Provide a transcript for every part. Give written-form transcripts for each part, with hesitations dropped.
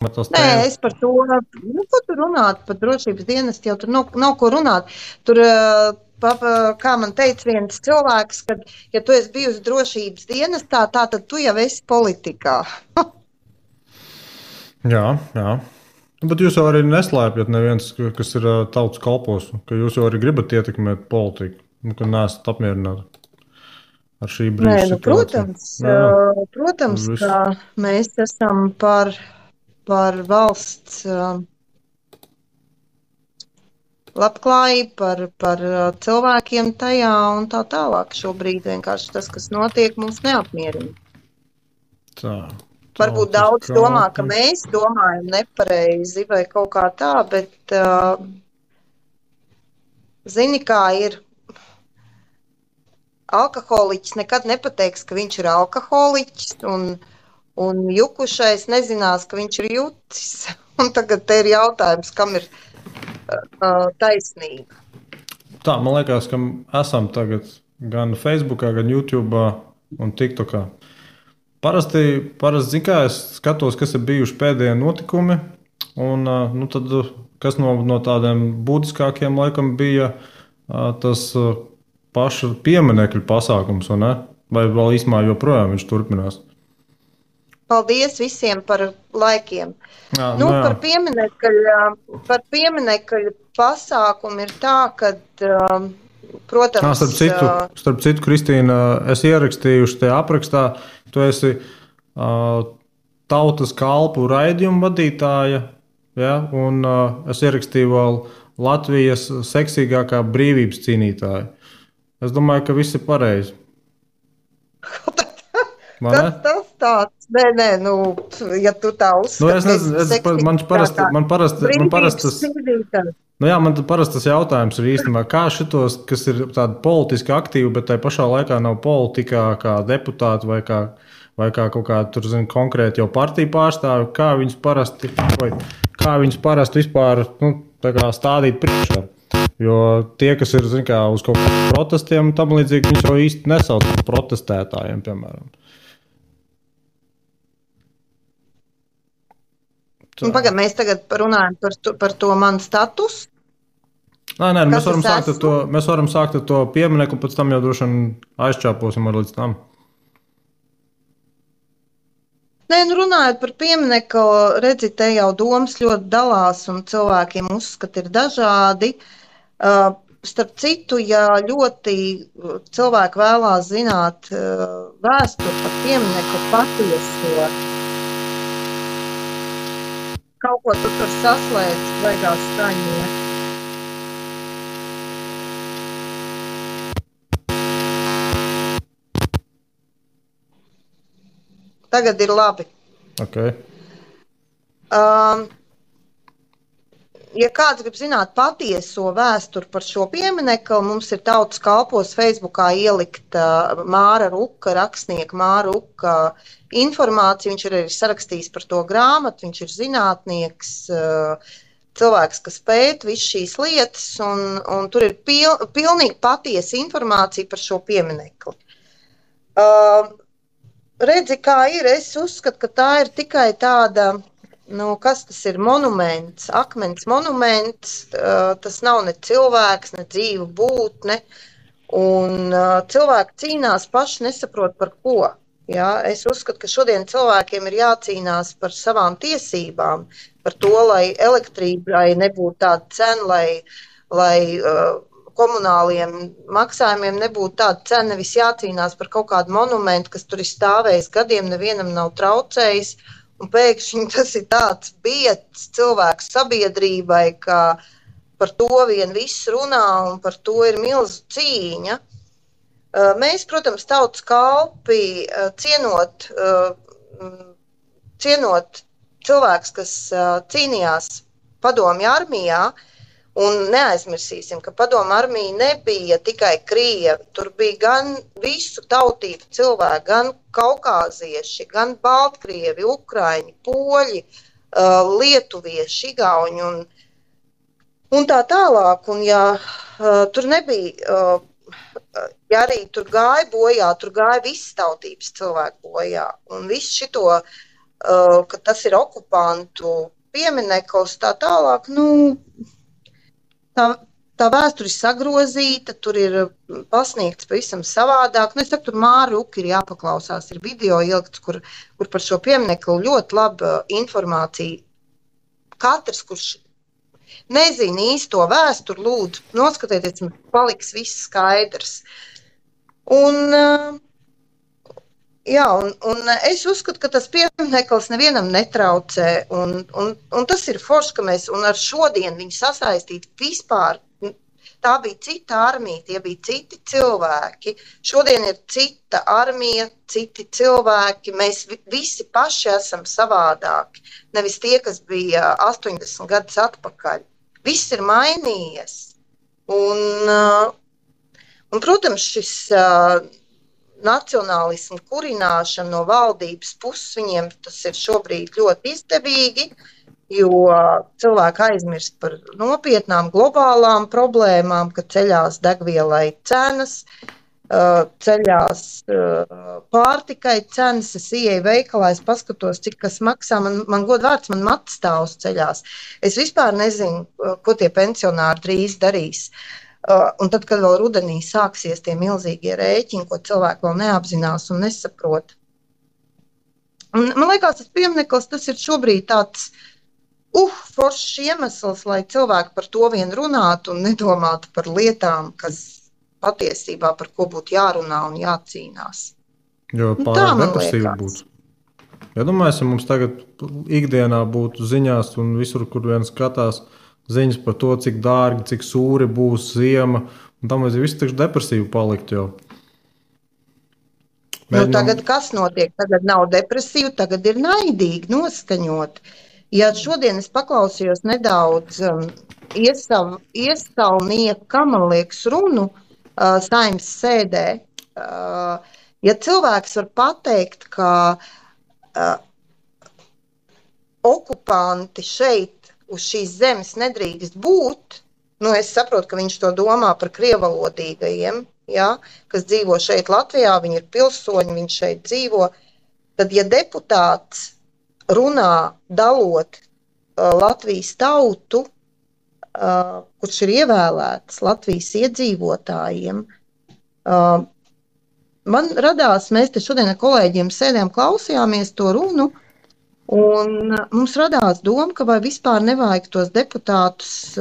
Nē, es par to, ko tur runāt, par drošības dienestu jau tur nav ko runāt. Tur, kā man teica viens cilvēks, ka, ja tu esi bijusi drošības dienestā, tad tu jau esi politikā. Jā. Bet jūs jau arī neslēpjat neviens, kas ir tautas kalpos, ka jūs jau arī gribat ietekmēt politiku, ka neesat apmierināti ar šī brīža situāciju. Protams, ka mēs esam par valsts labklājību, par cilvēkiem tajā un tā tālāk. Šobrīd vienkārši tas, kas notiek, mums neapmierina. Varbūt daudz domā, ka mēs domājam nepareizi vai kaut kā tā, bet zini, kā ir. Alkoholiķis nekad nepateiks, ka viņš ir alkoholiķis, un jukušais nezinās, ka viņš ir jucis. Un tagad te ir jautājums, kam ir taisnība. Tā, man liekas, ka esam tagad gan Facebookā, gan YouTube'ā un TikTokā. Parasti zin kā, es skatos, kas ir bijuši pēdējie notikumi, un tad, kas no tādiem būtiskākiem laikam bija tas paša pieminekļu pasākums, vai vēl īstumā joprojām viņš turpinās? Paldies visiem par laikiem. Jā. Par pieminekļu pasākumu ir tā, ka, protams... Starp citu, Kristīna, es ierakstījuši te aprakstā, tu esi tautas kalpu raidījumu vadītāja, ja? Un es ierakstīju vēl Latvijas seksīgākā brīvības cīnītāja. Es domāju, ka viss ir pareizi. Kas tas tāds? Nē, ja tu tā uzskati. Man parasti tas jautājums ir īstenībā, kā šitos, kas ir tādi politiski aktīvi, bet tai pašā laikā nav politikā kā deputāti vai kā kaut kā tur, konkrēti jau partiju pārstāvi, kā viņus parasti vispār tā kā stādīt priekšā. Jo tie, kas ir uz kaut kādiem protestiem, tam līdzīgi viņš jau īsti nesauc par protestētājiem, piemēram. Pagaid, mēs tagad runājam par to manu statusu. Nē, mēs varam sākt ar to pieminieku, pēc tam jau droši vien aizčāposim ar līdz tam. Nē, runājot par pieminieku, redzi, te jau domas ļoti dalās un cilvēkiem uzskati ir dažādi. Starp citu, ja ļoti cilvēki vēlās zināt vēsturi par pieminieku patieso, kaut ko tu tur saslēdz, baigās skaņot. Tagad ir labi. Okay. Ja kāds grib zināt patieso vēsturi par šo pieminekli, mums ir tautas kalpos Facebookā ielikta Māra Ruka, rakstnieka Māra Ruka informācija. Viņš ir arī sarakstījis par to grāmatu, viņš ir zinātnieks, cilvēks, kas pēta visu šīs lietas, un tur ir pilnīgi patiesa informācija par šo pieminekli. Redzi, kā ir, es uzskatu, ka tā ir tikai tāda, kas tas ir, monuments, akmens monuments, tas nav ne cilvēks, ne dzīva būtne, un cilvēki cīnās paši nesaprot par ko. Ja? Es uzskatu, ka šodien cilvēkiem ir jācīnās par savām tiesībām, par to, lai elektrībai nebūtu tāda cena, lai komunāliem maksājumiem nebūtu tāda cena, nevis jācīnās par kaut kādu monumentu, kas tur ir stāvējis gadiem, nevienam nav traucējis, un pēkšņi tas ir tāds biedrs cilvēku sabiedrībai, ka par to vien viss runā un par to ir milzu cīņa. Mēs, protams, tautas kalpi cienot cilvēks, kas cīnījās padomju armijā, un neaizmirsīsim, ka padomju armija nebija tikai krievi, tur bija gan visu tautību cilvēki, gan kaukāzieši, gan baltkrievi, ukraiņi, poļi, lietuvieši, igauņi un tā tālāk. Un ja tur nebija, ja arī tur gāja bojā, tur gāja visas tautības cilvēku bojā. Un visu šito ka tas ir okupantu piemineklis, tā tālāk, tā vēsture ir sagrozīta, tur ir pasniegts pavisam savādāk. Es saku, tur Māri Uki ir jāpaklausās, ir video ielikts, kur par šo pieminekli ļoti laba informācija. Katrs, kurš nezina īsto vēsturi, lūdzu, noskatieties, man paliks viss skaidrs. Un es uzskatu, ka tas piemineklis nevienam netraucē, un tas ir forši, ka mēs ar šodien viņu sasaistīt vispār. Tā bija cita armija, tie bija citi cilvēki. Šodien ir cita armija, citi cilvēki. Mēs visi paši esam savādāki. Nevis tie, kas bija 80 gadus atpakaļ. Viss ir mainījies. Un protams, šis nacionālismu kurināšana no valdības puses, viņiem tas ir šobrīd ļoti izdevīgi, jo cilvēki aizmirst par nopietnām globālām problēmām, ka ceļās degvielai cenas, ceļās pārtikai cenas. Es ieeju veikalā, es paskatos, cik kas maksā. Man godvārds, man matstāvs ceļās. Es vispār nezinu, ko tie pensionāri drīz darīs. Un tad, kad vēl rudenī sāksies tie milzīgie rēķini, ko cilvēki vēl neapzinās un nesaprot. Un, man liekas, tas piemineklis, tas ir šobrīd tāds foršs iemesls, lai cilvēki par to vien runātu un nedomātu par lietām, kas patiesībā par ko būtu jārunā un jācīnās. Jo pārāk depresīvi būtu. Ja domāju, mums tagad ikdienā būtu ziņās un visur, kur vien skatās, ziņas par to, cik dārgi, cik sūri būs ziema, un tam vajag visu tikšu depresīvu palikt jau. Tagad kas notiek? Tagad nav depresīvu, tagad ir naidīgi, noskaņot. Ja šodien es paklausījos nedaudz iesaulnieka, man liekas, runu Saeimas sēdē, ja cilvēks var pateikt, ka okupanti šeit uz šīs zemes nedrīkst būt, es saprotu, ka viņš to domā par krievalodīgajiem, ja, kas dzīvo šeit Latvijā, viņi ir pilsoņi, viņš šeit dzīvo, tad, ja deputāts runā dalot Latvijas tautu, kurš ir ievēlēts Latvijas iedzīvotājiem, man radās, mēs te šodien ar kolēģiem sēdējām, klausījāmies to runu, un mums radās doma, ka vai vispār nevajag tos deputātus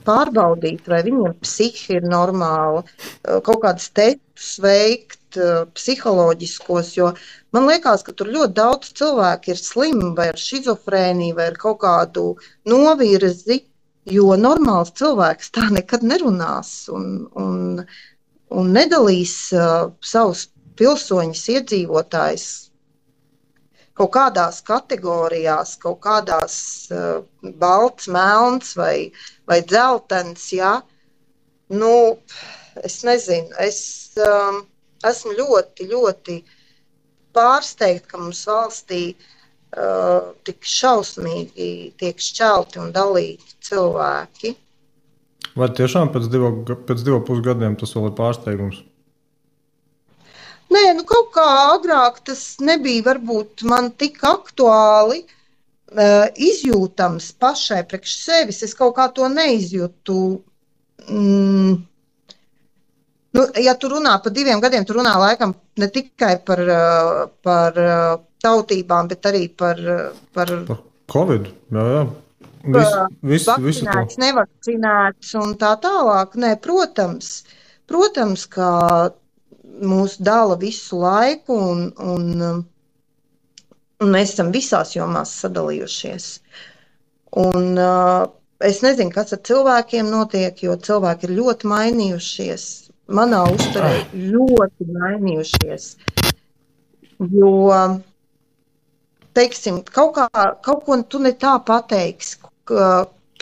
pārbaudīt, vai viņiem psihi ir normāla, kaut kādas testus veikt, psiholoģiskos, jo man liekas, ka tur ļoti daudz cilvēku ir slimi vai ar šizofrēniju, vai ar kaut kādu novirzi, jo normāls cilvēks tā nekad nerunās un nedalīs savus pilsoņus, iedzīvotājus kaut kādās kategorijās, kaut kādās balts, melns vai dzeltens, ja. Es nezinu, es esmu ļoti, ļoti pārsteigta, ka mums valstī tik šausmīgi tiek šķelti un dalīti cilvēki. Vai tiešām pēc 2,5 gadiem tas vēl ir pārsteigums? Nē, kaut kā agrāk tas nebija varbūt man tik aktuāli izjūtams pašai priekš sevis. Es kaut kā to neizjūtu. Ja tu runā par 2 gadiem, tu runā laikam ne tikai par tautībām, bet arī par Covid, jā. Vakcinēts, nevakcinēts un tā tālāk. Nē, protams, ka mūs dala visu laiku un mēs esam visās jomās sadalījušies. Un es nezinu, kas ar cilvēkiem notiek, jo cilvēki ir ļoti mainījušies. Manā uzturē ļoti mainījušies. Jo, teiksim, kaut ko tu ne tā pateiksi,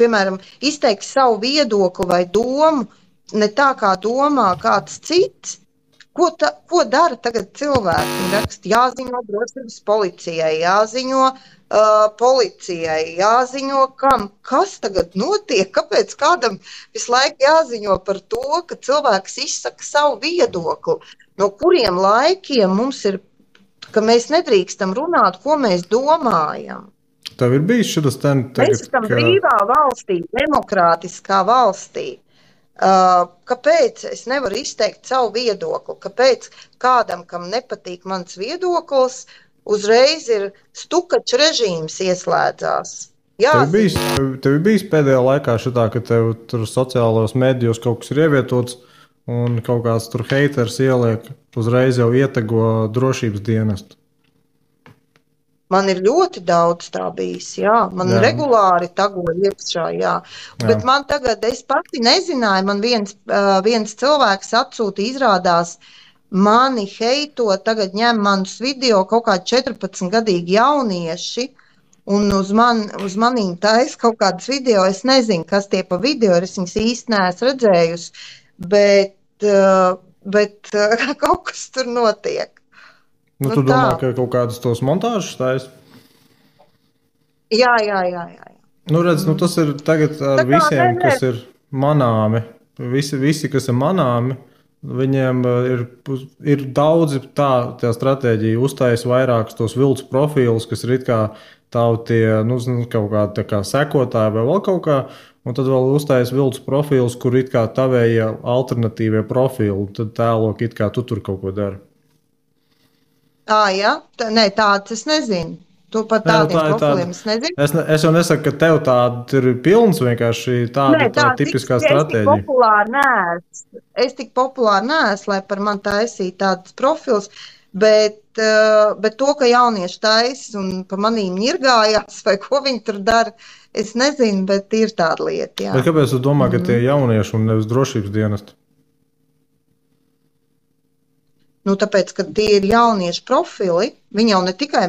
piemēram, izteiksi savu viedokli vai domu, ne tā kā domā kāds cits. Ko dara tagad cilvēki? Viņi raksta, jāziņo drošības policijai, jāziņo policijai, jāziņo kam. Kas tagad notiek? Kāpēc kādam visu laiku jāziņo par to, ka cilvēks izsaka savu viedokli? No kuriem laikiem mums ir ka mēs nedrīkstam runāt, ko mēs domājam. Tev ir bijis šis tagad, mēs esam brīvā valstī, demokrātiskā valstī. Kāpēc es nevaru izteikt savu viedokli? Kāpēc kādam, kam nepatīk mans viedoklis, uzreiz ir stukačs režīms ieslēdzās? Tev ir bijis pēdējā laikā šitā, ka tev tur sociālos medijos kaut kas ir ievietots un kaut kāds tur heiters ieliek, uzreiz jau ietego drošības dienestu? Man ir ļoti daudz tā bijis, jā. Man regulāri tagoja iekšā, jā. Bet man tagad, es pati nezināju, man viens cilvēks atsūta, izrādās, mani heito, tagad ņem manus video kaut kādi 14-gadīgi jaunieši, un uz manīm tais kaut kādas video, es nezinu, kas tie pa video, es viņas īsti neesmu redzējusi, bet kaut kas tur notiek. Tu domā, ka kaut kādas tos montāžas taisa? Jā. Redz, tas ir tagad ar visiem, kas ir manāmi. Visi, kas ir manāmi, viņiem ir daudzi tā stratēģija, uztais vairākus tos viltus profilus, kas ir it kā tavu tie, kaut kā tā kā sekotāji vai vēl kaut kā, un tad vēl uztais viltus profilus, kur it kā tavējie alternatīvie profili, tad tēlok it kā tu tur kaut ko dari. Jā, nē, tāds es nezinu. Tu par tādiem profiliem es nezinu. Es jau nesaku, ka tev tāda ir pilns, vienkārši tāda tipiskā stratēģija. Es tik populāri neesmu, lai par man taisītu tādus profilus, bet to, ka jaunieši taisa un pa manīm ņirgājās vai ko viņi tur dara, es nezinu, bet ir tāda lieta, jā. Bet kāpēc tu domā, ka tie jaunieši un nevis drošības dienesti? Tāpēc, ka tie ir jauniešu profili, viņi jau ne tikai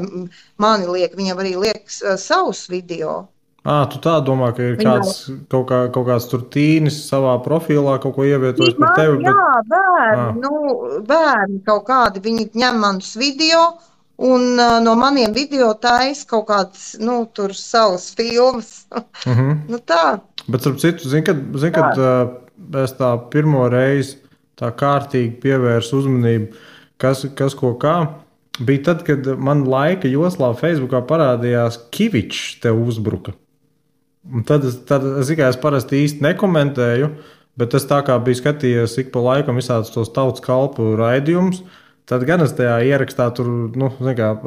mani liek, viņam arī liek savus video. Tu tā domā, ka ir kaut kāds tur tīnis savā profilā, kaut ko ievietojis par tevi? Jā, bērni kaut kādi, viņi ņem manus video un no maniem video taisa kaut kāds, tur savas filmas. Tā. Bet, starp citu, zin, kad es tā pirmo reizi tā kārtīgi pievērsu uzmanību, kas ko kā. Bija tad, kad man laika joslā Facebookā parādījās Kivičs tev uzbruka. Un tad es parasti īsti nekomentēju, bet es tā kā biju skatījies ik pa laikam visādus tos tautas kalpu raidījumus, tad gan es tajā ierakstā tur,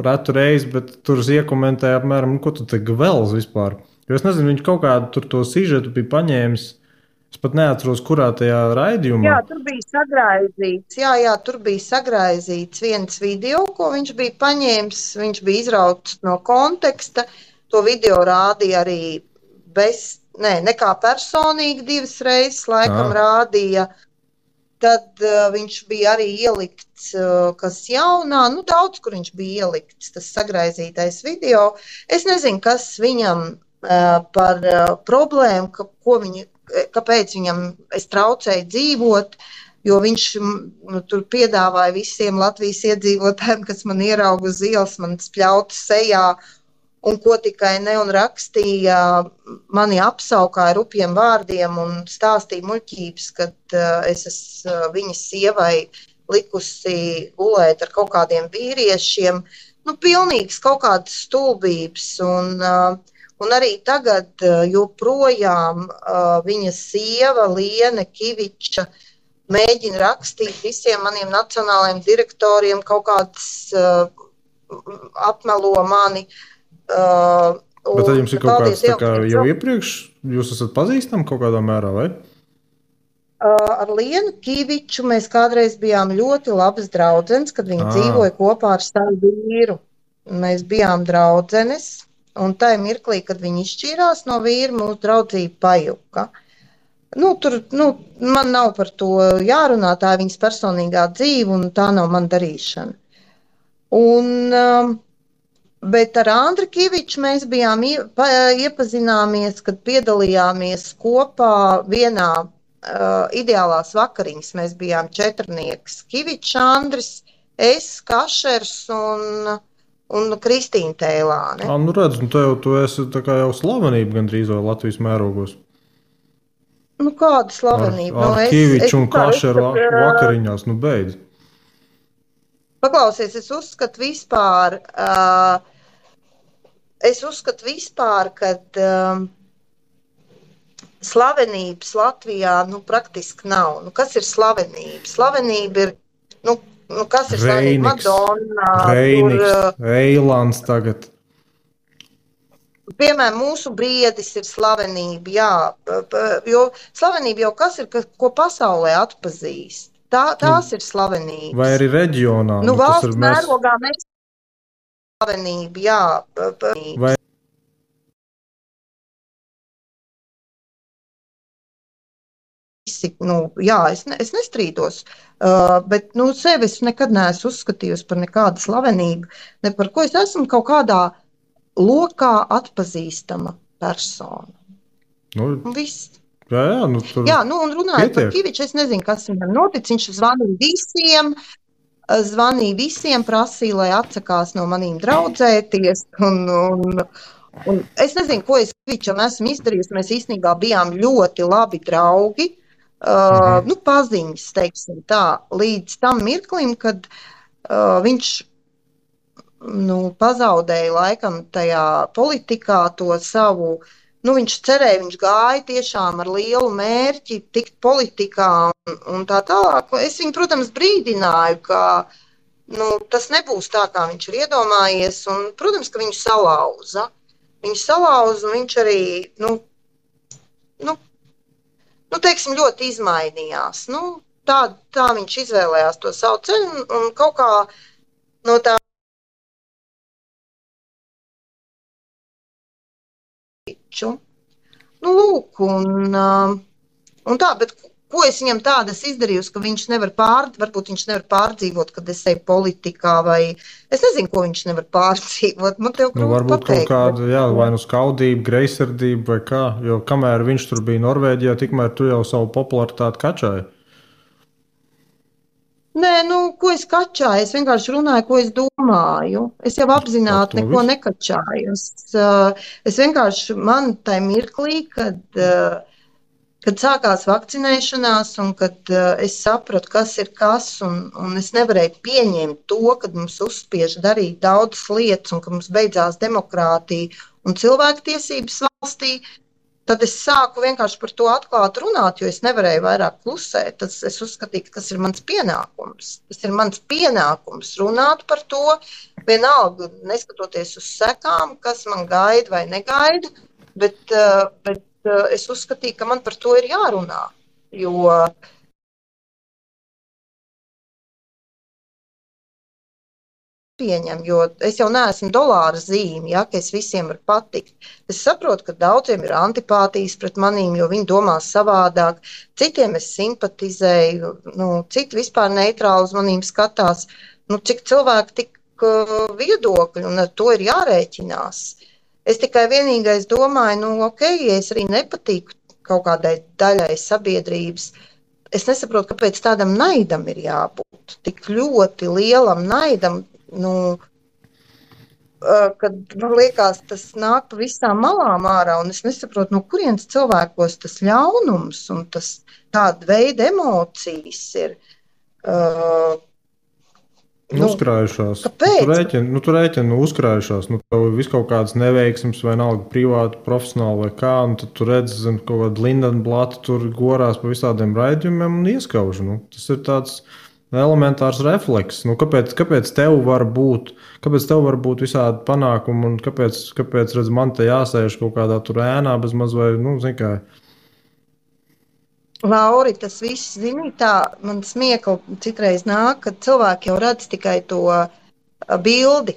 retu reizi, bet tur es iekomentēju apmēram, ko tu te gvelz vispār. Jo es nezinu, viņš kaut kādu tur to sižetu bija paņēmis. Es pat neatceros, kurā tajā raidījumā. Jā, tur bija sagraizīts. Tur bija sagraizīts viens video, ko viņš bija paņēmis. Viņš bija izrauts no konteksta. To video rādīja arī nekā personīgi 2 reizes laikam rādīja. Tad viņš bija arī ielikts, kas jaunā, daudz, kur viņš bija ielikts, tas sagraizītais video. Es nezinu, kas viņam par problēmu, kāpēc viņam es traucēju dzīvot, jo viņš tur piedāvāja visiem Latvijas iedzīvotājiem, kas man ierauga uz ielas, man spļauta sejā un ko tikai ne, un rakstīja, mani apsaukāja rupjiem vārdiem un stāstīja muļķības, kad es esmu viņas sievai likusi gulēt ar kaut kādiem vīriešiem. Pilnīgs kaut kādas stulbības un arī tagad joprojām viņa sieva Liene Kiviča mēģina rakstīt visiem maniem nacionālajiem direktoriem kaut kādas apmelo mani. Bet tad jums ir kaut kāds tā kā jau iepriekš, jūs esat pazīstami kaut kādā mērā, vai? Ar Lienu Kiviču mēs kādreiz bijām ļoti labas draudzenes, kad viņa dzīvoja kopā ar savu vīru. Mēs bijām draudzenes. Un tajā mirklī, kad viņi izšķīrās no vīra, mūsu draudzība pajuka. Man nav par to jārunā, tā ir viņas personīgā dzīve, un tā nav man darīšana. Bet ar Andri Kiviču mēs bijām iepazināmies, kad piedalījāmies kopā vienā ideālās vakariņas. Mēs bijām 4. Kivičs, Andris, es, Kašers un Kristīna Tēlāne. Redz, tu esi tā kā jau slavenība gandrīz vai Latvijas mērogos. Kāda slavenība? Ar Kiviču un Kašeru vakariņās, beidz. Paklausies, es uzskatu vispār, kad slavenības Latvijā praktiski nav. Kas ir slavenība? Slavenība ir, kas ir slavenība? Madonna, Reiniks, Eilants tagad. Piemēram, mūsu briedis ir slavenība, jā, jo slavenība jau kas ir, ko pasaulē atpazīst. Tās ir slavenības. Vai arī reģionā? Valsts mērogā mēs slavenība, jā. Vai jā, es nestrīdos, bet sevi es nekad neesmu uzskatījusi par nekādu slavenību, ne par ko es esmu kaut kādā lokā atpazīstama persona. Viss. Jā, un runājot par Kiviču, es nezinu, kas viņam notic. Viņš zvanīja visiem, prasīja, lai atsakās no manīm draudzēties. Un es nezinu, ko es Kivičam esmu izdarījusi. Mēs īstenībā bijām ļoti labi draugi. Paziņas, teiksim tā, līdz tam mirklim, kad viņš pazaudēja laikam tajā politikā to savu, viņš cerēja, viņš gāja tiešām ar lielu mērķi tikt politikā un tā tālāk. Es viņu, protams, brīdināju, ka tas nebūs tā, kā viņš ir iedomājies, un, protams, ka viņu salauza. Viņu salauza, un viņš arī, teiksim, ļoti izmainījās. Tā viņš izvēlējās to savu ceļu, un kaut kā no tā lūk, un tā, bet ko es viņam tādas izdarījusi, ka viņš varbūt viņš nevar pārdzīvot, kad es eju politikā, vai es nezinu, ko viņš nevar pārdzīvot. Man tev grūti varbūt pateikt. Kaut kāda, vai skaudība, greizsirdība vai kā, jo kamēr viņš tur bija Norvēģijā, tikmēr tu jau savu popularitāti kačāji. Nē, ko es kačāju? Es vienkārši runāju, ko es domāju. Es jau apzināti neko nekačāju. Es vienkārši tajā mirklī, kad sākās vakcinēšanās un kad es sapratu, kas ir kas, un es nevarēju pieņemt to, kad mums uzspiež darīt daudzas lietas un ka mums beidzās demokrātija un cilvēktiesības valstī, tad es sāku vienkārši par to atklāt runāt, jo es nevarēju vairāk klusēt. Es uzskatīju, ka tas ir mans pienākums. Tas ir mans pienākums runāt par to, vienalga neskatoties uz sekām, kas man gaida vai negaida, bet es uzskatīju, ka man par to ir jārunā, jo pieņem, jo es jau neesmu dolāra zīme, ka es visiem varu patikt. Es saprotu, ka daudziem ir antipātijas pret manīm, jo viņi domā savādāk. Citiem es simpatizēju, citi vispār neitrāli uz manīm skatās. Cik cilvēki, tik viedokļi, un ar to ir jārēķinās. Es tikai vienīgais domāju, ja es arī nepatīku kaut kādai daļai sabiedrības, es nesaprotu, kāpēc tādam naidam ir jābūt. Tik ļoti lielam naidam, kad man liekas, tas nāk pa visām malām ārā, un es nesaprotu, no kurienes cilvēkos tas ļaunums un tas tāda veida emocijas ir. Uzkrājušās. Kāpēc? Tu rēķini uzkrājušās. Tev ir kaut kādas neveiksmes, vai nalga privāti, profesionāli vai kā, un tad tu redzi, kaut kāda Lindenblata tur gorās pa visādiem raidījumiem un ieskauž. Tas ir tāds elementārs refleks. Kāpēc tev var būt visādi panākumi, un kāpēc redz, man te jāsēž kaut kādā tur ēnā bez maz vai, zin kā. Lauri, tas viss, tā man smiekla citreiz nāk, kad cilvēki jau redz tikai to bildi.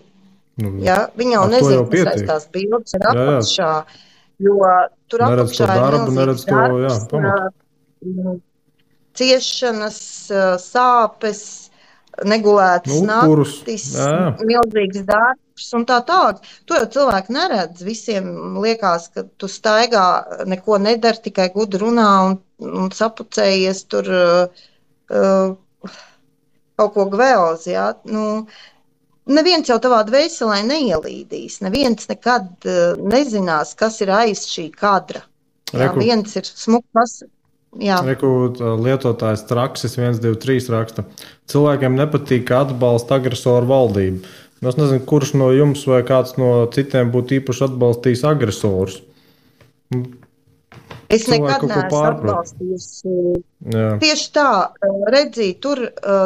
Viņi jau nezina, kas aiz tās bildes ir apakšā, jo tur apakšā ir milzīgs darbs, ciešanas, sāpes, negulētas naktis, milzīgs darbs un tā tālāk. To jau cilvēki neredz. Visiem liekas, ka tu staigā, neko nedari, tikai gudri runā un sapucējies tur kaut ko gvēls. Neviens jau tavā dvēselē neielīdīs. Neviens nekad nezinās, kas ir aiz šī kadra. Viens ir smuks. Jā. Lietotājs Traksis 123 raksta. Cilvēkiem nepatīk, ka atbalsta agresoru valdību. Es nezinu, kurš no jums vai kāds no citiem būtu īpaši atbalstījis agresorus. Es nekad neesmu atbalstījusi. Tieši tā, redzī, tur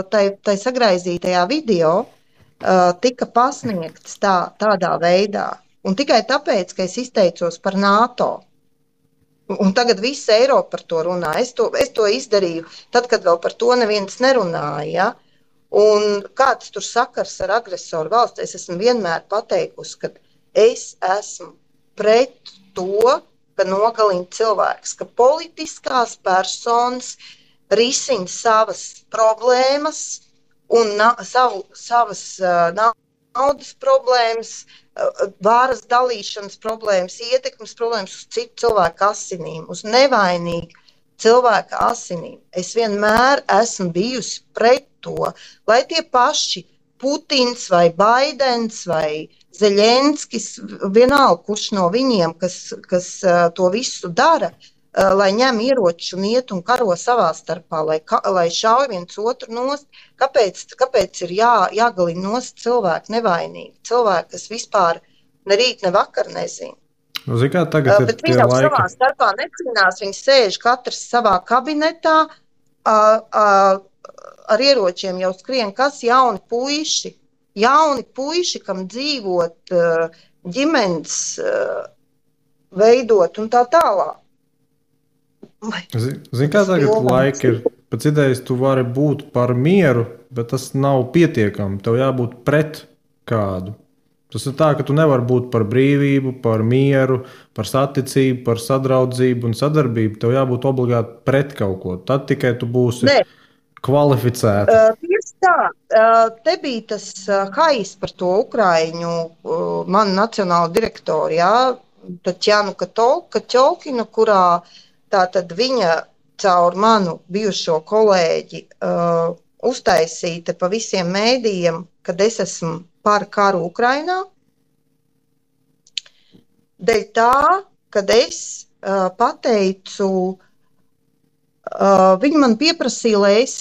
tai sagraizītajā video tika pasniegts tādā veidā. Un tikai tāpēc, ka es izteicos par NATO. Un tagad visa Eiropa par to runā. Es to izdarīju tad, kad vēl par to neviens nerunāja. Ja? Un kāds tur sakars ar agresoru valsts? Es esmu vienmēr pateikusi, ka es esmu pret to, ka nogalina cilvēks, ka politiskās personas risina savas problēmas un savas naudas problēmas, varas dalīšanas problēmas, ietekmes problēmas uz citu cilvēku asinīm, uz nevainīgu cilvēku asinīm. Es vienmēr esmu bijusi pret to, lai tie paši Putins vai Baidens vai Zeļenskis, vienalga, kurš no viņiem, kas to visu dara, lai ņem ieroči un iet un karo savā starpā, lai šauj viens otru nost. Kāpēc ir jāgalina nost cilvēki nevainīgi? Cilvēki, kas vispār ne rīt, ne vakar nezina. Bet viņi jau savā starpā necīnās, viņi sēž katrs savā kabinetā, ar ieročiem jau skrien, kas jauni puiši, kam dzīvot, ģimenes veidot un tā tālāk. Zini, kā tagad laika ir? Pēc idejas tu vari būt par mieru, bet tas nav pietiekami. Tev jābūt pret kādu. Tas ir tā, ka tu nevari būt par brīvību, par mieru, par saticību, par sadraudzību un sadarbību. Tev jābūt obligāti pret kaut ko. Tad tikai tu būsi kvalificēta. Tieši tā. Te bija tas hais par to Ukraiņu, manu nacionālu direktoru, jā, Tatjanu Kaķolkinu, kurā tātad viņa caur manu bijušo kolēģi uztaisīta pa visiem mēdījiem, kad es esmu par karu Ukrainā. Dēļ tā, kad es pateicu, viņi man pieprasīja, lai es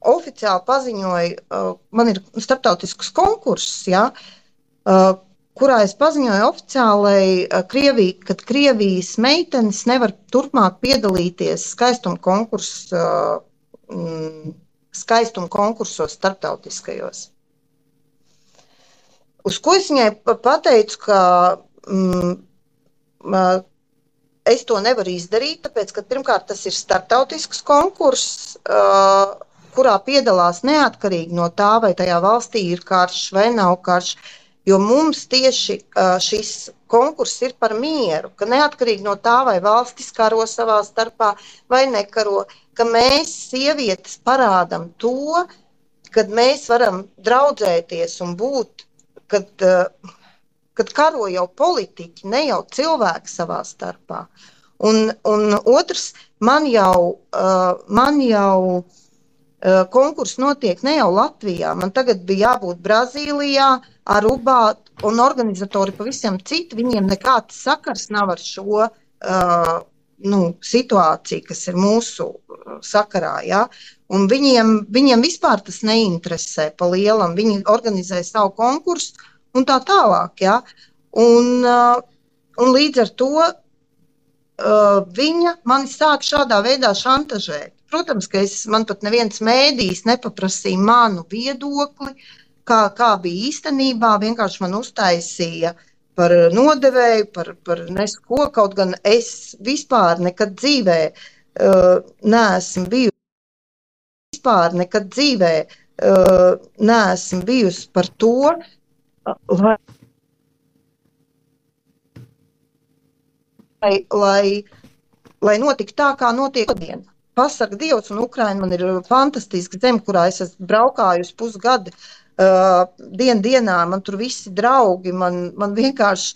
oficiāli paziņoju, man ir starptautisks konkurss, ja, kurā es paziņoju oficiāli, kad Krievijas meitenes nevar turpmāk piedalīties skaistuma konkursos starptautiskajos. Uz ko es viņai pateicu, ka es to nevaru izdarīt, tāpēc, ka pirmkārt tas ir starptautisks konkurss, kurā piedalās neatkarīgi no tā, vai tajā valstī ir karš vai nav karš. Jo mums tieši šis konkurss ir par mieru, ka neatkarīgi no tā, vai valstis karo savā starpā vai nekaro, ka mēs sievietes parādam to, kad mēs varam draudzēties un būt, kad karo jau politiķi, ne jau cilvēki savā starpā. Un otrs, man jau konkurss notiek ne jau Latvijā, man tagad bija jābūt Brazīlijā, Arubā, un organizatori pavisam citi, viņiem nekāds sakars nav ar šo situāciju, kas ir mūsu sakarā, ja? Un viņiem vispār tas neinteresē pa lielam, viņi organizē savu konkursu un tā tālāk, ja? Un līdz ar to viņa mani sāk šādā veidā šantažēt. Protams, ka man pat neviens mēdījis nepaprasīja manu viedokli, kā bija īstenībā, vienkārši man uztaisīja par nodevēju, par nesko, kaut gan es vispār nekad dzīvē neesmu bijusi par to, lai notika tā, kā notiek šodien. Pasaka Dievs, un Ukraina man ir fantastiska zeme, kurā es esmu braukājusi pusgadu dienā, man tur visi draugi, man vienkārši,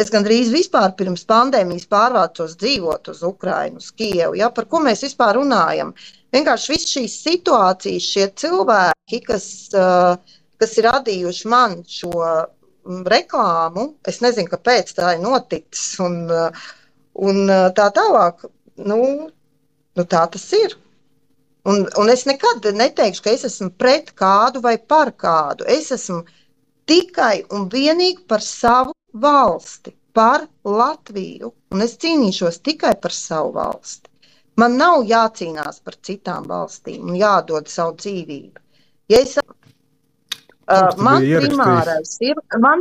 es gandrīz vispār pirms pandēmijas pārvācos dzīvot uz Ukrainu, uz Kijevu, ja, par ko mēs vispār runājam. Vienkārši viss šīs situācijas, šie cilvēki, kas ir radījuši man šo reklāmu, es nezinu, kāpēc tā ir noticis, un tā tālāk. nu tā tas ir. Un es nekad neteikšu, ka es esmu pret kādu vai par kādu. Es esmu tikai un vienīgi par savu valsti, par Latviju. Un es cīnīšos tikai par savu valsti. Man nav jācīnās par citām valstīm un jādod savu dzīvību. Ja es, man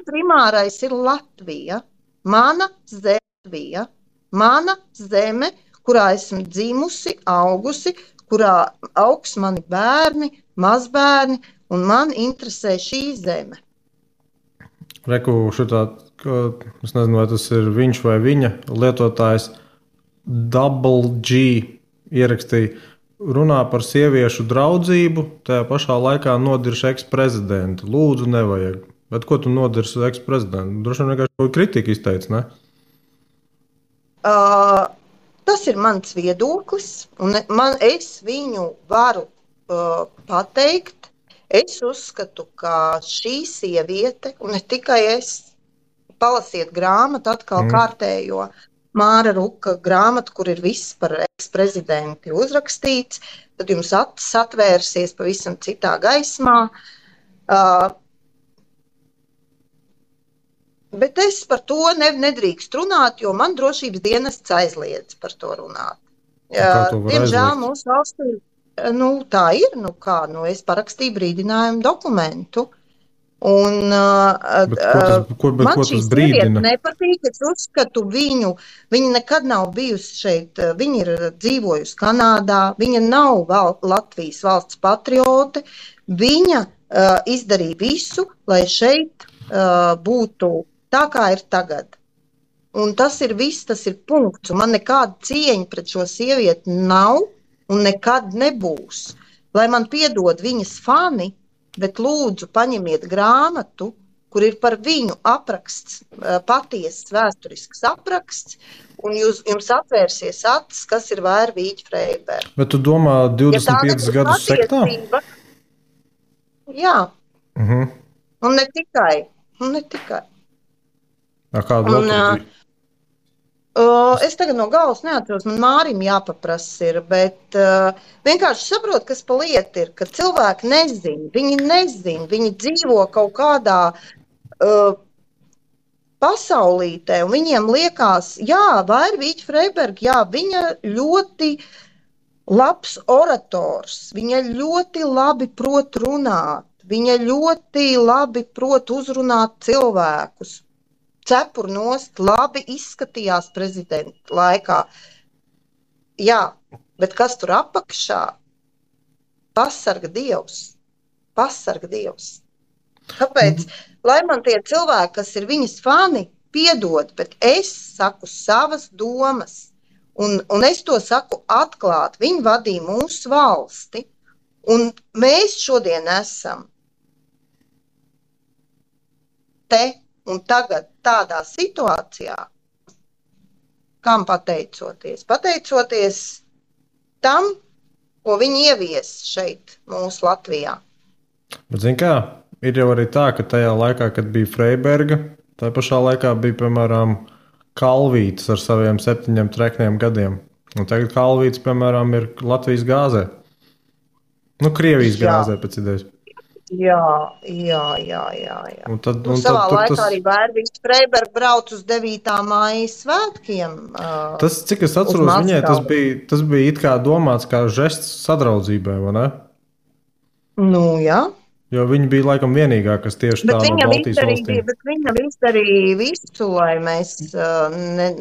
primārais ir Latvija, mana Latvija, mana zeme, kurā esmu dzimusi, augusi, kurā augs mani bērni, mazbērni, un man interesē šī zeme. Reku šitā, es nezinu, vai tas ir viņš vai viņa lietotājs, Double G ierakstīja, runā par sieviešu draudzību, tajā pašā laikā nodirš eksprezidentu. Lūdzu, nevajag. Bet ko tu nodirsi eksprezidentu? Droši vien vienkārši kaut kritika izteica, ne? Tas ir mans viedoklis, un es viņu varu pateikt. Es uzskatu, ka šī sieviete, un ne tikai es, palasiet grāmatu atkal kārtējo, Māra Ruka grāmatu, kur ir viss par eksprezidenti uzrakstīts, tad jums acis atvērsies pavisam citā gaismā. Bet es par to nedrīkst runāt, jo man drošības dienests aizliedz par to runāt. Diemžēl mūsu valstī tā ir. Es parakstīju brīdinājumu dokumentu. Un man šī sieviete nepatīk, es uzskatu viņu, viņa nekad nav bijusi šeit, viņa ir dzīvojusi Kanādā, viņa nav Latvijas valsts patriote, viņa izdarīja visu, lai šeit būtu tā, kā ir tagad. Un tas ir viss, tas ir punkts, un man nekāda cieņa pret šo sievieti nav un nekad nebūs. Lai man piedod viņas fani, bet lūdzu paņemiet grāmatu, kur ir par viņu apraksts, patiesas vēsturisks apraksts, un jums atvērsies acis, kas ir Vērvīķa Freiberga. Bet tu domā 25 gadus sektā? Jā. Un ne tikai. Kādu vēl? Es tagad no galvas neatceros, man Mārim jāpaprasa ir, bet vienkārši saprot, kas pa lietu ir, ka cilvēki nezin, viņi dzīvo kaut kādā pasaulītē, un viņiem liekas, Vērvīķa Freiberga, viņa ļoti labs orators, viņa ļoti labi prot runāt, viņa ļoti labi prot uzrunāt cilvēkus. Cepur nost, labi izskatījās prezidenta laikā. Jā, bet kas tur apakšā? Pasarga Dievs. Kāpēc? Lai man tie cilvēki, kas ir viņas fani, piedod, bet es saku savas domas. Un es to saku atklāt. Viņi vadīja mūsu valsti. Un mēs šodien esam te un tagad tādā situācijā, kam pateicoties? Pateicoties tam, ko viņi ievies šeit, mūsu Latvijā. Bet, zin kā, ir jau arī tā, ka tajā laikā, kad bija Freiberga, tajā pašā laikā bija, piemēram, Kalvītis ar saviem 7 trekniem gadiem. Un tagad Kalvītis, piemēram, ir Latvijas gāzē. Krievijas gāzē pēc idejas. Jā. Savā laikā arī Vērvīķa Freiberga brauc uz 9. Māja svētkiem. Tas, cik es atceros, viņai tas bija it kā domāts kā žests sadraudzībai, vai ne? Jā. Jo viņa bija laikam vienīgā, kas tieši tā no Baltijas valstīm. Bet viņa izdarīja visu, lai mēs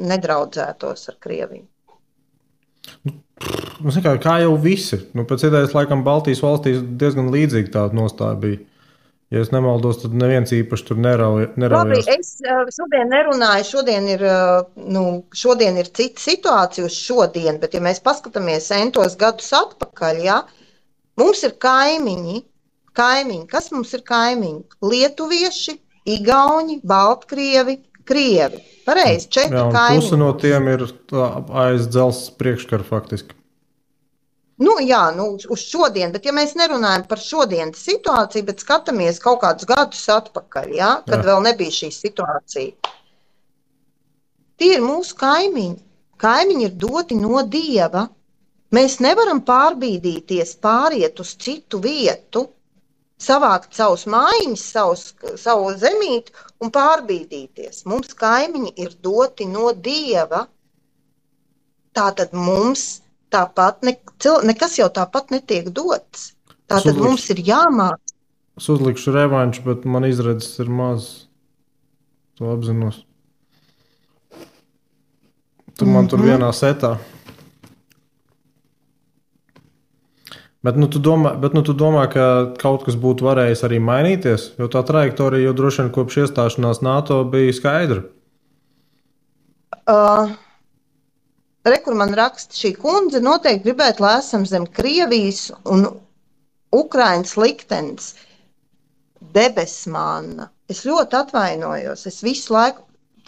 nedraudzētos ar Krieviju. Kā jau visi. Pēc idejas, laikam, Baltijas valstīs diezgan līdzīgi tāda nostāja bija. Ja es nemaldos, tad neviens īpaši tur neraujās. Labi, es šodien nerunāju, šodien ir cita situācija uz šodien, bet ja mēs paskatāmies entos gadus atpakaļ, mums ir kaimiņi. Kas mums ir kaimiņi? Lietuvieši, igauņi, baltkrievi, krievi. Pareizi, 4 kaimiņi. Puse no tiem ir aiz dzelzs priekškara faktiski. Uz šodien, bet ja mēs nerunājam par šodienas situāciju, bet skatāmies kaut kādus gadus atpakaļ, kad vēl nebija šī situācija. Tie ir mūsu kaimiņi. Kaimiņi ir doti no Dieva. Mēs nevaram pārbīdīties, pāriet uz citu vietu, savākt savus mājiņas, savu zemīti un pārbīdīties. Mums kaimiņi ir doti no Dieva. Tātad mums tāpat nekas jau tāpat netiek dots. Tātad mums ir jāmāk. Es uzlikšu revanšu, bet man izredzes ir maz. To apzinos. Tu man tur vienā setā. Bet tu domā, ka kaut kas būtu varējis arī mainīties? Jo tā trajektorija jau droši vien kopš iestāšanās NATO bija skaidra. Kur man raksta, šī kundze noteikti gribētu, lai esam zem Krievijas un Ukrainas liktenis. Debesmāna. Es ļoti atvainojos. Es visu laiku,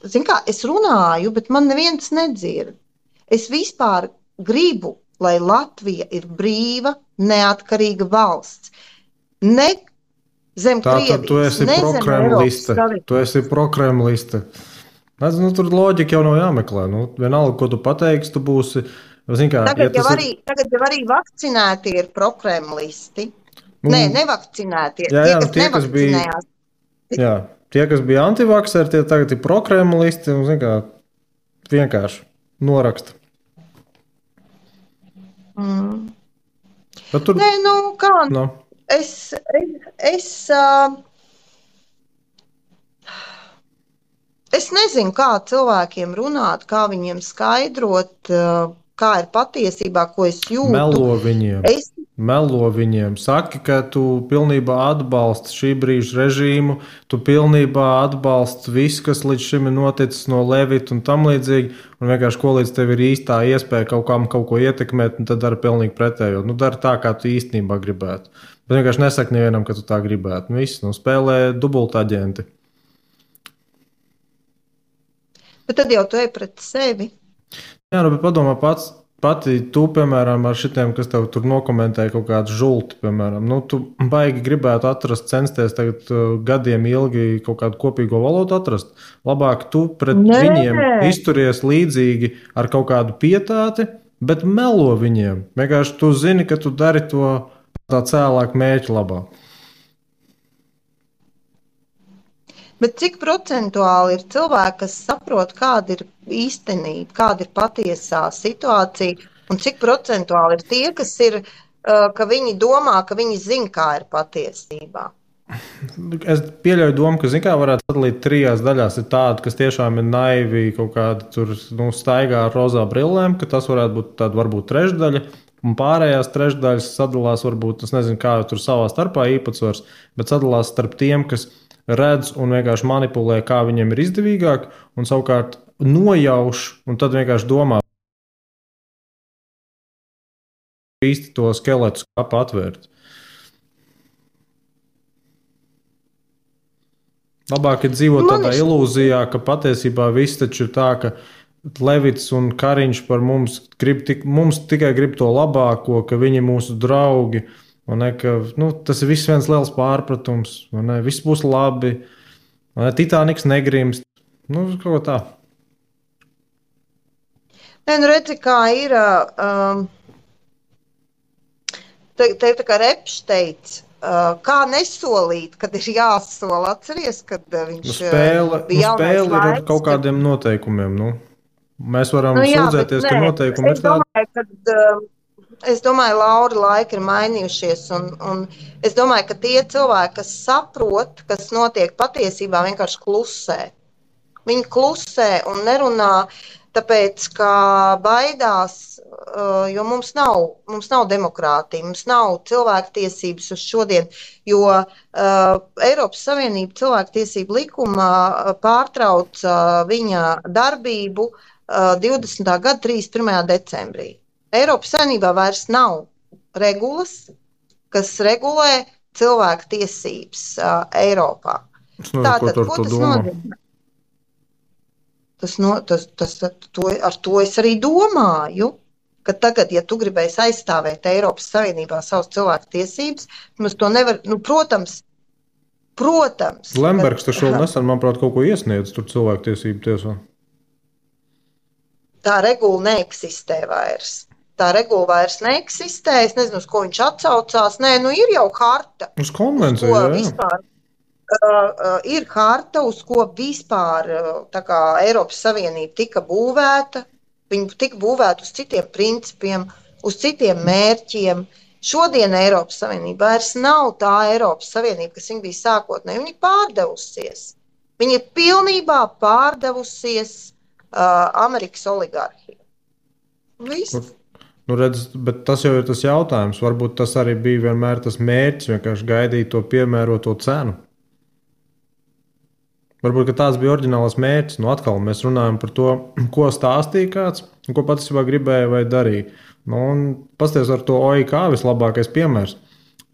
es runāju, bet man neviens nedzird. Es vispār gribu, lai Latvija ir brīva, neatkarīga valsts. Ne zem Krievijas, tu esi prokremliste. Tu esi prokremliste. Tur loģika jau nav jāmeklē. Vienalga, ko tu pateiksi, tu būsi. Tagad jau arī vakcinēti ir prokremlisti. Nē, nevakcinēti. Tie, kas nevakcinējās. Tie, kas bija antivakseri, tie tagad ir prokremlisti un vienkārši noraksta. Tur... Nē, kā? No. Es nezinu, kā cilvēkiem runāt, kā viņiem skaidrot, kā ir patiesībā, ko es jūtu. Melo viņiem. Saki, ka tu pilnībā atbalsti šī brīža režīmu, tu pilnībā atbalsti visu, kas līdz šim ir noticis no Levita un tam līdzīgi, un vienkārši ko līdz tev ir īstā iespēja kaut ko ietekmēt, un tad dara pilnīgi pretējo. Dara tā, kā tu īstenībā gribētu. Bet vienkārši nesaki nevienam, ka tu tā gribētu. Viss, spēlē dubultaģenti. Bet tad jau tu ej pret sevi. Jā, bet padomā pati tu, piemēram, ar šitiem, kas tev tur nokomentēja kaut kādu žulti, piemēram. Tu baigi gribētu censties tagad gadiem ilgi kaut kādu kopīgo valodu atrast. Labāk tu pret viņiem izturies līdzīgi ar kaut kādu pietāti, bet melo viņiem. Vienkārši tu zini, ka tu dari to tā cēlāk mērķa labā. Bet cik procentuāli ir cilvēki, kas saprot, kāda ir īstenība, kāda ir patiesā situācija, un cik procentuāli ir tie, kas ir, ka viņi domā, ka viņi zina, kā ir patiesībā? Es pieļauju domu, ka varētu sadalīt 3 daļās. Ir tādi, kas tiešām ir naivi, kaut kādi tur staigā ar rozā brillēm, ka tas varētu būt tāda varbūt trešdaļa, un pārējās trešdaļas sadalās varbūt, es nezinu, kā tur savā starpā īpatsvars, bet sadalās starp tiem, kas redz un vienkārši manipulē, kā viņiem ir izdevīgāk, un savukārt nojauš, un tad vienkārši domā īsti to skeletu skāpu atvērt. Labāk ir dzīvot tādā ilūzijā, ka patiesībā viss taču ir tā, ka Levits un Kariņš par mums tikai grib to labāko, ka viņi ir mūsu draugi. Tas ir viss viens liels pārpratums. Viss būs labi. Titāniks negrimst. Kaut tā. Redzi, kā ir. Te tā kā Repš teica, kā nesolīt, kad ir jāsola. Atceries, kad viņš bija spēle ir ar kaut kādiem noteikumiem. Mēs varam sūdzēties, ka noteikumi ir tādi. Es domāju, Laura, laiki ir mainījušies, un es domāju, ka tie cilvēki, kas saprot, kas notiek patiesībā, vienkārši klusē. Viņi klusē un nerunā, tāpēc, ka baidās, jo mums nav demokrātija, mums nav cilvēktiesības uz šodien, jo Eiropas Savienība cilvēktiesību likumā pārtrauca viņa darbību 20. gada 31. decembrī. Eiropas Savienībā vairs nav regulas, kas regulē cilvēku tiesības Eiropā. Tātad, ko tas nozīmē? Ar to es arī domāju, ka tagad, ja tu gribēsi aizstāvēt Eiropas Savienībā savas cilvēku tiesības, mums to nevar, protams. Lembergs taču vēl nesen, manuprāt, kaut ko iesniedz tur cilvēku tiesību tiesā. tā regula neeksistē vairs. Tā regula vairs neeksistē. Es nezinu, uz ko viņš atsaucās. Nē, nu ir jau harta. Uz konvenciju, jā. Vispār, ir harta, uz ko vispār tā kā Eiropas Savienība tika būvēta. Viņa tika būvēta uz citiem principiem, uz citiem mērķiem. Šodien Eiropas Savienība vairs nav tā Eiropas Savienība, kas viņa bija sākotnēji. Viņa ir pārdevusies. Viņa ir pilnībā pārdevusies Amerikas oligarhiem. Viss. Nu, redz, bet tas jau ir tas jautājums. Varbūt tas arī bija vienmēr tas mērķis, vienkārši gaidīt to piemēroto cenu. Varbūt tāds bija oriģināls mērķis. Nu, atkal mēs runājam par to, ko stāstīja kāds un ko patiesībā gribēja vai darīja. Nu, un pasties ar to OIK vislabākais piemērs.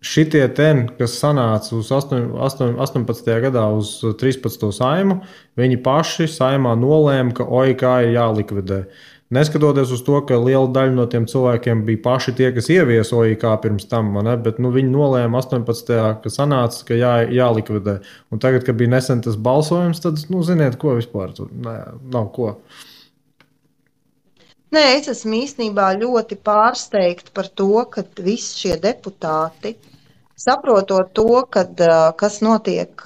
Šitie ten, kas sanāca uz 18. gadā uz 13. saimu, viņi paši saimā nolēma, ka OIK ir jālikvidē. Neskatoties uz to, ka liela daļa no tiem cilvēkiem bija paši tie, kas ieviesa OIK pirms tam, bet viņi nolēma 18. ka sanāca, ka jālikvidē. Un tagad, kad bija nesen tas balsojums, tad, ziniet, ko vispār tur nav ko. Nē, es esmu īstenībā ļoti pārsteigta par to, ka visi šie deputāti, saprotot to, kas notiek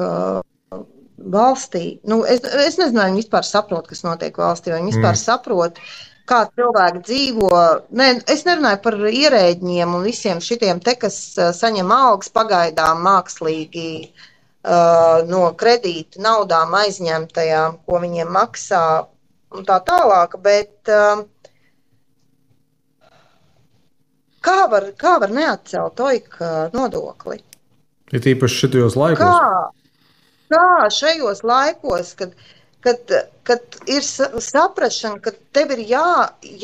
valstī, es nezinu, vai viņi vispār saprot, kas notiek valstī, vai viņi vispār saprot, kā cilvēki dzīvo. Es nerunāju par ierēģiem un visiem šitiem te, kas saņem algas pagaidām mākslīgi no kredīta naudām aizņemtajām, ko viņiem maksā un tā tālāk, bet kā var neatcelt OIK nodokli? Ir īpaši šitajos laikos. Kā šajos laikos, kad ir saprašana, ka tev ir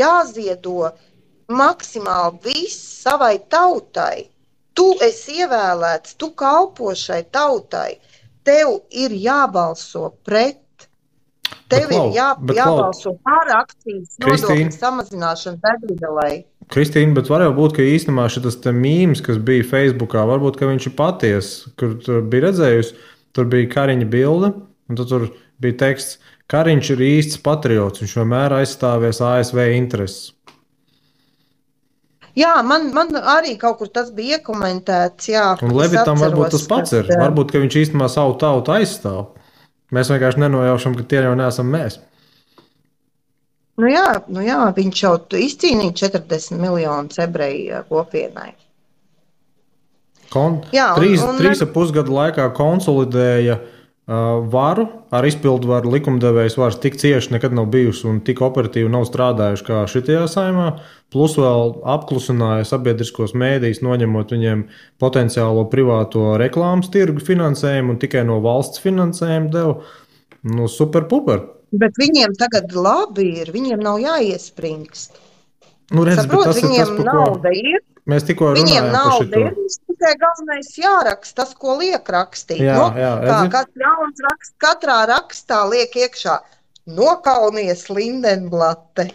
jāziedo maksimāli viss savai tautai. Tu esi ievēlēts, tu kalpo šai tautai. Tev ir jābalso pret. Tev ir jābalso par akcijas nodokļu samazināšanu degvielas. Kristīna, bet var jau būt, ka īstenībā šis mīms, kas bija Facebookā, varbūt viņš ir patiesa, kur bija redzējusi, tur bija Kariņa bilde, un tur bija teksts, Kariņš ir īsts patriots, viņš vienmēr aizstāvēs ASV intereses. Jā, man arī kaut kur tas bija iekomentēts. Jā, un Levitam varbūt tas pats ir. Varbūt, ka viņš īstenībā savu tautu aizstāv. Mēs vienkārši nenojaušam, ka tie jau neesam mēs. Nu jā, viņš jau izcīnīja 40 miljonus ebreju kopienai. 3,5 gadu laikā konsolidēja varu ar izpildvaru. Likumdevējs vairs tik cieši nekad nav bijusi un tik operatīvi nav strādājuši kā šitajā saimā. Plus vēl apklusināja sabiedriskos mēdījus, noņemot viņiem potenciālo privāto reklāmas tirgu finansējumu un tikai no valsts finansējumu deva. Super puper. Bet viņiem tagad labi ir, viņiem nav jāiespringst. Saprot, viņiem nauda ir. Mēs tikko runājām par šito. Viņiem nauda ir, tikai galvenais jāraksta tas, ko liek rakstīt. Kas jauns raksts, katrā rakstā liek iekšā nokaunies Lindenblate.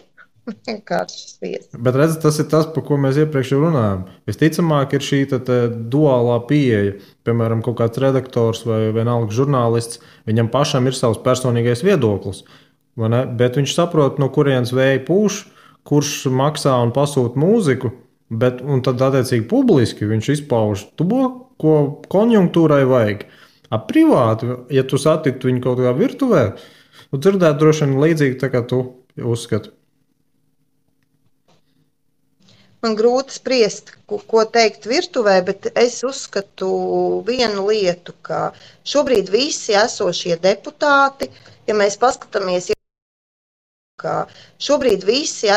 Vienkārši sviest. Bet redz, tas ir tas, par ko mēs iepriekš runājām. Visticamāk ir šī duālā pieeja. Piemēram, kaut kāds redaktors vai vienalga žurnālists, viņam pašam ir savs personīgais viedoklis. Bet viņš saprot, no kurienes vēja pūš, kurš maksā un pasūta mūziku, un tad attiecīgi publiski viņš izpauž to, ko konjunktūrai vajag. Privāti, ja tu satiktu viņu kaut kā virtuvē, tu dzirdētu droši vien līdzīgi tā kā tu uzskati. Man grūti spriest, ko teikt virtuvē, bet es uzskatu vienu lietu, ka šobrīd visi esošie deputāti, ja mēs paskatāmies, ka šobrīd visi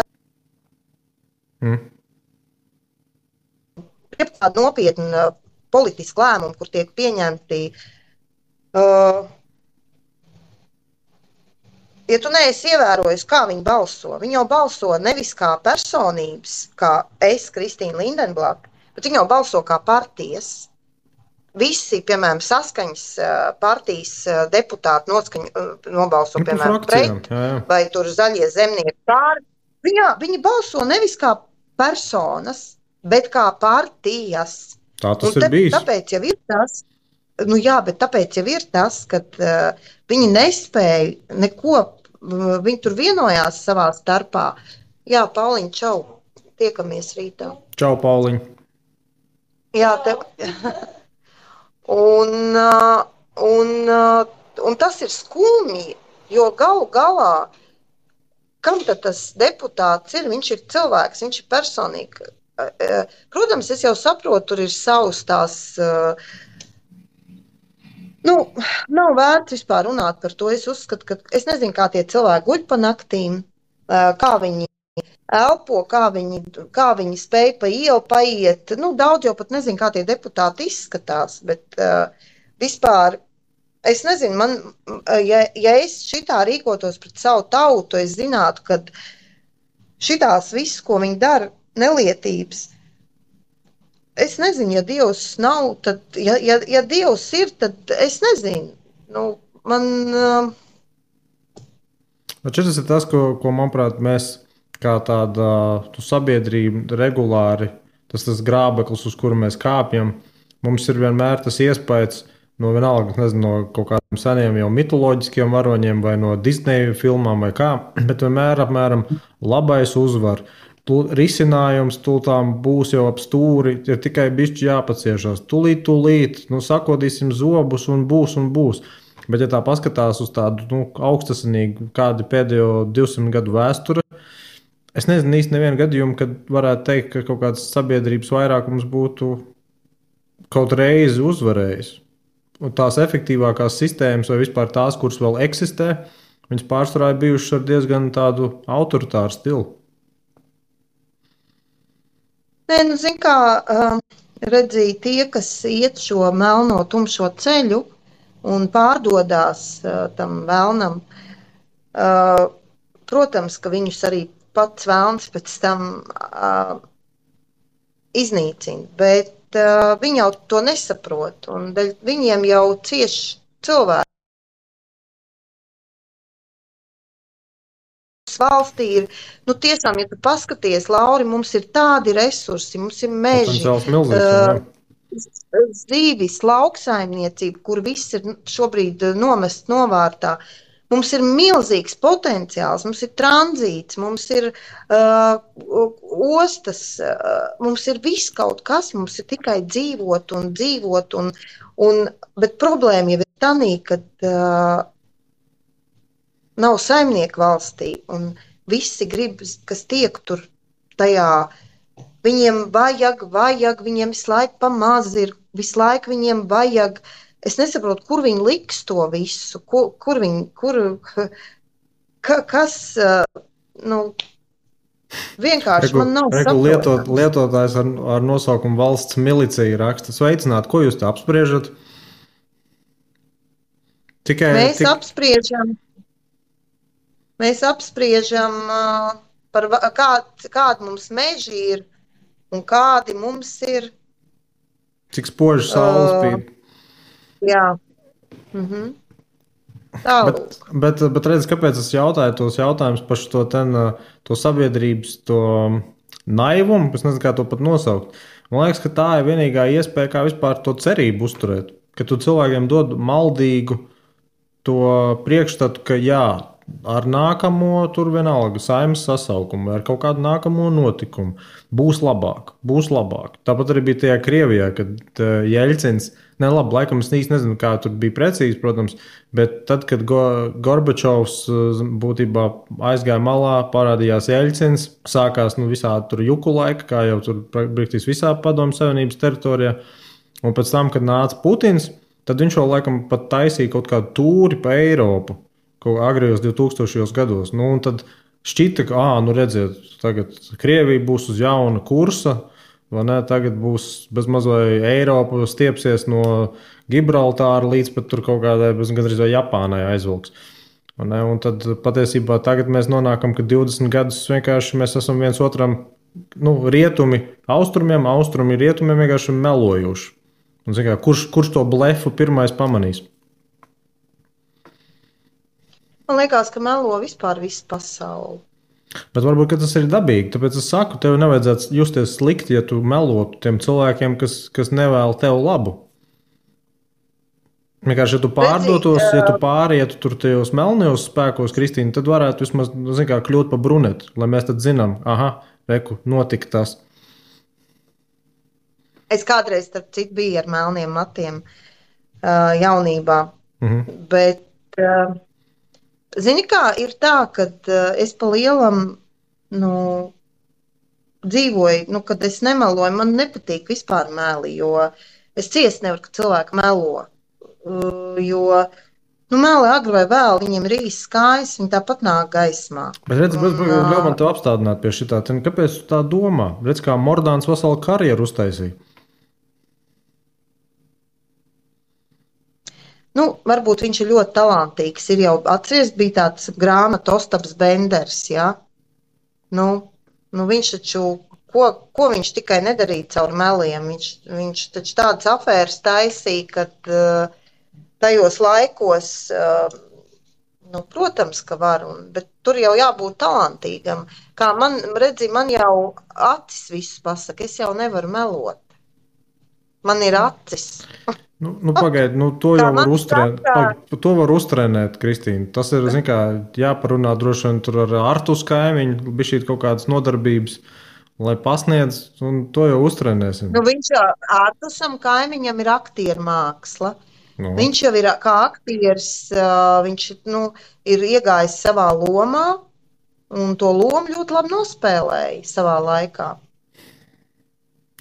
nopietni politiski lēmumi, kur tiek pieņemti. Ja tu neesi ievērojis, kā viņi balso, viņi jau balso nevis kā personības, kā es, Kristīna Lindenblate, bet viņi jau balso kā partijas. Visi, piemēram, Saskaņas partijas deputāti nobalso, piemēram, pret, vai tur Zaļie zemnieki pāri. Viņi balso nevis kā personas, bet kā partijas. Tā tas ir bijis. Tāpēc jau ir tas. Tāpēc jau ir tas, ka viņi nespēja neko viņi tur vienojās savā starpā. Jā, Pauliņ, čau, tiekamies rītā. Čau, Pauliņ. Jā, tev. Un tas ir skumji, jo galu galā, kam tad tas deputāts ir? Viņš ir cilvēks, viņš ir personīgi. Protams, es jau saprotu, tur ir savas tās. Nav vērts vispār runāt par to. Es uzskatu, ka es nezinu, kā tie cilvēki guļ pa naktīm, kā viņi elpo, kā viņi spēj pa ielu paiet. Daudz jau pat nezinu, kā tie deputāti izskatās, bet vispār es nezinu, ja es šitā rīkotos pret savu tautu, es zinātu, ka šitās viss, ko viņi dara, nelietības. Es nezinu, ja Dievs nav, tad, ja Dievs ir, tad es nezinu. Šis ir tas, ko manuprāt, mēs kā tāda sabiedrība regulāri, tas grābeklis, uz kuru mēs kāpjam, mums ir vienmēr tas iespējas no vienalga, nezinu, no kaut kādiem seniem jau mitoloģiskiem varoņiem vai no Disneja filmām vai kā, bet vienmēr apmēram labais uzvar. Risinājums tūlīt būs jau ap stūri, ir tikai bišķi jāpaciešās. Tūlīt, sakodīsim zobus un būs. Bet, ja tā paskatās uz tādu augstasinīgu kādu pēdējo 200 gadu vēsture, es nezinu īsti nevienu gadījumu, kad varētu teikt, ka kaut kāds sabiedrības vairākums būtu kaut reizi uzvarējis. Un tās efektīvākās sistēmas vai vispār tās, kuras vēl eksistē, viņas pārsvarā ir bijušas ar diezgan tādu autoritāru stilu. Nē, zin kā, redzēja tie, kas iet šo melno tumšo ceļu un pārdodās tam vēlnam, protams, ka viņus arī pats vēlns pēc tam iznīcina, bet viņi jau to nesaprot, un viņiem jau cieši cilvēki. Valstī ir, tiešām, ja tu paskaties, Lauri, mums ir tādi resursi, mums ir meži, zīvis, lauksaimniecība, kur viss ir šobrīd nomests novārtā. Mums ir milzīgs potenciāls, mums ir tranzīts, mums ir ostas, mums ir viss kaut kas, mums ir tikai dzīvot, bet problēma jau ir tanī, kad nav saimnieku valstī, un visi grib, kas tiek tur tajā. Viņiem vajag, viņiem visu laiku pamaz ir, visu laiku viņiem vajag. Es nesaprotu, kur viņi liks to visu, kas, vienkārši man nav saprotams. Lietotājs ar nosaukumu valsts milicija raksta. Sveicināt, ko jūs tā apspriežat? Mēs apspriežam par kādi mums meži ir un kādi mums ir. Cik spoži saule spīd. Jā. Bet redz, kāpēc es jautāju tos jautājumus par to sabiedrības naivumu, es nezinu, kā to pat nosaukt. Man liekas, ka tā ir vienīgā iespēja, kā vispār to cerību uzturēt. Ka tu cilvēkiem dod maldīgu to priekšstatu, ka jā, ar nākamo tur vienalga saimnes sasaukumu vai ar kaut kādu nākamo notikumu būs labāk. Tāpat arī bija tajā Krievijā, kad Jeļcins, laikam es īsti nezinu, kā tur bija precīzi, protams, bet tad, kad Gorbačovs būtībā aizgāja malā, parādījās Jeļcins, sākās visādi tur juku laika, kā jau tur praktiski visā Padomju Savienības teritorijā, un pēc tam, kad nāca Putins, tad viņš jau laikam pat taisīja kaut kādu tūri pa Eiropu, agrējos 2000. Gados. Un tad šķita, ka, redziet, tagad Krievija būs uz jauna kursa, vai ne? Tagad būs bezmazliet Eiropa stiepsies no Gibraltāra līdz pat tur kaut kādai gandrīz vai Japānai aizvilks. Un tad patiesībā tagad mēs nonākam, ka 20 gadus vienkārši mēs esam viens otram, rietumi austrumiem, austrumi rietumiem vienkārši melojuši. Un, kā, kurš to blefu pirmais pamanīs? Man liekas, ka melo vispār visu pasauli. Bet varbūt tas ir dabīgi. Tāpēc es saku, tev nevajadzētu justies slikti, ja tu melotu tiem cilvēkiem, kas nevēl tev labu. Vienkārši, Redzi, ja tu pārietu tur tajos melnajos spēkos, Kristīna, tad varētu vismaz, zin kā, kļūt pa brunetu, lai mēs tad zinām, aha, reku, notika tas. es kādreiz, starp citu, biju ar melniem matiem jaunībā, bet, zini kā, ir tā, ka es pa lielam, nu, dzīvoju, kad es nemeloju, man nepatīk vispār meli, jo es ciest nevaru, ka cilvēki melo. Jo meli agri vai vēl, viņiem ir īsts kājas, viņi tāpat nāk gaismā. Bet redz, ļauj man tev apstādināt pie šitā. Kāpēc tu tā domā? Redz, kā Mordāns veselu karjeru uztaisīja. Varbūt viņš ir ļoti talantīgs. Ir jau atceries, bija tāds grāmata Ostaps Benders, ja? Viņš taču, ko viņš tikai nedarīja caur meliem? Viņš taču tādas afēras taisīja, kad tajos laikos, protams, ka var, bet tur jau jābūt talantīgam. Kā man jau acis visus pasaka, es jau nevaru melot. Man ir acis. Pagaidi, to jau var uztrenēt. To var uztrenēt, Kristīna. Tas ir, zin kā, jāparunā droši vien tur ar Artus kaimiņu, bišķīt kaut kādas nodarbības, lai pasniedz, un to jau uztrenēsim. Viņš jau Artusam kaimiņam ir aktieru māksla. Viņš jau ir kā aktieris, viņš ir iegājis savā lomā, un to lomu ļoti labi nospēlēja savā laikā.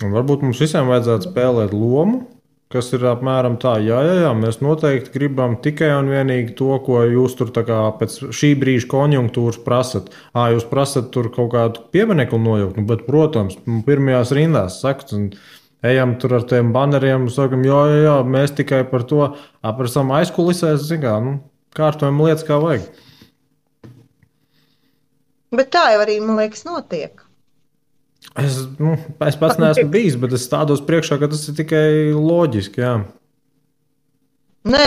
Un varbūt mums visiem vajadzētu spēlēt lomu, kas ir apmēram tā, jā, mēs noteikti gribam tikai un vienīgi to, ko jūs tur tā kā pēc šī brīža konjunktūras prasat. Jūs prasat tur kaut kādu pieminekli nojaukt, bet, protams, pirmajās rindās sakat, un ejam tur ar tiem baneriem, sakam, jā, mēs tikai par to, par savam aizkulisēs, kārtojam lietas kā vajag. Bet tā jau arī, man liekas, notiek. Es pats neesmu bijis, bet es stādos priekšā, ka tas ir tikai loģiski, jā. Nē,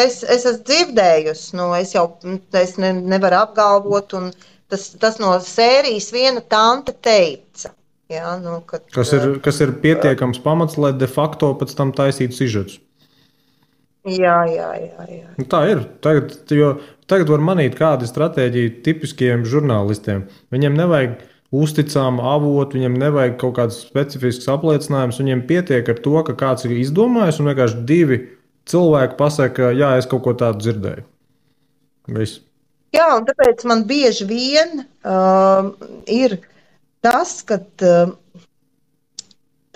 es esmu dzirdējusi, es nevaru apgalvot, un tas no sērijas viena tante teica. Jā, kas ir pietiekams pamats, lai de facto pēc tam taisītu sižetus. Jā. Tā ir. Tagad var manīt, kāda ir stratēģija tipiskiem žurnālistiem. Viņiem nevajag uzticamu avotu, viņiem nevajag kaut kāds specifisks apliecinājums. Viņiem pietiek ar to, ka kāds ir izdomājis, un vienkārši divi cilvēki pasaka, jā, es kaut ko tādu dzirdēju. Viss. Jā, un tāpēc man bieži vien ir tas, ka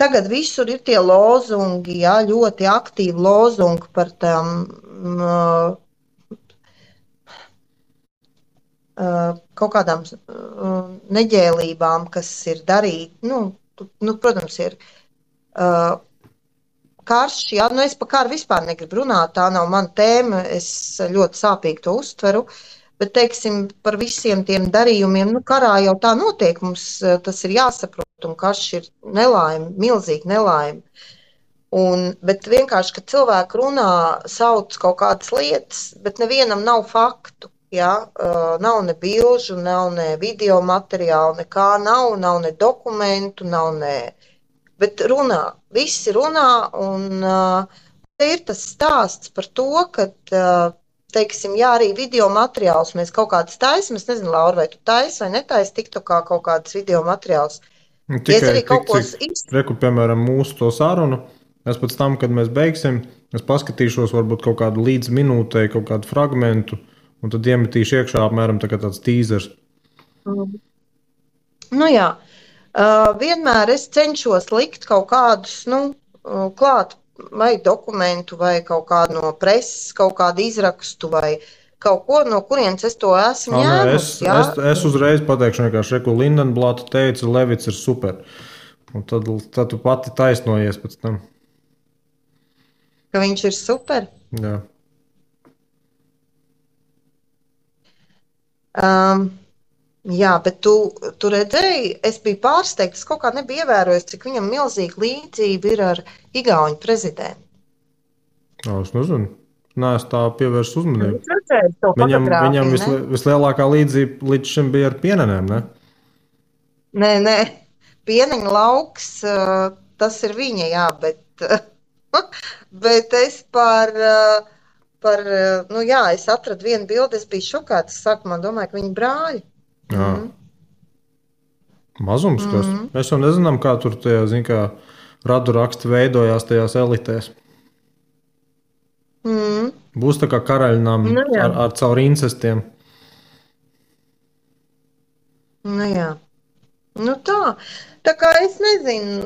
tagad visur ir tie lozungi, jā, ļoti aktīvi lozungi par tām kaut kādām neģēlībām, kas ir darīt. Protams, ir karš, jā, es par karu vispār negribu runāt, tā nav mana tēma, es ļoti sāpīgi to uztveru, bet, teiksim, par visiem tiem darījumiem, karā jau tā notiek, mums tas ir jāsaprot, un karš ir nelaime, milzīga nelaime. Bet vienkārši, kad cilvēki runā, sauc kaut kādas lietas, bet nevienam nav faktu. Ja, nav ne bilžu, nav ne video materiālu, nekā nav ne dokumentu, nav ne. Bet runā, visi runā, un te ir tas stāsts par to, ka, teiksim, jā, arī video materiālus mēs kaut kādas taisam. Es nezinu, Laura, vai tu taisi vai netaisi TikTokā kaut kādas video materiālus. Tikai reku, piemēram, mūsu to sarunu. Es pēc tam, kad mēs beigsim, es paskatīšos varbūt kaut kādu līdz minūtei, kaut kādu fragmentu. Un tad iemetīšu iekšā apmēram tāds tīzers. Jā. Vienmēr es cenšos likt kaut kādus, klāt vai dokumentu, vai kaut kādu no preses, kaut kādu izrakstu, vai kaut ko, no kurienes es to esmu ņēmusi. Es uzreiz pateikšu vienkārši, ko Lindenblata teica, Levits ir super. Un tad tu pati taisnojies pēc tam. Ka viņš ir super? Jā. Jā, bet tu redzēji, es biju pārsteigta, es kaut kā nebiju ievērojis, cik viņam milzīga līdzība ir ar Igauņu prezidentu. Es nezinu. Nē, es tā pievērsu uzmanību. Viņam vislielākā līdzība līdz šim bija ar pienenēm, ne? Nē, pieneņa lauks, tas ir viņa, jā, bet es par par, es atradu vienu bildi, es biju šokāta. Es sākumā domāju, ka viņi brāļi. Jā. Mazums kas. Mēs jau nezinām, kā tur tie, kā radu raksti veidojās tajās elitēs. Būs tā kā karaļnami ar caur incestiem. Nu jā. Nu tā kā es nezinu,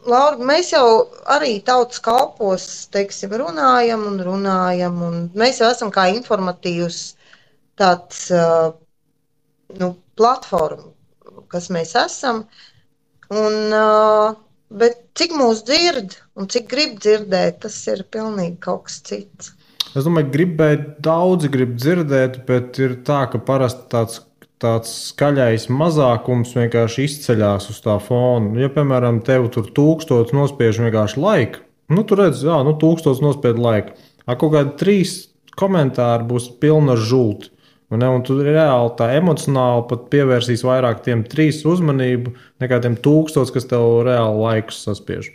Laura, mēs jau arī tautas kalpos, teiksim, runājam, un mēs jau esam kā informatīvs tāds, platforma, kas mēs esam, bet cik mūs dzird un cik grib dzirdēt, tas ir pilnīgi kaut kas cits. Es domāju, daudzi grib dzirdēt, bet ir tā, ka parasti tāds skaļais mazākums vienkārši izceļās uz tā fona. Ja, piemēram, tev tur 1000 nospiež vienkārši laiku, tu redz, 1000 nospied laiku. Kaut kādi 3 komentāri būs pilni ar žulti. Un tu reāli tā emocionāli pat pievērsīs vairāk tiem 3 uzmanību, nekā tiem 1000, kas tev reāli laikus saspiež.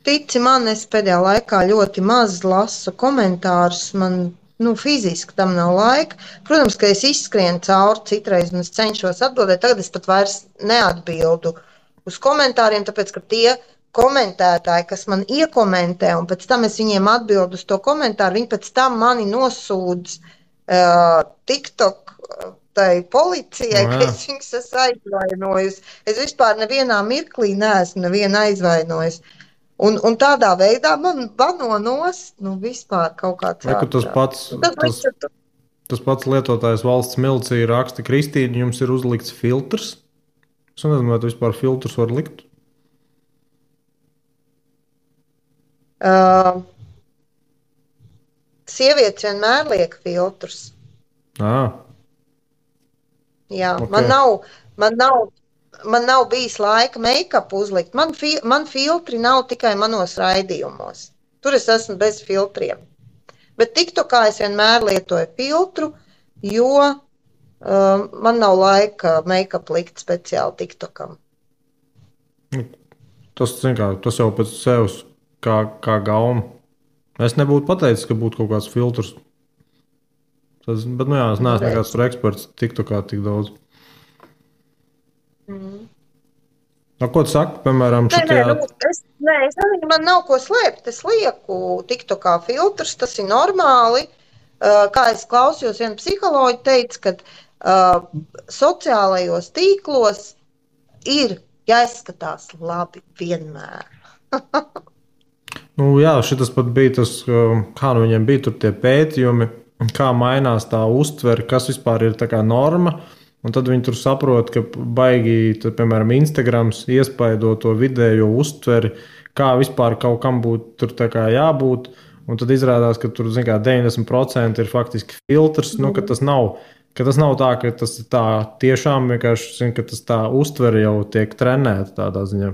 Tici man, es pēdējā laikā ļoti maz lasu komentārus. Man fiziski tam nav laika. Protams, ka es izskrienu cauri citreiz un es cenšos atbildēt. Tagad es pat vairs neatbildu uz komentāriem, tāpēc, ka tie komentētāji, kas man iekomentē, un pēc tam es viņiem atbildu uz to komentāru, viņi pēc tam mani nosūdz TikTok tai policijai, ka es viņus esmu aizvainojusi. Es vispār nevienā mirklī neesmu nevienu aizvainojusi. Un tādā veidā man bano nost, vispār kaut kāds tas pats lietotājs valsts milicija raksta, Kristīne, jums ir uzlikts filtrs. Es nezinu, vai tu vispār filtrus var likt? Sievietes vienmēr liek filtrus. Jā, okay. Man nav bijis laika make-upu uzlikt. Man filtri nav tikai manos raidījumos. Tur es esmu bez filtriem. Bet TikTokā es vienmēr lietoju filtru, jo man nav laika make-up likt speciāli TikTokam. Tas jau pēc sevis kā gauma. Es nebūtu pateicis, ka būtu kaut kāds filtrs. Bet, es neesmu nekāds eksperts TikTokā tik daudz. Ko tu saki, piemēram, šitajā? Es nezinu, man nav ko slēpt. Es lieku TikTokā filtrus, tas ir normāli. Kā es klausījos, viena psiholoģa teica, ka sociālajos tīklos ir jāizskatās labi vienmēr. Jā, šitas pat bija tas, kā viņiem bija tur tie pētījumi, kā mainās tā uztvere, kas vispār ir tā kā norma. Un tad viņi tur saprot, ka baigi, piemēram, Instagrams iespaido to vidējo uztveri, kā vispār kaut kam būtu tur tā kā jābūt. Un tad izrādās, ka tur 90% ir faktiski filtrs, ka tas nav tā, ka tas ir tā tiešām vienkārši, ka tas tā uztveri jau tiek trenēta tādā ziņā.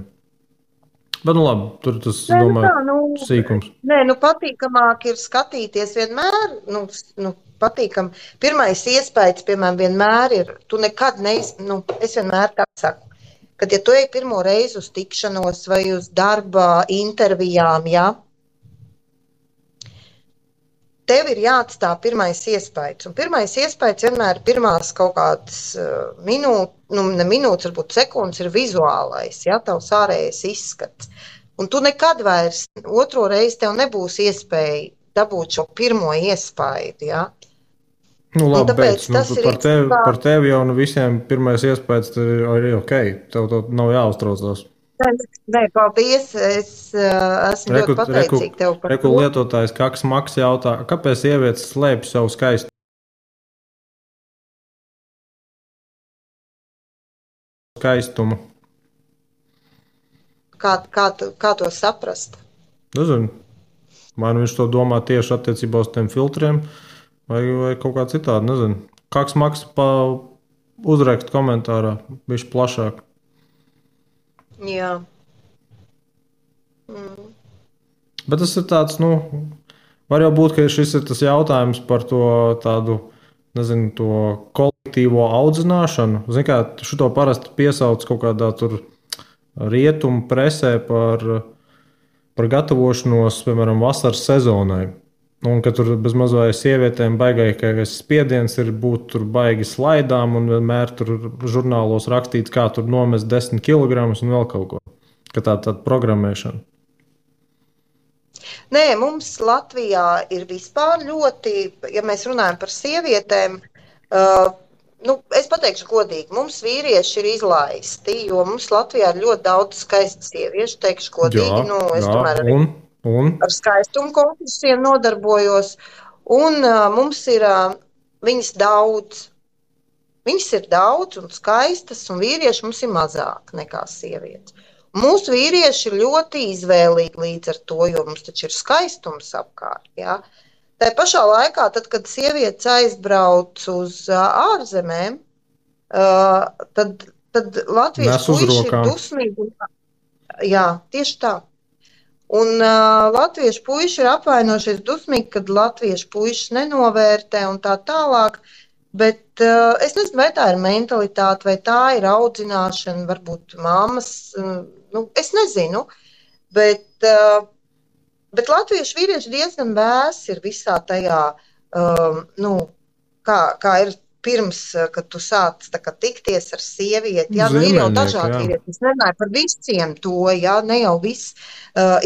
Bet, labi, tur tas, domāju, sīkums. Patīkamāk ir skatīties vienmēr, patīkam. Pirmais iespējas, piemēram, vienmēr ir, tu nekad es vienmēr tā saku, kad ja tu ej pirmo reizi uz tikšanos vai uz darba intervijām, tev ir jāatstāj pirmais iespējas. Un pirmais iespējas vienmēr pirmās kaut kādas minūtes, varbūt sekundes ir vizuālais, tavs ārējais izskats. Un tu nekad vairs otro reizi tev nebūs iespēja dabūt šo pirmo iespēju, Labi, par tevi jau visiem pirmais iespējas ir ok. Tev to nav jāuztraucās. Nē, paldies. Es esmu ļoti pateicīga tev par to. Lietotājs Kaks Maks jautā, kāpēc sievietes slēpj savu skaistumu? Kā to saprast? Nezinu. Vai viņš to domā tieši attiecībā uz tiem filtriem, vai kaut kā citādi, nezinu. Kaks Maks uzrakst komentārā, bišķi plašāk. Jā. Bet tas ir tāds, var jau būt, ka šis ir tas jautājums par to tādu, nezinu, to kolektīvo audzināšanu. Zini kā, šito parasti piesauc kaut kādā tur rietumu presē par gatavošanos, piemēram, vasaras sezonai. Un ka tur bezmaz vai sievietēm baigākais spiediens ir būt tur baigi slaidām un vienmēr tur žurnālos rakstīts, kā tur nomest 10 kg un vēl kaut ko. Ka tāda programmēšana. Nē, mums Latvijā ir vispār ļoti, ja mēs runājam par sievietēm, es pateikšu godīgi, mums vīrieši ir izlaisti, jo mums Latvijā ir ļoti daudz skaistu sieviešu, teikšu godīgi, es tomēr arī ar skaistumu konkursiem nodarbojos, un mums ir viņas daudz. Viņas ir daudz un skaistas, un vīrieši mums ir mazāk nekā sievietes. Mūsu vīrieši ir ļoti izvēlīgi līdz ar to, jo mums taču ir skaistums apkārt. Ja? Tā pašā laikā, tad, kad sievietes aizbrauc uz ārzemēm, tad latviešu puiši ir dusmīgi. Jā, tieši tā. Un latviešu puiši ir apvainojušies dusmīgi, kad latviešu puiši nenovērtē un tā tālāk. Bet es nezinu, vai tā ir mentalitāte, vai tā ir audzināšana, varbūt mammas, es nezinu. Bet latviešu vīrieši diezgan vēsi ir visā tajā, kā ir pirms, kad tu sāc tikties ar sievieti. Jā, ir jau dažādi vīrieši. Es nerunāju par visiem to, jā, ne jau viss.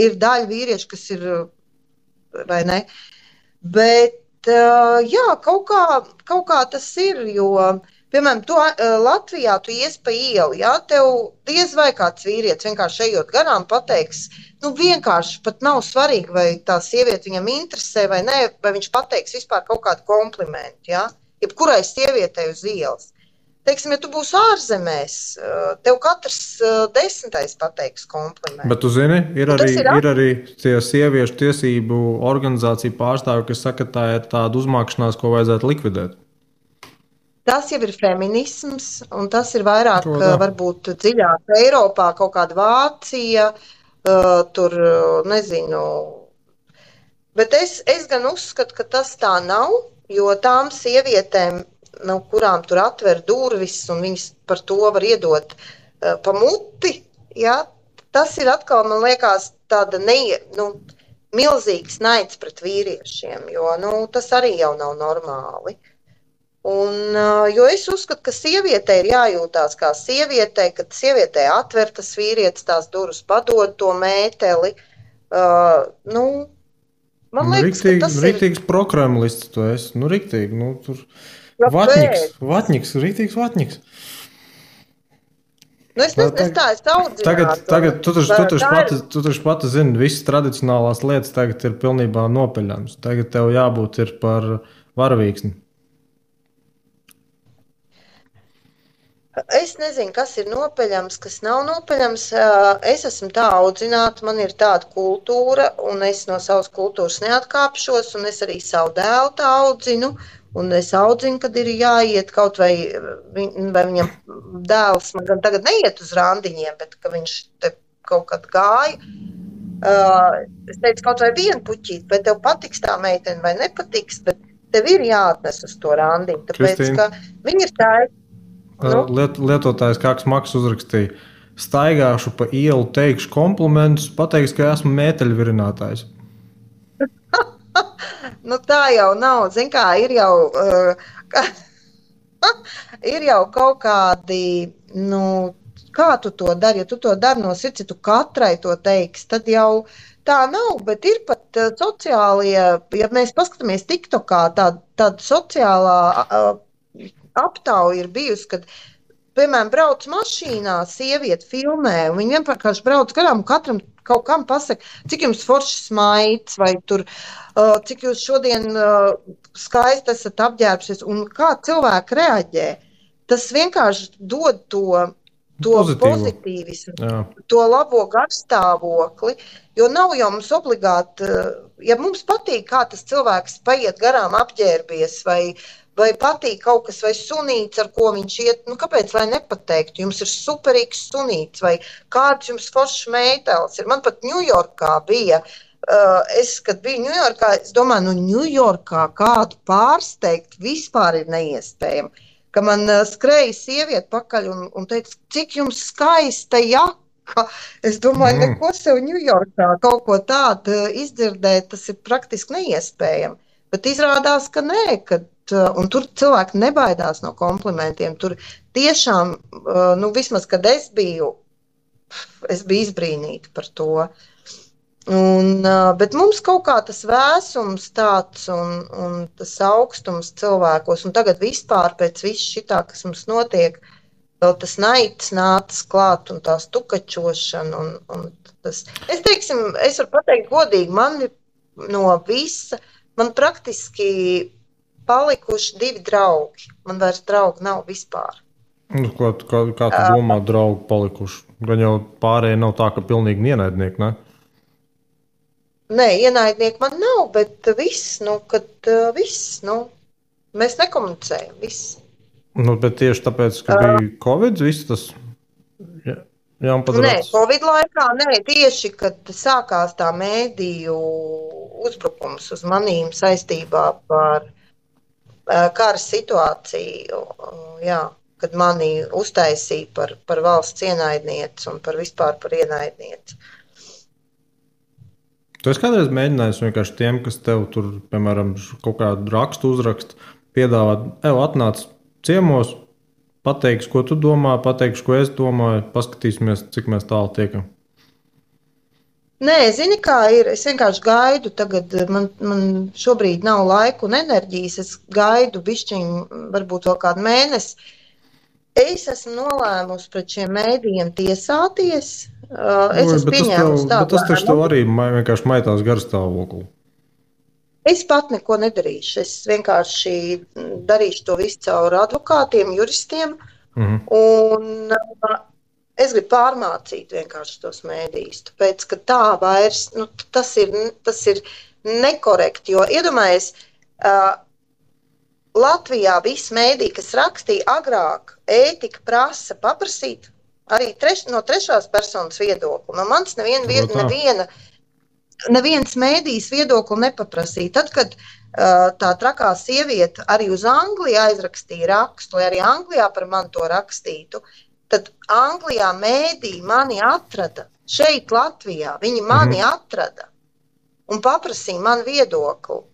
Ir daļa vīrieši, kas ir, vai ne? Bet jā, kaut kā tas ir, jo, piemēram, Latvijā tu ies pa ielu, jā, tev diez vai kāds vīrietis vienkārši ejot garām pateiks, vienkārši pat nav svarīgi, vai tā sieviete viņam interesē vai nē, vai viņš pateiks vispār kaut kādu komplimentu, jā, jebkurai sievietei uz ielas. Teiksim, ja tu būsi ārzemēs, tev katrs 10. pateiks komplimentu. Bet tu zini, ir arī tie sieviešu tiesību organizāciju pārstāvi, kas saka, ka tā ir tāda uzmākšanās, ko vajadzētu likvidēt. Tas jau ir feminisms, un tas ir vairāk, varbūt dziļāk Eiropā, kaut kāda Vācija, tur, nezinu. Bet es gan uzskatu, ka tas tā nav, jo tām sievietēm, kurām tur atver durvis, un viņas par to var iedot pa muti, ja, tas ir atkal, man liekas, tāda milzīgs naids pret vīriešiem, jo tas arī jau nav normāli. Un, jo es uzskatu, ka sievietei ir jājūtās kā sievietei, kad sievietei atver tas vīrietis tās durvis, padod to mēteli. Man liekas, ka tas riktīgs prokremlists tu esi. Riktīgi, tur vatņiks, riktīgs vatņiks. Es audzinātu. Tagad tu taču pati zini, visas tradicionālās lietas tagad ir pilnībā nopeļams. Tagad tev jābūt ir par varavīksni. Es nezinu, kas ir nopeļams, kas nav nopeļams. Es esmu tā audzināta, man ir tāda kultūra, un es no savas kultūras neatkāpšos, un es arī savu dēlu tā audzinu, un es audzinu, kad ir jāiet kaut vai viņam dēls, man gan tagad neiet uz randiņiem, bet ka viņš te kaut kad gāja. Es teicu, kaut vai vienu puķīt, vai tev patiks tā meitene vai nepatiks, bet tev ir jāatnes uz to randiņu, tāpēc, ka viņi ir tā. Lietotājs kāds Maks uzrakstīja, staigāšu pa ielu, teikšu komplimentus, pateiks, ka esmu mēteļvirinātājs. Tā jau nav, zin kā, ir jau kaut kādi, kā tu to dari, ja tu to dari no sirds, ja tu katrai to teiks, tad jau tā nav, bet ir pat sociālie, ja mēs paskatāmies TikTokā, tāda sociālā aptauja ir bijusi, kad, piemēram, brauc mašīnā, sieviete filmē, un viņi vienkārši brauc garām, un katram kaut kam pasaka, cik jums foršs maids, vai tur, cik jūs šodien skaisti esat apģērbšies, un kā cilvēki reaģē. Tas vienkārši dod to pozitīvismu, to labo garstāvokli, jo nav jau mums obligāti, ja mums patīk, kā tas cilvēks paiet garām apģērbies, vai patīk kaut kas, vai sunīts, ar ko viņš iet, kāpēc, lai nepateiktu, jums ir superīgs sunīts, vai kāds jums foršs mētelis ir. Man pat Ņujorkā bija, kad biju Ņujorkā, es domāju, Ņujorkā kādu pārsteigt vispār ir neiespējami, ka man skrēja sieviete pakaļ un teica, cik jums skaista jaka, Es domāju, neko sev Ņujorkā kaut ko tādu izdzirdēt, tas ir praktiski neiespējami. Bet izrādās, ka nē, un tur cilvēki nebaidās no komplimentiem. Tur tiešām, nu, vismaz, kad es biju izbrīnīta par to. Bet mums kaut kā tas vēsums tāds un tas augstums cilvēkos, un tagad vispār pēc viss šitā, kas mums notiek, vēl tas naids nācis klāt un tā stukačošana. Es varu pateikt godīgi, man no visa, man praktiski palikuši 2 draugi. Man vairs draugi nav vispār. Kā tu domā, draugi palikuši? Gan jau pārējie nav tā, ka pilnīgi ienaidnieki, ne? Nē, ienaidnieki man nav, bet viss, mēs nekomunicējam, viss. Bet tieši tāpēc, ka bija Covid, viss tas jāpadara. Nē, Covid laikā, tieši, kad sākās tā mēdīju uzbrukums uz manīm saistībā par kara situāciju, kad mani uztaisīja par valsts ienaidnieci un vispār par ienaidnieci. Tu esi kādreiz mēģinājis vienkārši tiem, kas tev tur, piemēram, kaut kādu rakstu uzrakst, piedāvāt, atnāc ciemos, pateiksi, ko tu domā, pateiksi, ko es domāju, paskatīsimies, cik mēs tālu tiekam. Nē, zini, kā ir. Es vienkārši gaidu. Tagad man šobrīd nav laika un enerģijas. Es gaidu bišķiņu, varbūt vēl kādu mēnesi. Es esmu nolēmusi pret šiem mēdījiem tiesāties. Es esmu pieņēmusi tādu. Tas taču tev arī vienkārši maitās garstāvokli. Es pat neko nedarīšu. Es vienkārši darīšu to visu caur advokātiem, juristiem. Un es gribu pārmācīt vienkārši tos mēdījus. Tāpēc, ka tā vairs, tas ir nekorekti. Jo iedomājies, Latvijā visi mēdīji, kas rakstīja agrāk, ētika prasa paprasīt arī no trešās personas viedokli. No manis neviens mēdījis viedokli nepaprasīja. Tad, kad tā trakā sieviete arī uz Angliju aizrakstīja rakstu, lai arī Anglijā par mani to rakstītu, tad Anglijā mēdīji mani atrada. Šeit Latvijā viņi mani atrada un paprasīja man viedokli.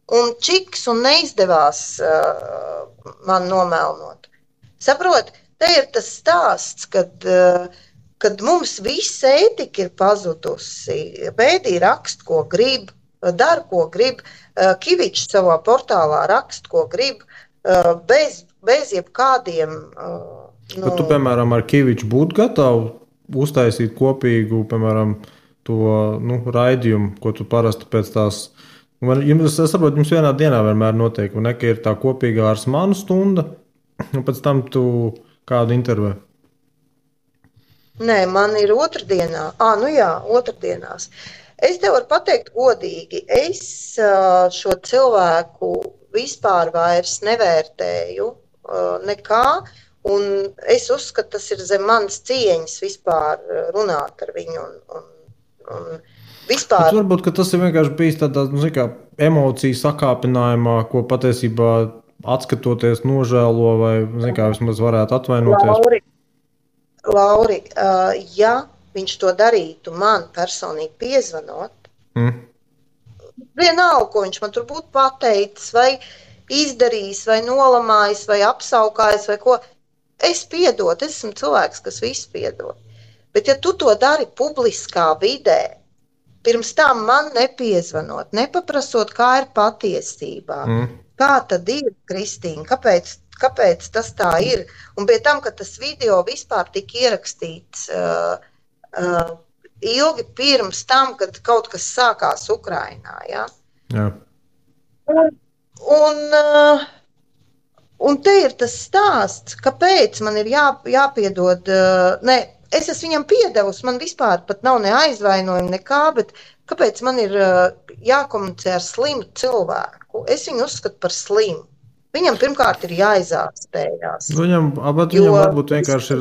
Un čiks un neizdevās man nomēlnot. Saprot, te ir tas stāsts, kad mums visa ētika ir pazudusi. Mēdīji raksta, ko grib, dara, ko grib. Kivičs savā portālā raksta, ko grib, bez jebkādiem... Bet tu, piemēram, ar Kiviču būtu gatavu uztaisīt kopīgu, piemēram, to raidījumu, ko tu parasti pēc tās... Es saprotu, jums vienā dienā vienmēr notiek, un ka ir tā kopīgā ar manu stunda, un pēc tam tu kādu intervē. Nē, man ir otrdienā. Otrdienās. Es tev varu pateikt godīgi, es šo cilvēku vispār vairs nevērtēju nekā, un es uzskatu, tas ir zem manas cieņas vispār runāt ar viņu un vispār. Varbūt, ka tas ir vienkārši bijis tādā, emociju sakāpinājumā, ko patiesībā atskatoties nožēlo vai, vismaz varētu atvainoties. Lauri, ja viņš to darītu man personīgi piezvanot, vienalga, ko viņš man tur būtu pateicis, vai izdarījis, vai nolamājis, vai apsaukājis, vai ko, es piedotu, es esmu cilvēks, kas visu piedod. Bet ja tu to dari publiskā vidē, pirms tam man nepiezvanot, nepaprasot, kā ir patiesībā. Kā tad ir, Kristīna? Kāpēc tas tā ir? Un pie tam, ka tas video vispār tika ierakstīts ilgi pirms tam, kad kaut kas sākās Ukrainā. Ja? Jā. Un te ir tas stāsts, kāpēc man ir jāpiedod... Es esmu viņam piedevusi, man vispār pat nav ne aizvainojumi, nekā, bet kāpēc man ir jākomunicē ar slimu cilvēku? Es viņu uzskatu par slimu. Viņam pirmkārt ir jāizārstējās. Viņam varbūt vienkārši ir,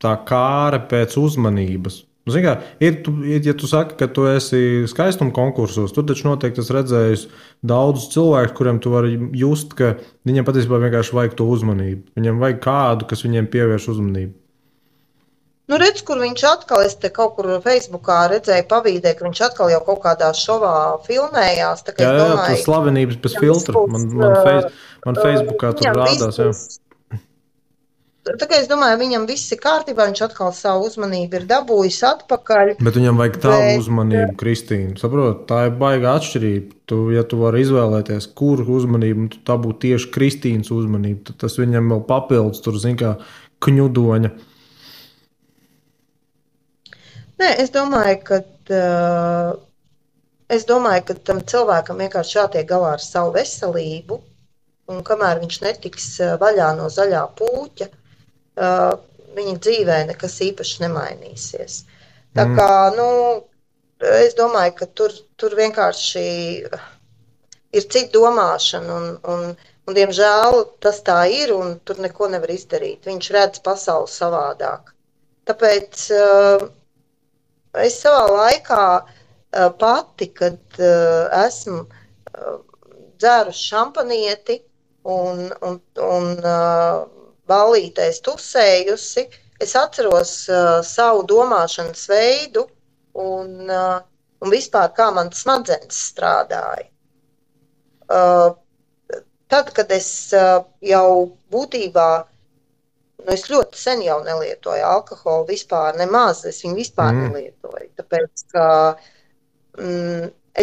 tā kāre pēc uzmanības. Ja tu saki, ka tu esi skaistuma konkursos, tur taču noteikti es redzēju daudzus cilvēkus, kuriem tu vari just, ka viņiem patiesībā vienkārši vajag to uzmanību. Viņiem vajag kādu, kas viņiem pievērš uzmanību. Nu, redz, kur viņš atkal, es te kaut kur Facebookā redzēju pavīdē, ka viņš atkal jau kaut kādā šovā filmējās. Tā kā Jā, es jā, jā, tas domāju, slavenības bez viņam viss filtra. būs, Man Facebookā tur viņam viss rādās, jā. būs. Tā kā es domāju, viņam viss ir kārtībā, viņš atkal savu uzmanību ir dabūjis atpakaļ. Bet viņam vajag tavu uzmanību, Kristīna. Saprot, tā ir baigā atšķirība. Ja tu vari izvēlēties, kuru uzmanību, tad tā būtu tieši Kristīnas uzmanība. Tad tas viņam vēl papildus, tur zin kā kņudoņa. Nē, es domāju, ka tam cilvēkam vienkārši jātiek galā ar savu veselību, un kamēr viņš netiks vaļā no zaļā pūķa, viņa dzīvē nekas īpaši nemainīsies. Tā kā, es domāju, ka tur vienkārši ir cita domāšana, un diemžēl tas tā ir, un tur neko nevar izdarīt. Viņš redz pasauli savādāk. Tāpēc es savā laikā pati, kad esmu dzērusi šampanieti un ballītēs tusējusi, es atceros savu domāšanas veidu un vispār kā man smadzenes strādāja. Tad, kad es jau būtībā, es ļoti sen jau nelietoju alkoholu vispār, nemaz, es viņu vispār nelietoju, tāpēc, ka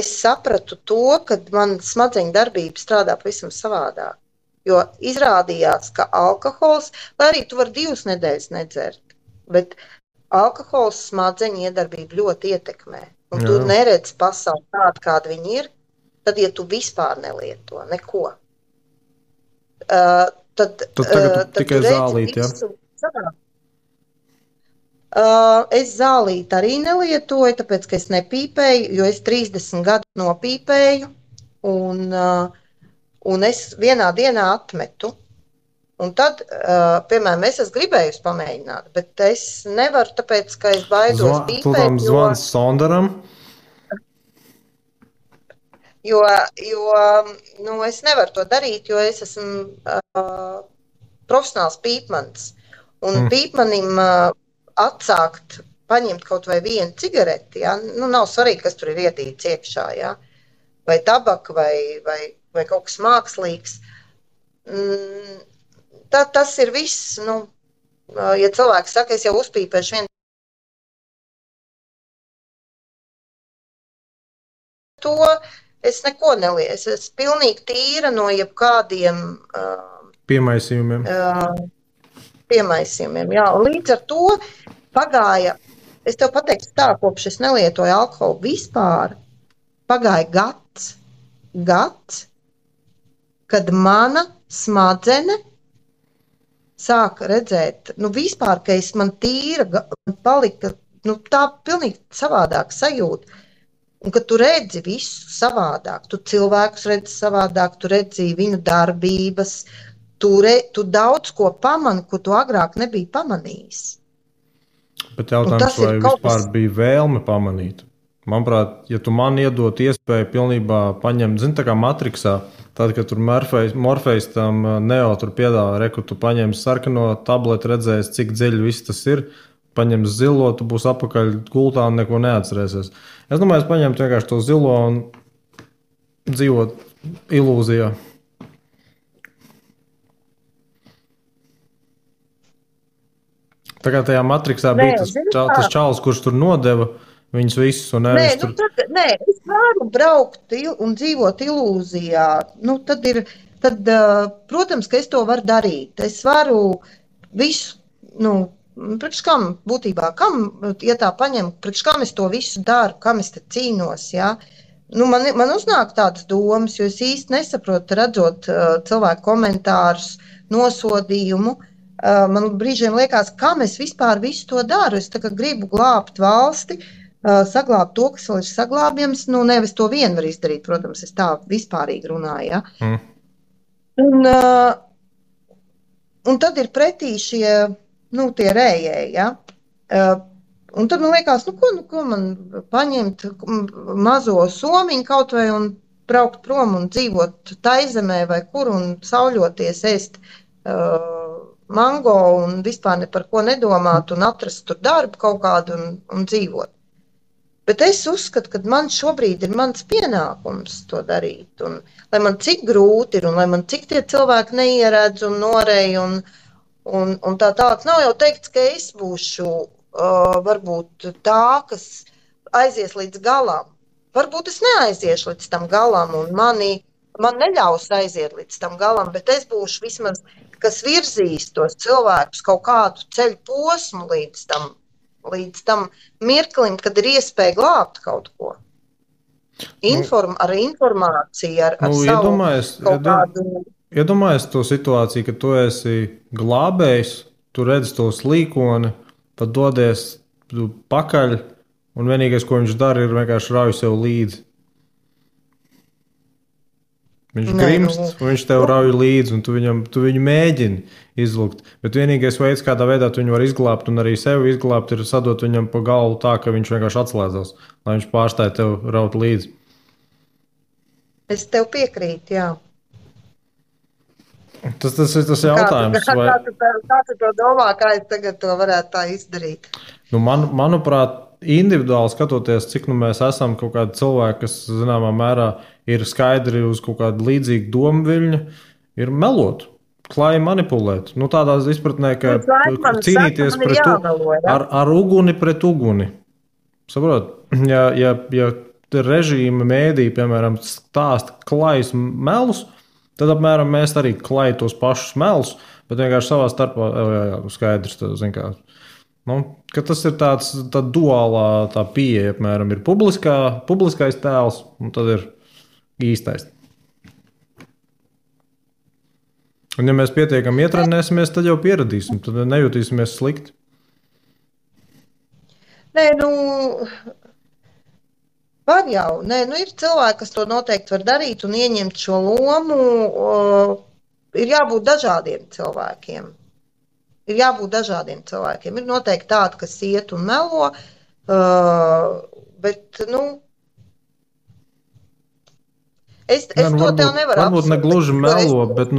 es sapratu to, ka man smadzeņu darbība strādā pavisam savādāk, jo izrādījās, ka alkohols, lai arī tu vari 2 nedēļas nedzert, bet alkohols smadzeņu iedarbību ļoti ietekmē, un tu neredzi pasauli tādu, kāda viņi ir, tad, ja tu vispār nelieto neko, tad tikai zālīt, ja? Es zālīt arī nelietoju, tāpēc, ka es nepīpēju, jo es 30 gadu nopīpēju, un es vienā dienā atmetu. Un tad, piemēram, es esmu gribējusi pamēģināt, bet es nevaru, tāpēc, ka es baidos pīpēt. Zvans Sondaram? Jo es nevaru to darīt, jo es esmu profesionāls pīpmanis. Un pīpmanim atsākt, paņemt kaut vai vienu cigareti, ja? Nav svarīgi, kas tur ir iedīts iekšā, ja? Vai tabaka, vai kaut kas mākslīgs. Tas ir viss, ja cilvēks saka, es jau uzpīpēšu vienu to, es neko nelieku. Es esmu pilnīgi tīra no jebkādiem piemaisījumiem. Jā. Līdz ar to pagāja, es tev pateiktu tā, kopš es nelietoju alkoholu vispār, pagāja gads, kad mana smadzene sāka redzēt, vispār, ka man tīra palika, tā pilnīgi savādāk sajūta. Un, kad tu redzi visu savādāk, tu cilvēkus redzi savādāk, tu redzi viņu darbības, tu daudz ko pamani, ko tu agrāk nebija pamanījis. Bet jautājums, vai vispār bija vēlme pamanīt? Manuprāt, ja tu man iedot iespēju pilnībā paņemt, tā kā Matrixā, tad, kad tur Morfejs tam Neo tur piedāvā, reku, tu paņem sarkano tableti, redzēs, cik dziļi viss tas ir, paņem zilo, tu būs apakaļ gultā un neko neatcerēsies. Es domāju, es paņemtu vienkārši to zilo un dzīvot ilūzijā. Tā kā tajā Matrixā bija tas čalis, kurš tur nodeva viņus visus. Nē, es varu braukt un dzīvot ilūzijā. Tad, protams, ka es to varu darīt. Es varu visu, priekš kam būtībā, ja tā paņem, priekš kam es to visu daru, kam es te cīnos, ja? Man uznāk tādas domas, jo es īsti nesaprotu, redzot cilvēku komentārus, nosodījumu. Man brīžiem liekas, kam es vispār visu to daru. Es tā kā gribu glābt valsti, saglābt to, kas vēl ir saglābjams. Nevis to vien var izdarīt, protams, es tā vispārīgi runāju, ja? Un tad ir pretī šie tie rējēji, ja? Un tad man liekas, ko man paņemt mazo somiņu kaut vai un braukt prom un dzīvot Taizemē vai kur un sauļoties, ēst mango un vispār ne par ko nedomāt un atrast tur darbu kaut kādu un dzīvot. Bet es uzskatu, ka man šobrīd ir mans pienākums to darīt. Un, lai man cik grūti ir un lai man cik tie cilvēki neieredz un norej un tā tālāk. Nav jau teikts, ka es būšu varbūt tā, kas aizies līdz galam. Varbūt es neaiziešu līdz tam galam, un man neļaus aiziet līdz tam galam, bet es būšu vismaz, kas virzīs tos cilvēkus kaut kādu ceļu posmu līdz tam mirklim, kad ir iespēja glābt kaut ko. Ar informāciju, ar savu kaut kādu... Iedomājies to situāciju, ka tu esi glābējs, tu redzi to slīkoni, tad dodies pakaļ, un vienīgais, ko viņš dara, ir vienkārši rauj sev līdzi. Viņš grimst, un viņš tev rauj līdzi, un tu viņu mēģini izlukt. Bet vienīgais veids, kādā veidā tu viņu var izglābt un arī sevi izglābt, ir sadot viņam pa galvu tā, ka viņš vienkārši atslēdzās, lai viņš pārstāja tev raut līdzi. Es tev piekrītu, jā. Tas ir tas jautājums. Kā tu to domā, kā es tagad to varētu tā izdarīt? Manuprāt, individuāli skatoties, cik mēs esam kaut kādi cilvēki, kas zināmā mērā ir skaidri uz kaut kādu līdzīgu domu viļņu, ir melot, klāji manipulēt. Tādā izpratnē, ka cīnīties ar uguni pret uguni. Saprot? Ja režīma mēdī, piemēram, stāsta klājus melus, tad apmēram mēs arī klājam tos pašus melus, bet vienkārši savā starpā skaidrs, ka tas ir tā duālā tā pieeja, apmēram ir publiskais tēls, un tad ir īstais. Un ja mēs pietiekami ietrenēsimies, tad jau pieradīsim, tad nejutīsimies slikti. Nē, var jau. Nē, ir cilvēki, kas to noteikti var darīt un ieņemt šo lomu. Ir jābūt dažādiem cilvēkiem. Ir noteikti tādi, kas iet un melo, bet, es to tev nevaru apsvērt. Varbūt ne gluži melo, bet,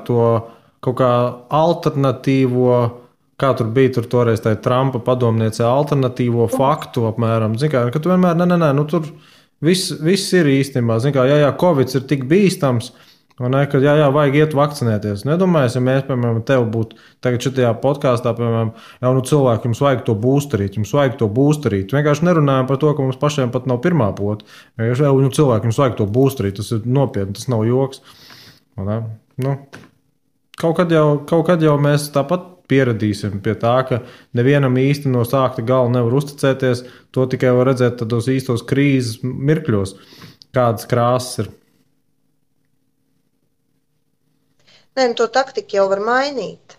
to kaut kā alternatīvo, kā tur bija toreiz tā Trumpa padomniece, alternatīvo faktu apmēram. Ka tu vienmēr, tur viss ir īstenībā. Covid ir tik bīstams, ka vajag iet vakcinēties. Nedomājies, ja mēs, piemēram, tev būtu tagad šitajā podkāstā, piemēram, cilvēki, jums vajag to būsterīt. Vienkārši nerunājam par to, ka mums pašiem pat nav pirmā pota. Cilvēki, jums vajag to būsterīt. Tas ir nopietni, tas nav joks. Kaut kad jau mēs tāpat pieradīsim pie tā, ka nevienam īsti no sākta gala nevar uzticēties. To tikai var redzēt tādos īstos krīzes mirkļos, kādas krāsas ir. Nē, to taktiku jau var mainīt.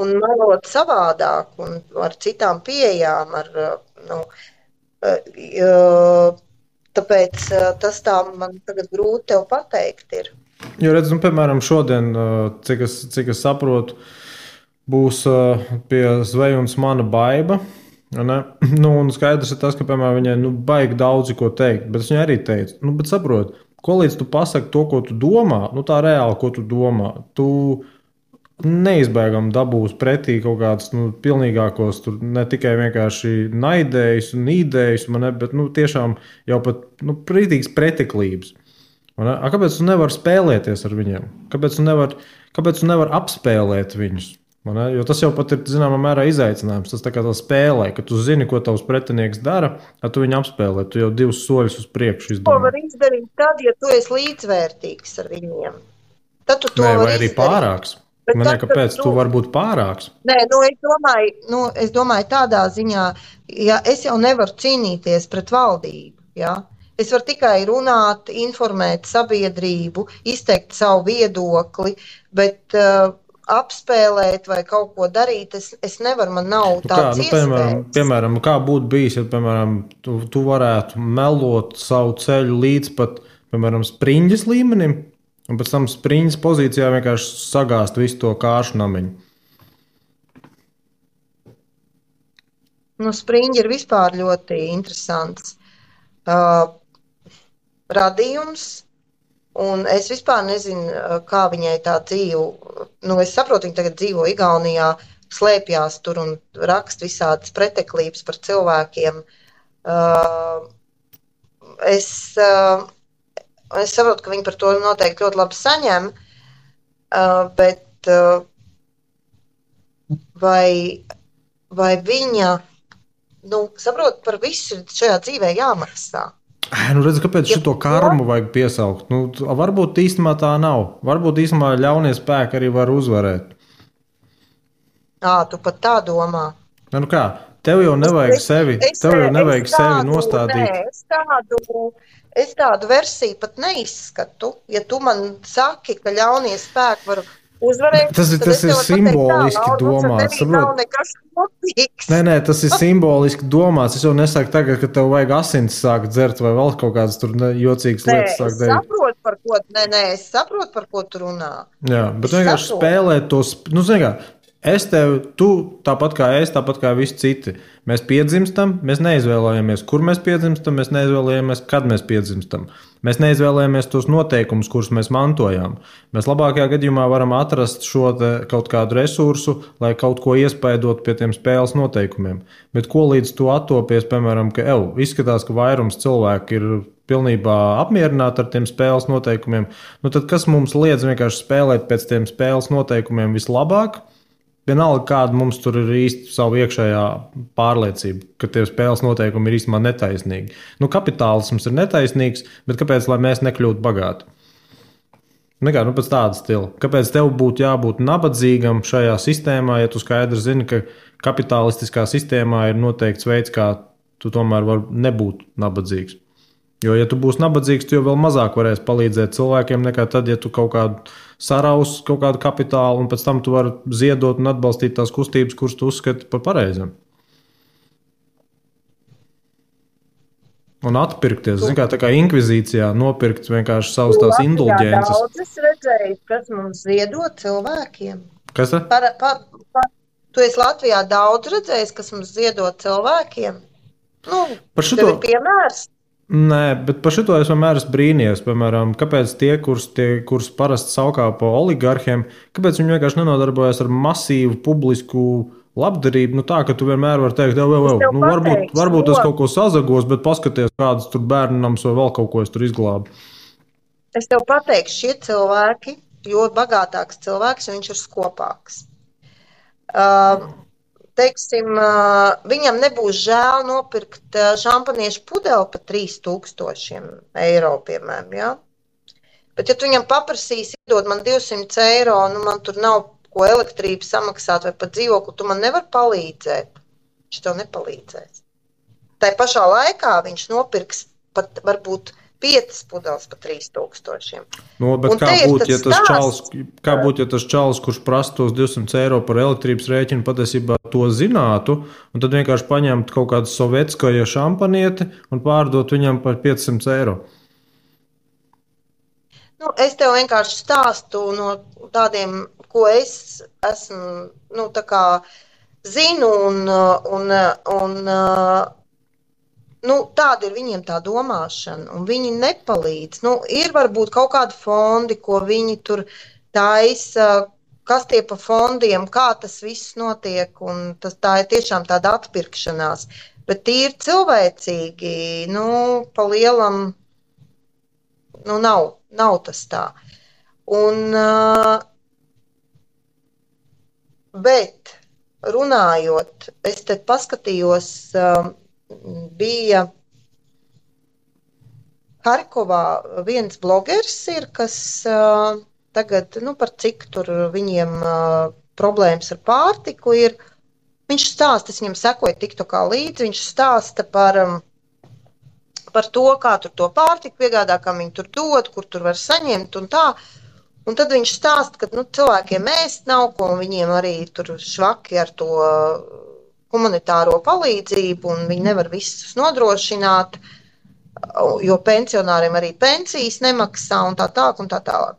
Un melot savādāk un ar citām pieejām. Tāpēc tas tā man tagad grūti tev pateikt ir. Jo redz, piemēram, šodien, cik es saprotu, būs pie Zvejunas mana Baiba. Un skaidrs ir tas, ka, piemēram, viņai baigi daudzi ko teikt, bet viņa arī teica, bet saprot, ko līdz tu pasaki to, ko tu domā, tā reāli, ko tu domā, tu neizbēgam dabūs pretī kaut kādus pilnīgākos, tur ne tikai vienkārši naidējus un īdējus, bet tiešām jau pat prītīgas preteklības. Kāpēc tu nevari spēlēties ar viņiem? Kāpēc tu nevari apspēlēt viņus? Jo tas jau pat ir, zināmā mērā, izaicinājums. Tas tā kā tā spēlē, ka tu zini, ko tavs pretinieks dara, tad tu viņu apspēlē. Tu jau 2 soļus uz priekšu izdomā. To var izdarīt tad, ja tu esi līdzvērtīgs ar viņiem. Tad tu to vai vari arī izdarīt. Pārāks. Kāpēc tu vari būt pārāks? Nē, es domāju tādā ziņā, ja es jau nevaru cīnīties pret valdību, ja? Es varu tikai runāt, informēt sabiedrību, izteikt savu viedokli, bet apspēlēt vai kaut ko darīt, es nevaru, man nav tāds iespējas. Piemēram, kā būtu bijis, ja, piemēram, tu varētu melot savu ceļu līdz pat, piemēram, spriņģes līmenim, un pēc tam spriņģes pozīcijā vienkārši sagāst visu to kāšu namiņu. Spriņģi ir vispār ļoti interesants radījums, Un es vispār nezinu, kā viņai tā dzīve. Nu, es saprotu, viņa tagad dzīvo Igaunijā, slēpjās tur un raksta visādas preteklības par cilvēkiem. Uh, es, uh, es saprotu, ka viņi par to noteikti ļoti labi saņem, bet vai viņa, nu, saprot, par visu šajā dzīvē jāmaksā? Nu, redz, kāpēc šo karmu vajag piesaukt? Nu, varbūt īstenībā tā nav. Varbūt īstenībā ļaunie spēki arī var uzvarēt. Tu pat tā domā. Nu kā, tev jau nevajag sevi nostādīt. Es tādu versiju pat neizskatu. Ja tu man saki, ka ļaunie spēki var uzvarēt, tas ir simboliski domāts. Nē, tas ir simboliski domāts. Es jau nesaku tagad, ka tev vajag asins sākt dzert vai vēl kaut kādas tur jocīgas lietas sākt darīt. Es saprotu, par ko tu runā. Jā, bet vienkārši spēlēt tos, nu, zini kā, tu tāpat kā es, tāpat kā visi citi. Mēs piedzimstam, mēs neizvēlējamies, kur mēs piedzimstam, mēs neizvēlējamies, kad mēs piedzimstam. Mēs neizvēlējamies tos noteikumus, kurus mēs mantojām. Mēs labākajā gadījumā varam atrast šo kaut kādu resursu, lai kaut ko iespaidot pie tiem spēles noteikumiem. Bet ko līdz tu attopies, piemēram, ka izskatās, ka vairums cilvēku ir pilnībā apmierināti ar tiem spēles noteikumiem, nu tad kas mums liedz vienkārši spēlēt pēc tiem spēles noteikumiem vislabāk? Vienalga, kāda mums tur ir īsti savu iekšējā pārliecība, ka tie spēles noteikumi ir īstenībā netaisnīgi. Nu, kapitālisms ir netaisnīgs, bet kāpēc lai mēs nekļūtu bagāti? Nekā, nu pēc tāda stila. Kāpēc tev būtu jābūt nabadzīgam šajā sistēmā, ja tu skaidri zini, ka kapitalistiskā sistēmā ir noteikts veids, kā tu tomēr vari nebūt nabadzīgs? Jo, ja tu būsi nabadzīgs, tu jau vēl mazāk varēsi palīdzēt cilvēkiem nekā tad, ja tu kaut kādu saraus kaut kādu kapitālu, un pēc tam tu vari ziedot un atbalstīt tās kustības, kuras tu uzskati par pareizām. Un atpirkties, zin kā, tā kā inkvizīcijā nopirkt vienkārši savus tās indulģences. Daudz redzēju, kas mums ziedo cilvēkiem. Kas tā? Tu esi Latvijā daudz redzējis, kas mums ziedo cilvēkiem? Nu, tev ir piemērs? Nē, bet par šito es vienmēr esmu brīnījies. Piemēram, kāpēc tie, kurus parasti saukā pa oligarhiem, kāpēc viņi vienkārši nenodarbojas ar masīvu publisku labdarību? Nu tā, ka tu vienmēr vari teikt, nu, varbūt es kaut ko sazagos, bet paskaties, kādas tur bērnams vai vēl kaut ko es tur izglābu. Es tev pateikšu, šie cilvēki, jo bagātāks cilvēks, viņš ir skopāks. Teiksim, viņam nebūs žēl nopirkt šampaniešu pudeli par 3000 eiro, piemēram, ja? Bet, ja tu viņam paprasīsi, iedod man 200 eiro, nu man tur nav ko elektrību samaksāt vai pat dzīvokli, tu man nevar palīdzēt. Viņš tev nepalīdzēs. Tā pašā laikā viņš nopirks pat varbūt 5 pudeles par 3000. No, bet kā būtu, ja tas čalis, kurš prasa tos 200 eiro par elektrības rēķinu, patiesībā to zinātu, un tad vienkārši paņemt kaut kādu sovetskoja šampanieti un pārdot viņam par 500 eiro? Nu, es tev vienkārši stāstu no tādiem, ko es esmu, nu, tā kā zinu nu, tāda ir viņiem tā domāšana, un viņi nepalīdz. Nu, ir varbūt kaut kādi fondi, ko viņi tur taisa, kas tie pa fondiem, kā tas viss notiek, un tā ir tiešām tāda atpirkšanās. Bet tīri cilvēcīgi, nu, pa lielam, nu, nav tas tā. Un, bet runājot, es te paskatījos, bija Harkovā viens blogeris ir, kas tagad, nu, par cik tur viņiem problēmas ar pārtiku ir. Viņš stāsta, es viņam sekoju TikTokā līdzi, viņš stāsta par to, kā tur to pārtiku piegādā, kā viņi tur dod, kur tur var saņemt un tā. Un tad viņš stāsta, ka, nu, cilvēkiem ēst nav ko, un viņiem arī tur švaki ar to humanitāro palīdzību, un viņi nevar visus nodrošināt, jo pensionāriem arī pensijas nemaksā un tā tālāk.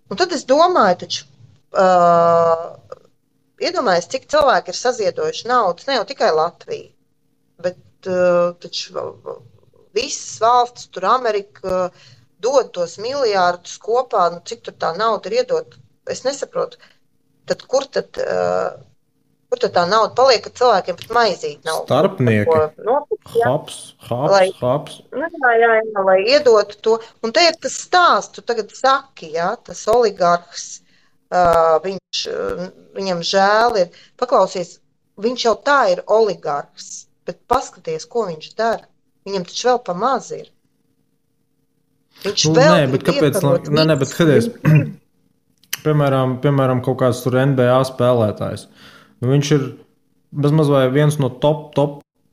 Un tad es domāju, taču, iedomājies, cik cilvēki ir saziedojuši naudas, ne jau tikai Latvija, bet taču visas valstis, tur Amerika, dod tos miljārdus kopā, nu, cik tur tā nauda ir iedot, es nesaprotu. Tad kur tad tā nauda paliek, kad cilvēkiem pat maizīt nav Starpnieki. ko nopirkt, ja? Haps. Lai iedotu to. Un te ir tas stāsts, tu tagad saki, ja, tas oligarhs, viņam žēl ir, paklausies, viņš jau tā ir oligarhs, bet paskaties, ko viņš dara. Viņam taču vēl pa maz ir. Viņš vēl bet kāpēc? Bet skaties, piemēram, kaut kāds tur NBA spēlētājs. Nu, viņš ir bezmaz vai viens no top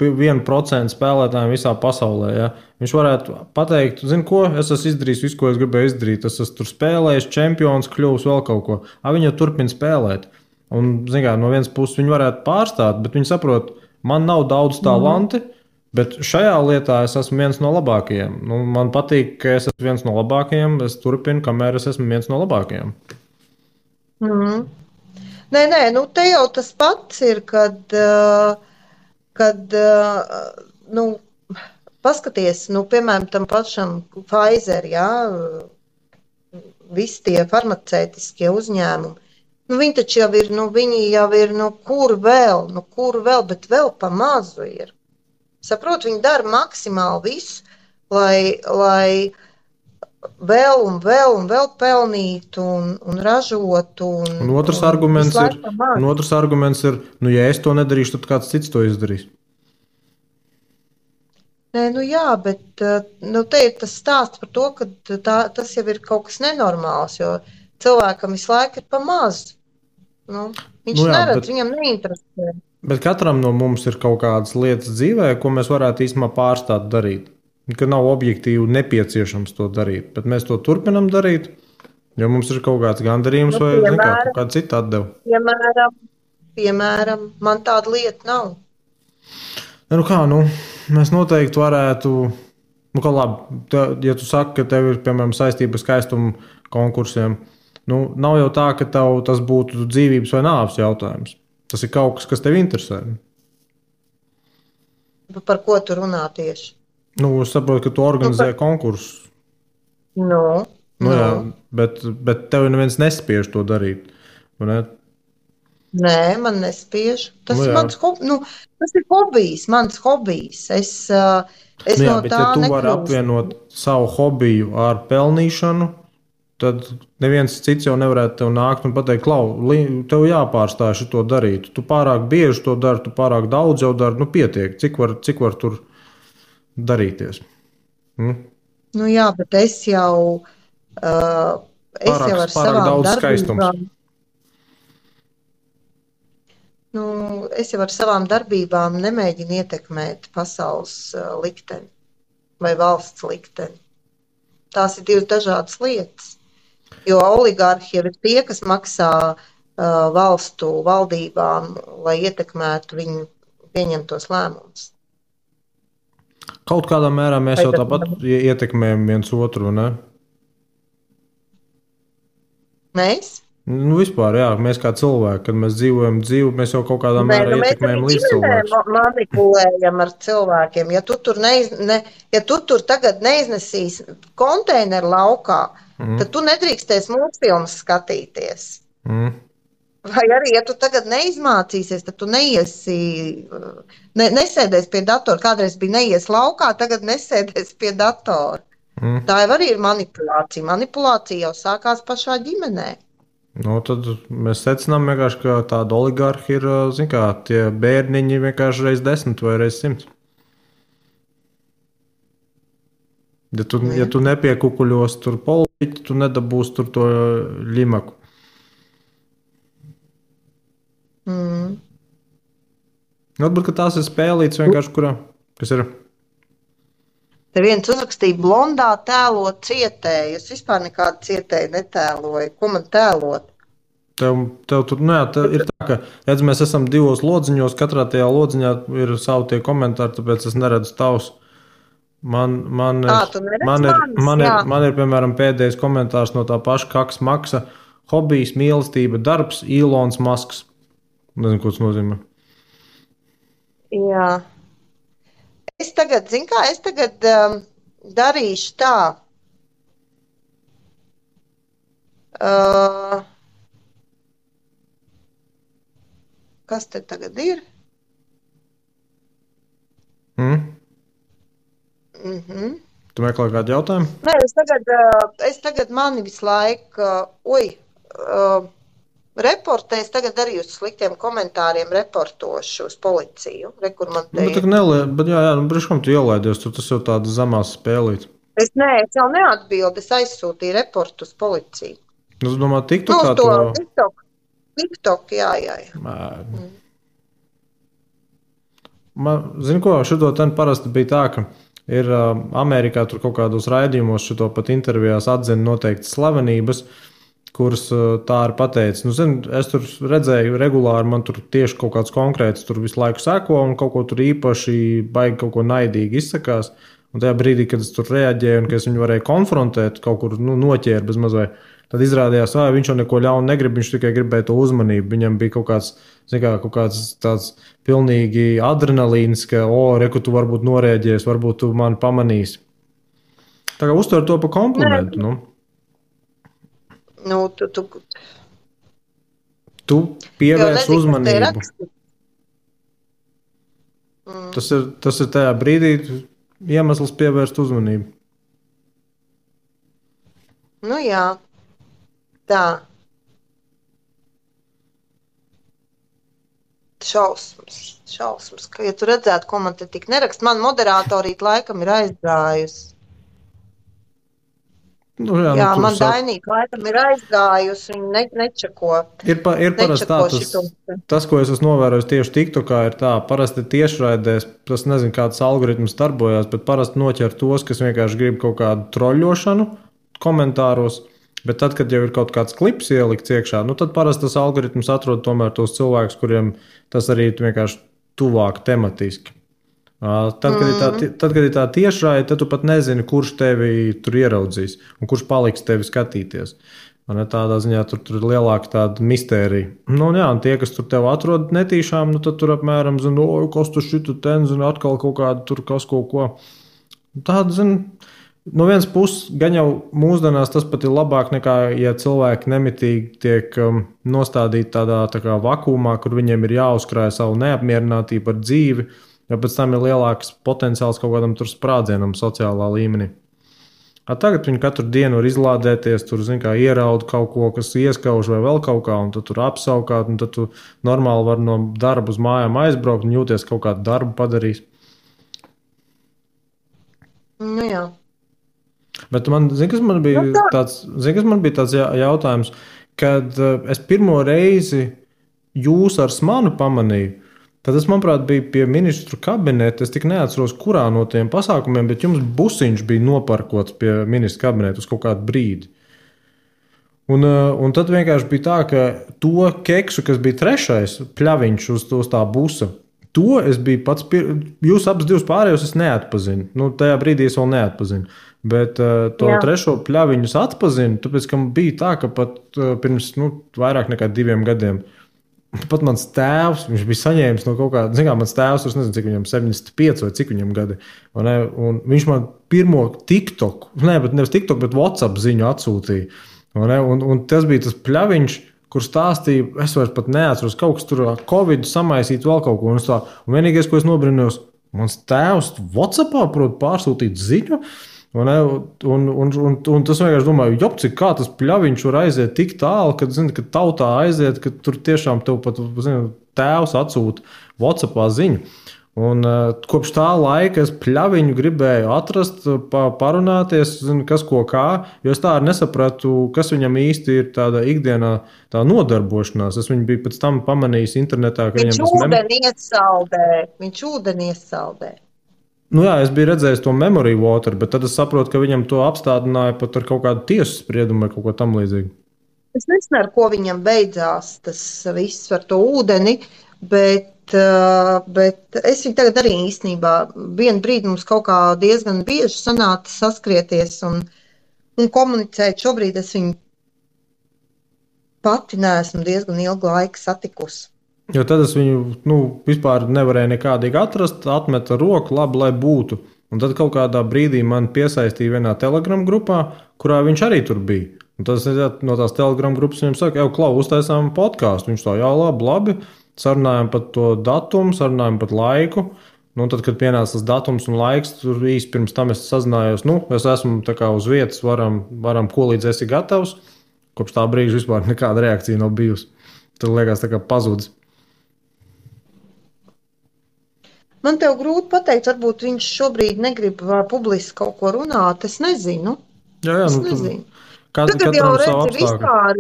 1% spēlētājiem visā pasaulē. Ja? Viņš varētu pateikt, zini ko, es esmu izdarījis visu, ko es gribēju izdarīt. Es esmu tur spēlējis, čempions, kļuvis vēl kaut ko. Viņi jau turpina spēlēt. Un, zini kā, no vienas puses viņi varētu pārstāt, bet viņi saprot, man nav daudz talanti, bet šajā lietā es esmu viens no labākajiem. Nu, man patīk, ka es esmu viens no labākajiem. Es turpinu, kamēr es esmu viens no labākajiem. Nē, nu te jau tas pats ir, kad nu, paskaties, nu, piemēram, tam pašam Pfizer, jā, visi tie farmaceitiskie uzņēmumi, nu, viņi taču jau ir, kur vēl, bet vēl pa mazu ir. Saprot, viņi dara maksimāli visu, lai vēl pelnītu un ražotu. Un otrs arguments ir, nu, ja es to nedarīšu, tad kāds cits to izdarīs. Nē, nu jā, bet te ir tas stāsts par to, ka tas jau ir kaut kas nenormāls, jo cilvēkam visu laiku ir pa maz. Nu, viņš neredz, viņam neinteresē. Bet katram no mums ir kaut kādas lietas dzīvē, ko mēs varētu īstenībā pārstāt darīt. Ka nav objektīvi nepieciešams to darīt, bet mēs to turpinam darīt, jo mums ir kaut kāds gandarījums vai kaut kāda cita atdeva. Piemēram, man tāda lieta nav. Mēs noteikti varētu, ja tu saki, ka tev ir, piemēram, saistība skaistumu konkursiem, nav jau tā, ka tev tas būtu dzīvības vai nāves jautājums. Tas ir kaut kas tev interesē. Par ko tu runā tieši? Es saprotu, ka tu organizē konkursus. Jā, bet tev neviens nespiež to darīt. Ne? Nē, man nespiež. Tas ir mans hobijs, mans hobijs. Es no bet tā ja tu nekļūstu. vari apvienot savu hobiju ar pelnīšanu, tad neviens cits jau nevarētu tev nākt un pateikt, Klau, tev jāpārstāj šito darīt. Tu pārāk bieži to dari, tu pārāk daudz jau dari, pietiek. Cik var tur darīties? Jā, bet es jau ar savām darbībām. Es jau ar savām darbībām nemēģinu ietekmēt pasaules likteni vai valsts likteni. Tās ir divas dažādas lietas. Jo oligarhi jau ir tie, kas maksā valstu valdībām, lai ietekmētu viņu pieņemtos lēmumus. Kaut kādā mērā mēs jau tāpat ietekmējam viens otru, ne? Mēs? Vispār, jā, mēs kā cilvēki, kad mēs dzīvojam dzīvi, mēs jau kaut kādā mērā ietekmējam līdzcilvēkus. Mēs manipulējam ar cilvēkiem. Ja tu tur tagad neiznesīsi konteineru laukā, tad tu nedrīkstēsi mūsfilmas skatīties. Vai arī, ja tu tagad neizmācīsies, tad tu nesēdēsi pie datora. Kādreiz bija neies laukā, tagad nesēdēsi pie datora. Tā jau arī ir manipulācija. Manipulācija jau sākās pašā ģimenē. Tad mēs secinām vienkārši, ka tāda oligarhi ir, tie bērniņi vienkārši reiz 10 vai reiz 100. Ja tu nepiekukuļos tur politiķi, tu nedabūsi tur to ļimaku. Varbūt, ka tās ir spēlītas vienkārši, kas ir. Te viens uzrakstīja blondā tēlot cietēju. Es vispār nekādu cietēju netēloju. Ko man tēlot? Tev tur, ir tā, ka, redz, mēs esam divos lodziņos, katrā tajā lodziņā ir savi tie komentāri, tāpēc es neredzu tavus. Man ir, piemēram, pēdējais komentārs no tā paša Kaks Maksa. Hobijs, mīlestība, darbs, Ilons Masks. Nezinu, ko tas nozīmē. Jā. Es tagad darīšu tā. Uh, kas te tagad ir? Tu meklē kādu jautājumu? Nē, es tagad mani visu laiku, reportēs tagad arī uz sliktiem komentāriem reportošu uz policiju. Rekur man te Bet jā, brīškam tu ielaidies, tas jau tāda zamās spēlīt. Es jau neatbildu, es aizsūtīju reportu uz policiju. Es domāju, TikTokā to... TikTok, jā. Zini ko, šito ten parasti bija tā, ka ir Amerikā tur kaut kādos raidījumos šito pat intervijās atzina noteikti slavenības, kuras tā ir pateicis. Nu, zini, es tur redzēju regulāri, man tur tieši kaut kāds konkrēts tur visu laiku seko un kaut ko tur īpaši baigi kaut ko naidīgi izsakās. Un tajā brīdī, kad es tur reaģēju un ka es viņu varēju konfrontēt, kaut kur noķēru bez mazliet, tad izrādījās, ka viņš jau neko ļaunu negrib, viņš tikai gribēja to uzmanību. Viņam bija kaut kāds tāds pilnīgi adrenalīns, ka, reku tu varbūt noreaģēsi, varbūt tu mani pamanīsi. Tā kā uztver to pa komplimentu, nu. Nu, tu pievērs uzmanību. Tas ir tajā brīdī iemesls pievērst uzmanību. Nu jā, tā. Šausmas, ka, ja tu redzētu, ko man te tik nerakst, man moderatorīt laikam ir aizgājusi. Nu, jā, man Dainīka laikam ir aizgājusi, viņa nečako. Ir parasti tā, tas, ko es esmu novērojis tieši TikTokā, ir tā, parasti tiešraidēs, tas nezinu, kāds algoritms darbojās, bet parasti noķer tos, kas vienkārši grib kaut kādu troļļošanu komentāros, bet tad, kad jau ir kaut kāds klips ielikts iekšā, nu tad parasti tas algoritms atrod tomēr tos cilvēkus, kuriem tas arī vienkārši tuvāk tematiski. Tad, kad ir tā tiešraide, tad tu pat nezini, kurš tevi tur ieraudzīs un kurš paliks tevi skatīties. Tādā ziņā tur ir lielāka tāda mistērija. Nu, jā, un tie, kas tur tev atrod netīšām, nu, tad tur apmēram zina, kas tur šitu ten, zina, atkal kaut kādu tur kas kaut ko. Tāda, zina, no vienas puses, gan jau mūsdienās tas pat ir labāk nekā, ja cilvēki nemitīgi tiek nostādīti tādā tā kā vakumā, kur viņiem ir jāuzkrāj savu neapmierinātību ar dzīvi, jo pēc tam ir lielāks potenciāls kaut kādam tur sprādzienam sociālā līmenī. Tagad viņi katru dienu var izlādēties, tur, zin kā, ieraud kaut ko, kas ieskauž vai vēl kaut kā, un tad tur apsaukāt, un tad tu normāli var no darba uz mājām aizbraukt un jūties kaut kādu darbu padarījis. Nu jā. Bet zini, kas man bija tāds jautājums, kad es pirmo reizi jūs ar smanu pamanīju, tad es, manuprāt, biju pie ministru kabineta. Es tik neatceros, kurā no tiem pasākumiem, bet jums busiņš bija noparkots pie ministru kabineta uz kaut kādu brīdi. Un tad vienkārši bija tā, ka to keksu, kas bija trešais pļaviņš uz tā busa, to es biju pats, jūs abas divas pārējos es neatpazinu. Nu, tajā brīdī es vēl neatpazinu. Bet to trešo pļaviņu es atpazinu, tāpēc, ka bija tā, ka pat pirms vairāk nekā 2 gadiem pat mans tēvs, viņš bija saņēmis no kaut kāda, zin kā, mans tēvs, es nezinu, cik viņam 75 vai cik viņam gadi, un viņš man pirmo TikTok, nevis TikTok, bet WhatsApp ziņu atsūtīja, un tas bija tas pļaviņš, kur stāstīja, es vairs pat neatceros, kaut kas tur Covid samaisīt vēl kaut ko, un vienīgais, ko es nobrinājos, mans tēvs WhatsAppā prot pārsūtīt ziņu, un tas vienkārši domāju, jopci, kā tas pļaviņš var aiziet tik tālu, kad tautā aiziet, ka tur tiešām tev pat tēvs atsūta WhatsAppā ziņu. Un kopš tā laika es pļaviņu gribēju atrast, parunāties, kas ko kā, jo es tā arī nesapratu, kas viņam īsti ir tāda ikdienā tā nodarbošanās. Es viņu biju pēc tam pamanījis internetā, ka Viņš ūdeni iesaldē. Nu jā, es biju redzējis to memory water, bet tad es saprotu, ka viņam to apstādināja pat ar kaut kādu tiesu spriedumu vai kaut ko tam līdzīgu. Es nezinu, ar ko viņam beidzās tas viss ar to ūdeni, bet es viņu tagad arī īstenībā vienu brīdi mums kaut kā diezgan bieži sanāca saskrieties un komunicēt. Šobrīd es viņu pati neesmu diezgan ilgu laiku satikusi. Jo tad es viņu vispār nevarēju nekādīgi atrast, atmeta roku, labi, lai būtu. Un tad kaut kādā brīdī man piesaistīja vienā Telegram grupā, kurā viņš arī tur bija. Un tas ir no tās Telegram grupas, viņam saka, jau klau, uztaisām podkāstu. Viņš tā, jā, labi, sarunājam par to datumu, sarunājam par laiku. Nu, tad, kad pienāca tas datums un laiks, tur īsti pirms tam es sazinājos, es esmu tā kā uz vietas, varam ko līdz esi gatavs. Kopš tā brīža vispār nekāda reakcija nav bijusi. Tad liekas tā kā pazudis. Man tev grūti pateikt, varbūt viņš šobrīd negrib publiski kaut ko runāt, es nezinu. Jā, es nezinu. Tagad jau redzi vispār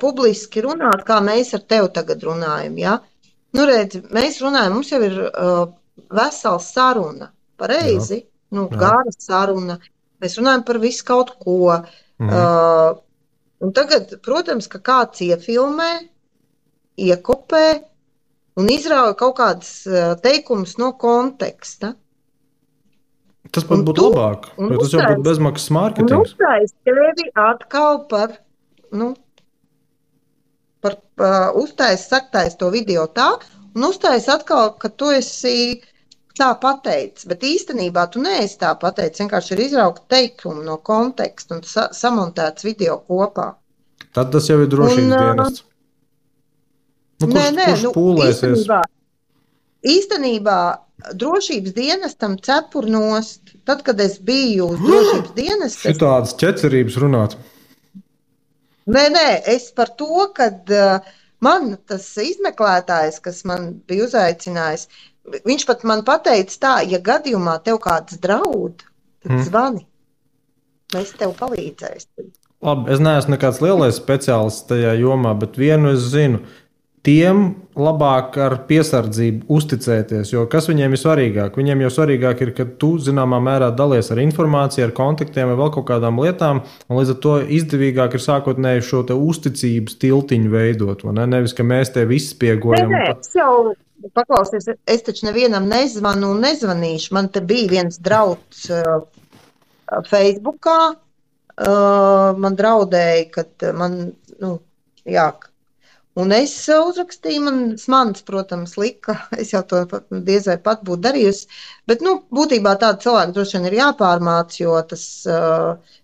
publiski runāt, kā mēs ar tevi tagad runājam, ja? Nu, redzi, mēs runājam, mums jau ir vesela saruna, pareizi, gara saruna. Mēs runājam par visu kaut ko. Un tagad, protams, ka kāds iefilmē, iekopē un izrauja kaut kādas teikumus no konteksta. Tas pat būtu labāk, jo tas jau būtu bezmaksas mārketings. Un uztais tevi atkal uztais saktais to video tā, un uztais atkal, ka tu esi tā pateicis, bet īstenībā tu neesi tā pateicis, vienkārši ir izraukt teikumu no konteksta un samontēts video kopā. Tad tas jau ir drošības dienests. Kurš pūlēsies? Īstenībā drošības dienestam cepur nost. Tad, kad es biju uz drošības dienestu... Šitādas ķecerības runāt. Nē, es par to, kad man tas izmeklētājs, kas man bija uzaicinājis, viņš pat man pateica tā, ja gadījumā tev kāds draud, tad zvani. Mēs tev palīdzēsim. Labi, es neesmu nekāds lielais speciālists tajā jomā, bet vienu es zinu. Tiem labāk ar piesardzību uzticēties, jo kas viņiem ir svarīgāk? Viņiem jau svarīgāk ir, ka tu zināmā mērā dalies ar informāciju, ar kontaktiem vai vēl kaut kādām lietām, un līdz ar to izdevīgāk ir sākotnēji šo te uzticības tiltiņu veidot, vai ne? Nevis, ka mēs te visi spiegojam. Nē, es jau paklausies, es taču nevienam nezvanu un nezvanīšu. Man te bija viens drauds Facebookā, man draudēja, kad man, un es uzrakstīju, mans, protams, lika, es jau to diez vai pat būtu darījusi, bet, būtībā tāda cilvēka droši vien ir jāpārmāc, jo tas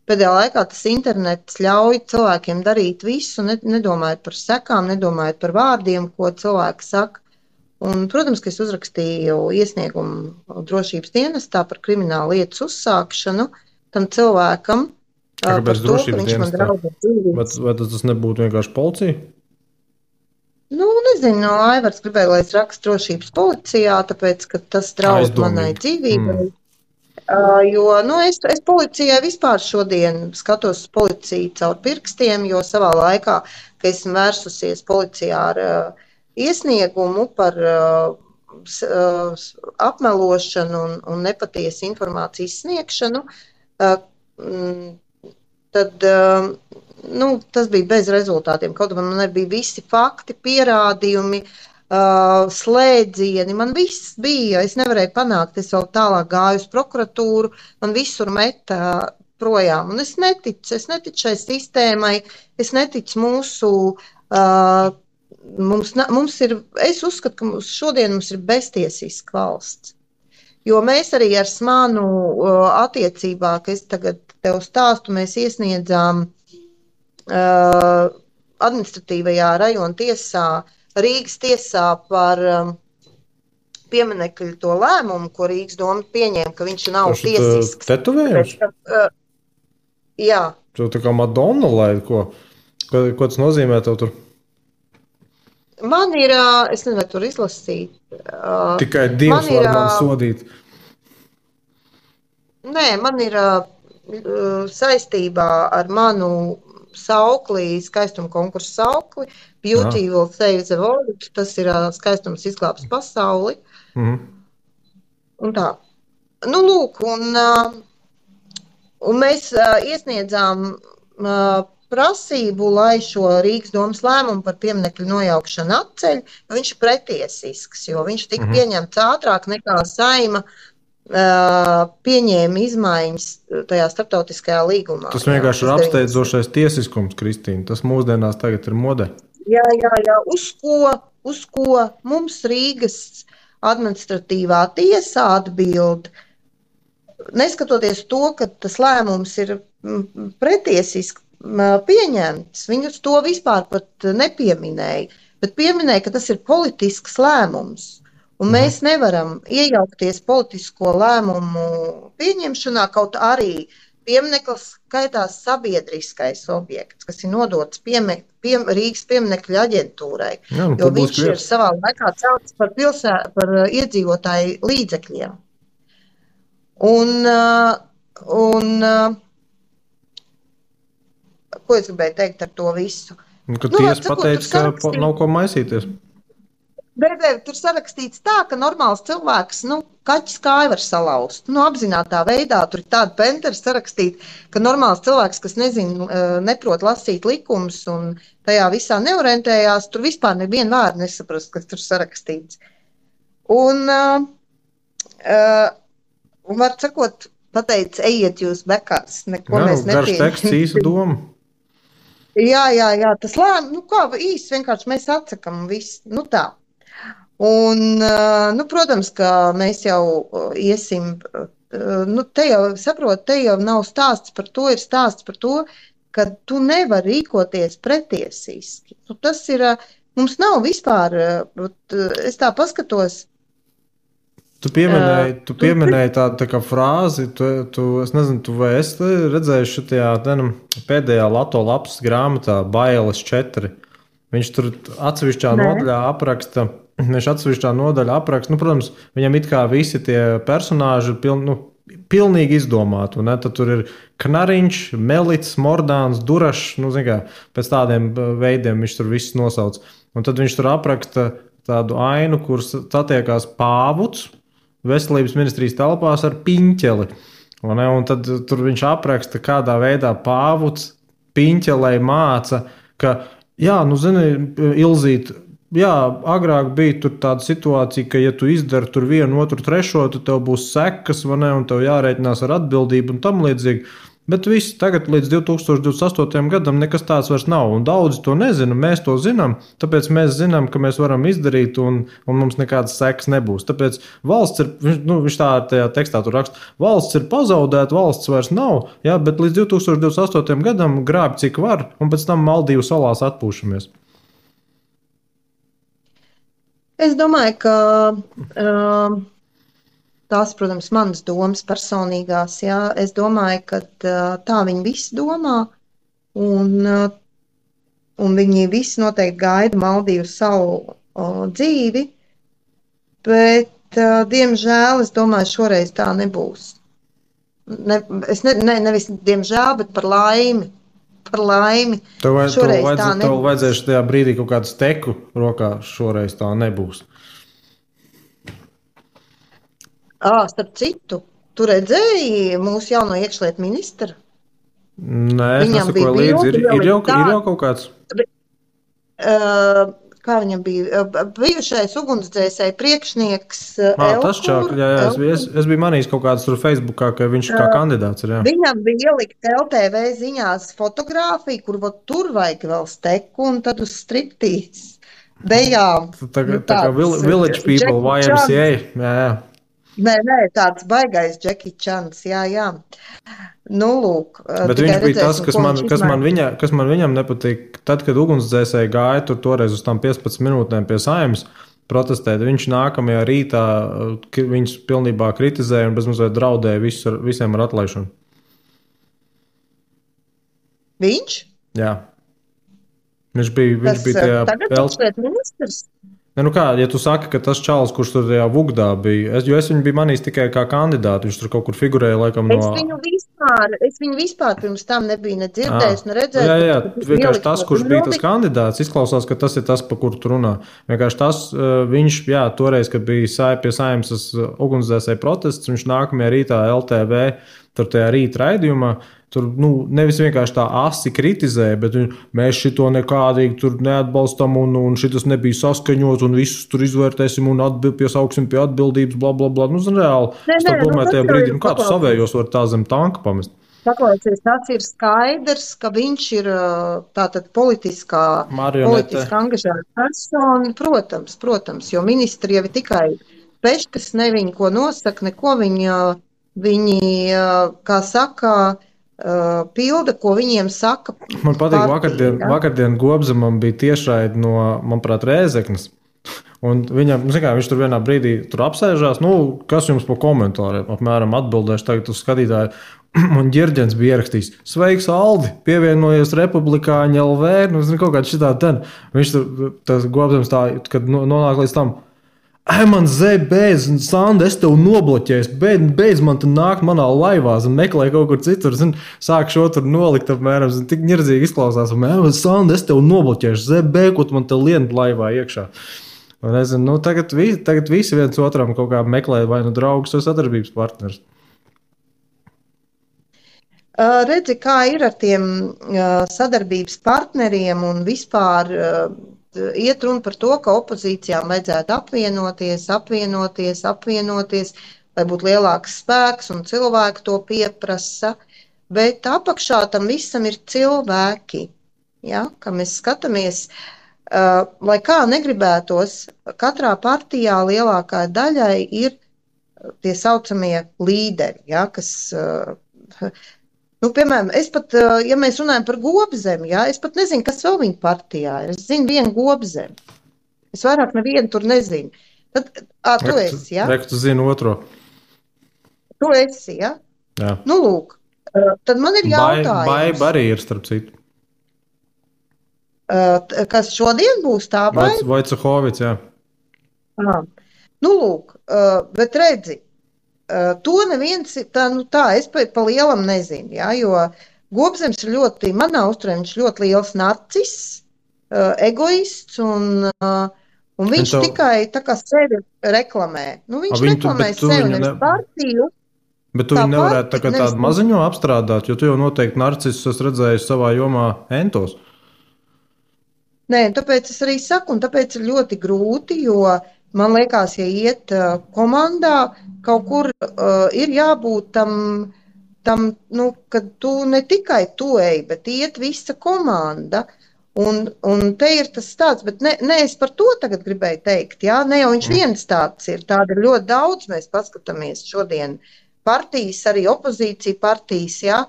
pēdējā laikā tas internets ļauj cilvēkiem darīt visu, nedomājot par sekām, nedomājot par vārdiem, ko cilvēki saka. Un, protams, ka es uzrakstīju iesniegumu drošības dienestā par kriminālu lietas uzsākšanu tam cilvēkam. Kāpēc drošības dienestā? Vai tas nebūtu vienkārši policija? Nezinu, Aivars gribēja, lai es rakstu drošības policijā, tāpēc, ka tas draud manai dzīvībai. Jo, es policijai vispār šodien skatos policiju caur pirkstiem, jo savā laikā, ka esmu vērsusies policijā ar iesniegumu par apmelošanu un nepatiesu informācijas sniegšanu, tad... tas bija bez rezultātiem. Kaut man nebija visi fakti, pierādījumi, slēdzieni. Man viss bija. Es nevarēju panākt. Es vēl tālāk gāju uz prokuratūru. Man visur meta projām. Un es neticu šai sistēmai. Es neticu mūsu... Es uzskatu, ka šodien mums ir beztiesiska valsts. Jo mēs arī ar Smanu attiecībā, ka es tagad tev stāstu, mēs iesniedzām administratīvajā rajona tiesā, Rīgas tiesā par pieminekļu to lēmumu, ko Rīgas doma pieņēma, ka viņš nav tiesisks. Tetovējums? Jā. Tu tā kā Madonna, lai ko tas nozīmē tev tur? Man ir, es nezinu, vai tur izlasīt. Tikai Dievs var man sodīt. Nē, man ir saistībā ar manu saukli, skaistuma konkursu saukli, Beauty will save the world, tas ir skaistums izglābs pasauli. Un tā. Lūk, un mēs iesniedzām prasību, lai šo Rīgas domas lēmumu par pieminekļu nojaukšanu atceļ, viņš ir pretiesisks, jo viņš tika pieņemts ātrāk nekā Saima pieņēma izmaiņas tajā starptautiskajā līgumā. Tas vienkārši ir apsteidzošais tiesiskums, Kristīna. Tas mūsdienās tagad ir modē. Jā. Uz ko mums Rīgas administratīvā tiesā atbild, neskatoties to, ka tas lēmums ir pretiesisks, pieņemts. Viņus to vispār pat nepieminēja, bet pieminēja, ka tas ir politisks lēmums. Un mēs nevaram iejaukties politisko lēmumu pieņemšanā, kaut arī piemineklis skaitās sabiedriskais objekts, kas ir nodots Rīgas pieminekļu aģentūrai, Jā, jo viņš ir savā laikā celts par iedzīvotāju līdzekļiem. Ko es gribēju teikt ar to visu? Kad tiesa pateica, ka nav ko maisīties. Tur sarakstīts tā, ka normāls cilvēks, kaķis kāju var salauzt. Apzinātā veidā tur ir tāda pentera sarakstīt, ka normāls cilvēks, kas neprot lasīt likumus un tajā visā neorientējās, tur vispār nevienu vārdu nesaprast, kas tur sarakstīts. Un var sakot, pateica, ejiet jūs bekās, neko mēs nepieņemam. Garš teksts, īsa doma. Jā, tas īsti vienkārši mēs atsakam visu, tā. Un, protams, ka mēs jau iesim, te jau nav stāsts par to, ir stāsts par to, ka tu nevari rīkoties pretiesiski. Tas ir, mums nav vispār, es tā paskatos. Tu pieminēji tādu tā kā frāzi, es nezinu, tu vai esi redzējuši šajā pēdējā Lato lapas grāmatā Bailes 4. Viņš tur atsevišķā nodaļā apraksta, protams, viņam it kā visi tie personāži ir pilnīgi izdomāti, un tad tur ir Knariņš, Melits, Mordāns, Durašs, pēc tādiem veidiem viņš tur visus nosauc. Un tad viņš tur apraksta tādu ainu, kur satiekās pāvuts veselības ministrijas telpās ar piņķeli. Un tad tur viņš apraksta, kādā veidā pāvuts piņķelei māca, ka, Ilzīt, agrāk bija tur tāda situācija, ka, ja tu izdari tur vienu, otru, trešo, tad tev būs sekas, un tev jārēķinās ar atbildību un tam līdzīgi. Bet viss tagad līdz 2028. gadam nekas tāds vairs nav, un daudzi to nezina, mēs to zinām, tāpēc mēs zinām, ka mēs varam izdarīt, un mums nekādas sekas nebūs. Tāpēc valsts ir, viņš tā tajā tekstā tur raksta, valsts ir pazaudēta, valsts vairs nav, bet līdz 2028. gadam grāb cik var, un pēc tam Maldīvu salās atpūšamies. Es domāju, ka tās, protams, manas domas personīgās, es domāju, ka tā viņi visi domā, un viņi visi noteikti gaida Maldīvu salu dzīvi, bet, diemžēl, es domāju, šoreiz tā nebūs. Nevis diemžēl, bet par laimi. Tev vajadzēs tajā brīdī kaut kādu steku rokā, šoreiz tā nebūs. Starp citu, tu redzēji mūsu jauno iekšlietu ministru? Nē, es nesakoju līdzi. Ir jau kaut kāds? Kā viņam bija? Bijušais ugunsdzēsēju priekšnieks Elkur. Tas čāk, es biju manījis kaut kāds tur Facebookā, ka viņš kā kandidāts ir, jā. Viņam bija ielikt LTV ziņās fotogrāfiju, kur tur vajag vēl steku un tad uz striptīs. Bejām. Tā kā Village People, YMCA, jā. Nē, tāds baigais Jackie Chans, jā. Lūk. Bet viņš bija tas, kas man viņam nepatīk. Tad, kad ugunsdzēsēji gāja tur toreiz uz tām 15 minūtēm pie Saeimas protestēt, viņš nākamajā rītā viņus pilnībā kritizēja un bezmazliet draudēja visiem ar atlaišanu. Viņš? Jā. Viņš bija tajā... Tagad iekšlietu ministrs? Ja tu saki, ka tas čalis, kurš tur tajā Vugdā bija, jo es viņu biju manījis tikai kā kandidātu, viņš tur kaut kur figurēja laikam no... Es viņu vispār pirms tam nebiju ne dzirdējis, ne redzējis. Jā, vienkārši tas, kurš bija tas kandidāts, izklausās, ka tas ir tas, pa kuru tu runā. Vienkārši tas, viņš, toreiz, kad bija pie Saeimas ugunsdzēsēju protests, viņš nākamajā rītā LTV, tur tajā rīta raidījumā, tur nevis vienkārši tā asi kritizēja, bet mēs šito nekādīgi tur neatbalstam un šitas nebija saskaņots un visus tur izvērtēsim un piesauksim pie atbildības, blablabla. Reāli, es tā domāju tajā brīdī, kā tu savējos var tā zem tanka pamest? Paklausies, tas ir skaidrs, ka viņš ir tātad politiski angažēta persona, protams, jo ministri jau ir tikai peškas, ne viņi ko nosaka, neko viņi, kā saka, pilda, ko viņiem saka. Man patīk, partija, vakardien Gobzemam bija tiešraidi no, manuprāt, Rēzeknes. Un viņam, viņš tur vienā brīdī apsēžās, kas jums pa komentāriem apmēram atbildēšu tagad uz skatītāju. Un Ģirģens bija ierakstījis, sveiks, Aldi, pievienojies Republikāņu LV, kaut kādā šitā ten. Viņš tas Gobzems tā, kad nonāk līdz tam, man beidz, Sanda, es tev nobloķēju, beidz man te nākt manā laivā, meklē kaut kur citur, sāk šo tur nolikt apmēram, tik ņirdzīgi izklausās, Sanda, es tev nobloķēšu, ko tu man te lien laivā iekšā. Un es zinu, tagad visi viens otram kaut kā meklē vai draugus vai sadarbības partners. Redzi, kā ir ar tiem sadarbības partneriem un vispār iet runa par to, ka opozīcijām vajadzētu apvienoties, lai būtu lielāks spēks un cilvēki to pieprasa, bet apakšā tam visam ir cilvēki, ja, ka mēs skatāmies, lai kā negribētos, katrā partijā lielākā daļai ir tie saucamie līderi, ja, kas... piemēram, es pat, ja mēs runājam par Gobzemi, ja, es pat nezinu, kas vēl viņa partijā ir. Es zinu vienu Gobzemi. Es vairāk nevienu tur nezinu. Tad, tu esi, ja? Tu zini otro. Tu esi, ja? Jā. Lūk, tad man ir jautājums. Baiba arī ir, starp citu. Kas šodien būs tā Baiba? Vojcehovits, jā. Lūk, bet redzi, to neviens, es pa lielam nezinu, ja, jo Gobzems ir ļoti, manā uzturē, viņš ļoti liels narcis, egoists, un viņš tikai tā kā sevi reklamē. Viņš reklamē sevi, nevis partiju. Bet tu viņu nevarētu tādu maziņo apstrādāt, jo tu jau noteikti narcisus esi redzējis savā jomā entos. Nē, tāpēc es arī saku, un tāpēc ir ļoti grūti, jo man liekas, ja iet komandā, kaut kur ir jābūt tam kad tu ne tikai tu ej, bet iet visa komanda. Un te ir tas tāds, bet ne es par to tagad gribēju teikt, jā, ne jau viņš viens tāds ir, tāda ir ļoti daudz, mēs paskatāmies šodien partijas, arī opozīcija partijas, jā.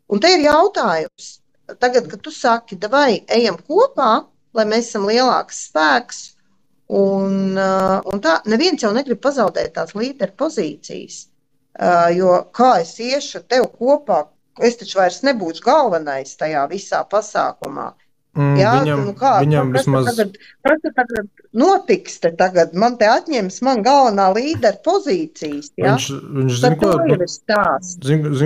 Un te ir jautājums, tagad, kad tu saki, vai ejam kopā, lai mēs esam lielāks spēks, un tā, neviens jau negrib pazaudēt tās līderu pozīcijas, jo kā es iešu tev kopā, es taču vairs nebūšu galvenais tajā visā pasākumā. Jā, viņam vismaz... Kas tagad notiks te tagad? Man te atņems man galvenā līderu pozīcijas, jā? Viņš zin,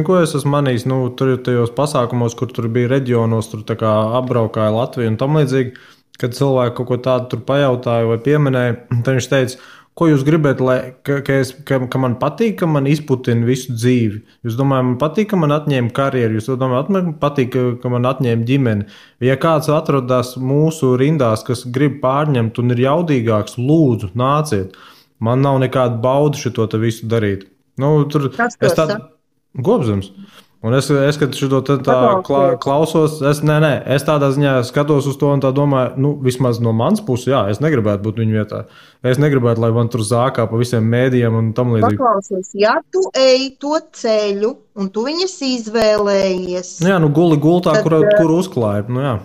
ko es esmu manījis, tur tajos pasākumos, kur tur bija reģionos, tur tā kā apbraukāja Latviju un tam līdzīgi, kad cilvēki kaut ko tādu tur pajautāja vai pieminēja, tad viņš teica, ko jūs gribat, ka man patīk, ka man izputina visu dzīvi? Jūs domājat, man patīk, ka man atņēma karjeru? Jūs domājat, man patīk, ka man atņēma ģimeni? Ja kāds atrodas mūsu rindās, kas grib pārņemt un ir jaudīgāks, lūdzu, nāciet. Man nav nekāda bauda šito te visu darīt. Es tādu Gobzems. Un es kad šito tā klausos, es tādā ziņā skatos uz to un tā domāju, vismaz no manas puses, jā, es negribētu būt viņu vietā. Es negribētu, lai man tur zākā pa visiem mēdījiem un tam līdzīgi. Paklausies, ja tu ej to ceļu un tu viņas izvēlējies. Jā, guli gultā, kur uzklāja, jā.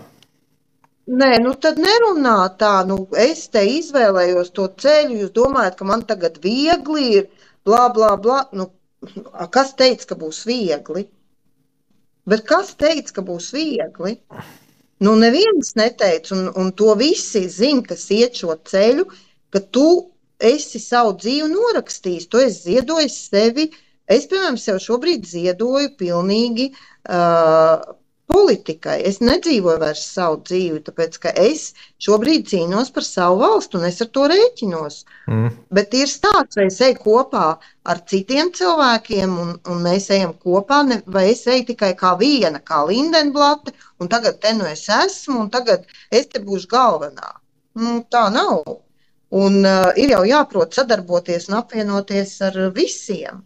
Nē, tad nerunā tā, es te izvēlējos to ceļu, jūs domājat, ka man tagad viegli ir, blā, blā, blā, kas teica, ka būs viegli? Bet kas teica, ka būs viegli? Neviens neteica, un to visi zina, kas iet šo ceļu, ka tu esi savu dzīvi norakstījis, tu esi ziedojis sevi. Es, piemēram, sev šobrīd ziedoju pilnīgi politikai. Es nedzīvoju vairs savu dzīvi, tāpēc, ka es šobrīd cīnos par savu valstu, un es ar to rēķinos. Bet ir stāsts, vai es eju kopā ar citiem cilvēkiem, un mēs ejam kopā, vai es eju tikai kā viena, kā Lindenblate, un tagad te es esmu, un tagad es te būšu galvenā. Tā nav. Un ir jau jāprot sadarboties un apvienoties ar visiem.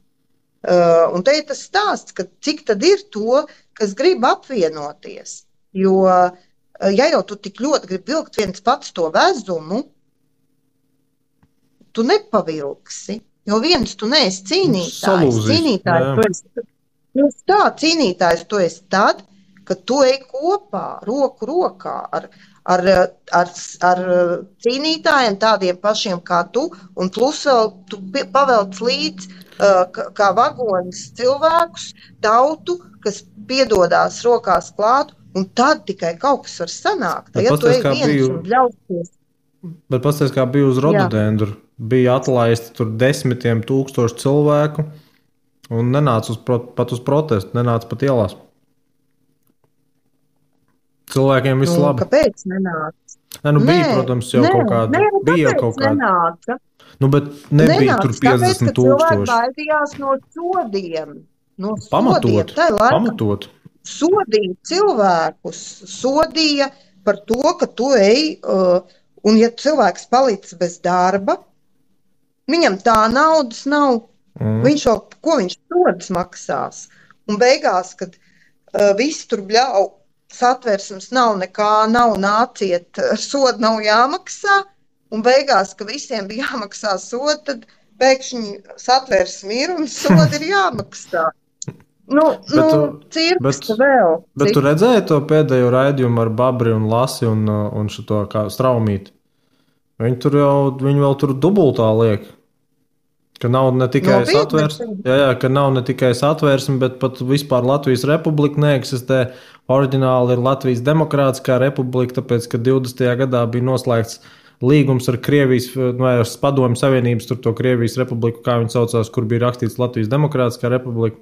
Un te ir tas stāsts, ka cik tad ir to, kas grib apvienoties. Jo, ja jau tu tik ļoti gribi vilkt viens pats to vezumu, tu nepavilksi. Jo viens tu neesi cīnītājs. Tieši tā, cīnītājs tu esi tad, kad tu ej kopā, roku rokā ar, ar cīnītājiem, tādiem pašiem kā tu, un plus vēl tu pavelc līdz kā vagonis cilvēkus, tautu, kas piedodās rokās klāt, un tad tikai kaut kas var sanākt. Ja tu ej viens un bļausties. Bet pasties, kā bija uz rododendru, bija atlaisti tur desmitiem tūkstoši cilvēku, un nenāca pat uz protestu, nenāca pat ielās. Cilvēkiem viss labi. Kāpēc nenāca? Bija, protams, jau kaut kāda. Bija kaut kāda. Nenāca. Bet nebija tur 50 tūkstoši. Cilvēki baidījās no sodiem. Pamatot. Sodīja cilvēkus. Sodīja par to, ka tu ej, un ja cilvēks palicis bez darba, viņam tā naudas nav. Viņš jau, ko viņš sodas maksās? Un beigās, kad visi tur bļauj, satversmes nav nekā, nav nāciet, soda nav jāmaksā, un beigās, ka visiem bija jāmaksā soda, tad pēkšņi satversme ir un soda ir jāmaksā. Cirks vēl. Bet tu redzēji to pēdējo raidījumu ar Babri un Lasi un šito kā Straumīti? Viņi vēl tur dubultā liek. Ka nav ne tikai satversme, ka nav ne tikai satversme, bet pat vispār Latvijas republika neeksistē. Oriģināli ir Latvijas Demokrātiskā republika, tāpēc, ka 20. gadā bija noslēgts līgums ar Krievijas, vai ar Padomju Savienības, tur to Krievijas republiku, kā viņi saucās, kur bija rakstīts Latvijas Demokrātiskā republika.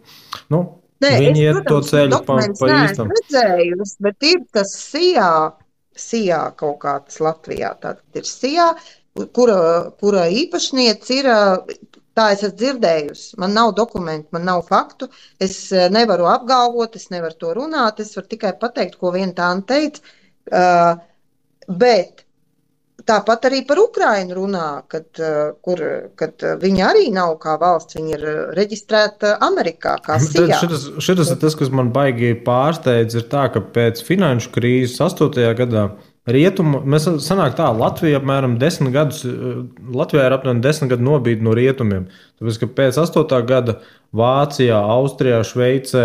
Viņi iet to ceļu pa īstam. Redzējusi, bet ir tas SIA kaut kāds Latvijā, tātad ir SIA, kura īpašniece ir. Tā es esmu dzirdējusi. Man nav dokumentu, man nav faktu. Es nevaru apgalvot, es nevaru to runāt. Es varu tikai pateikt, ko viena tāna teica. Bet tāpat arī par Ukrainu runā, kad viņi arī nav kā valsts, viņi ir reģistrēta Amerikā kā SIA. Šitas ir tas, kas man baigi pārsteidz, ir tā, ka pēc finanšu krīzes 8. gadā mēs sanāk tā, Latvijā apmēram 10 gadus, Latvijā ir apmēram 10 gadu nobīde no rietumiem. Tāpēc, ka pēc 8. gada Vācijā, Austrijā, Šveicē,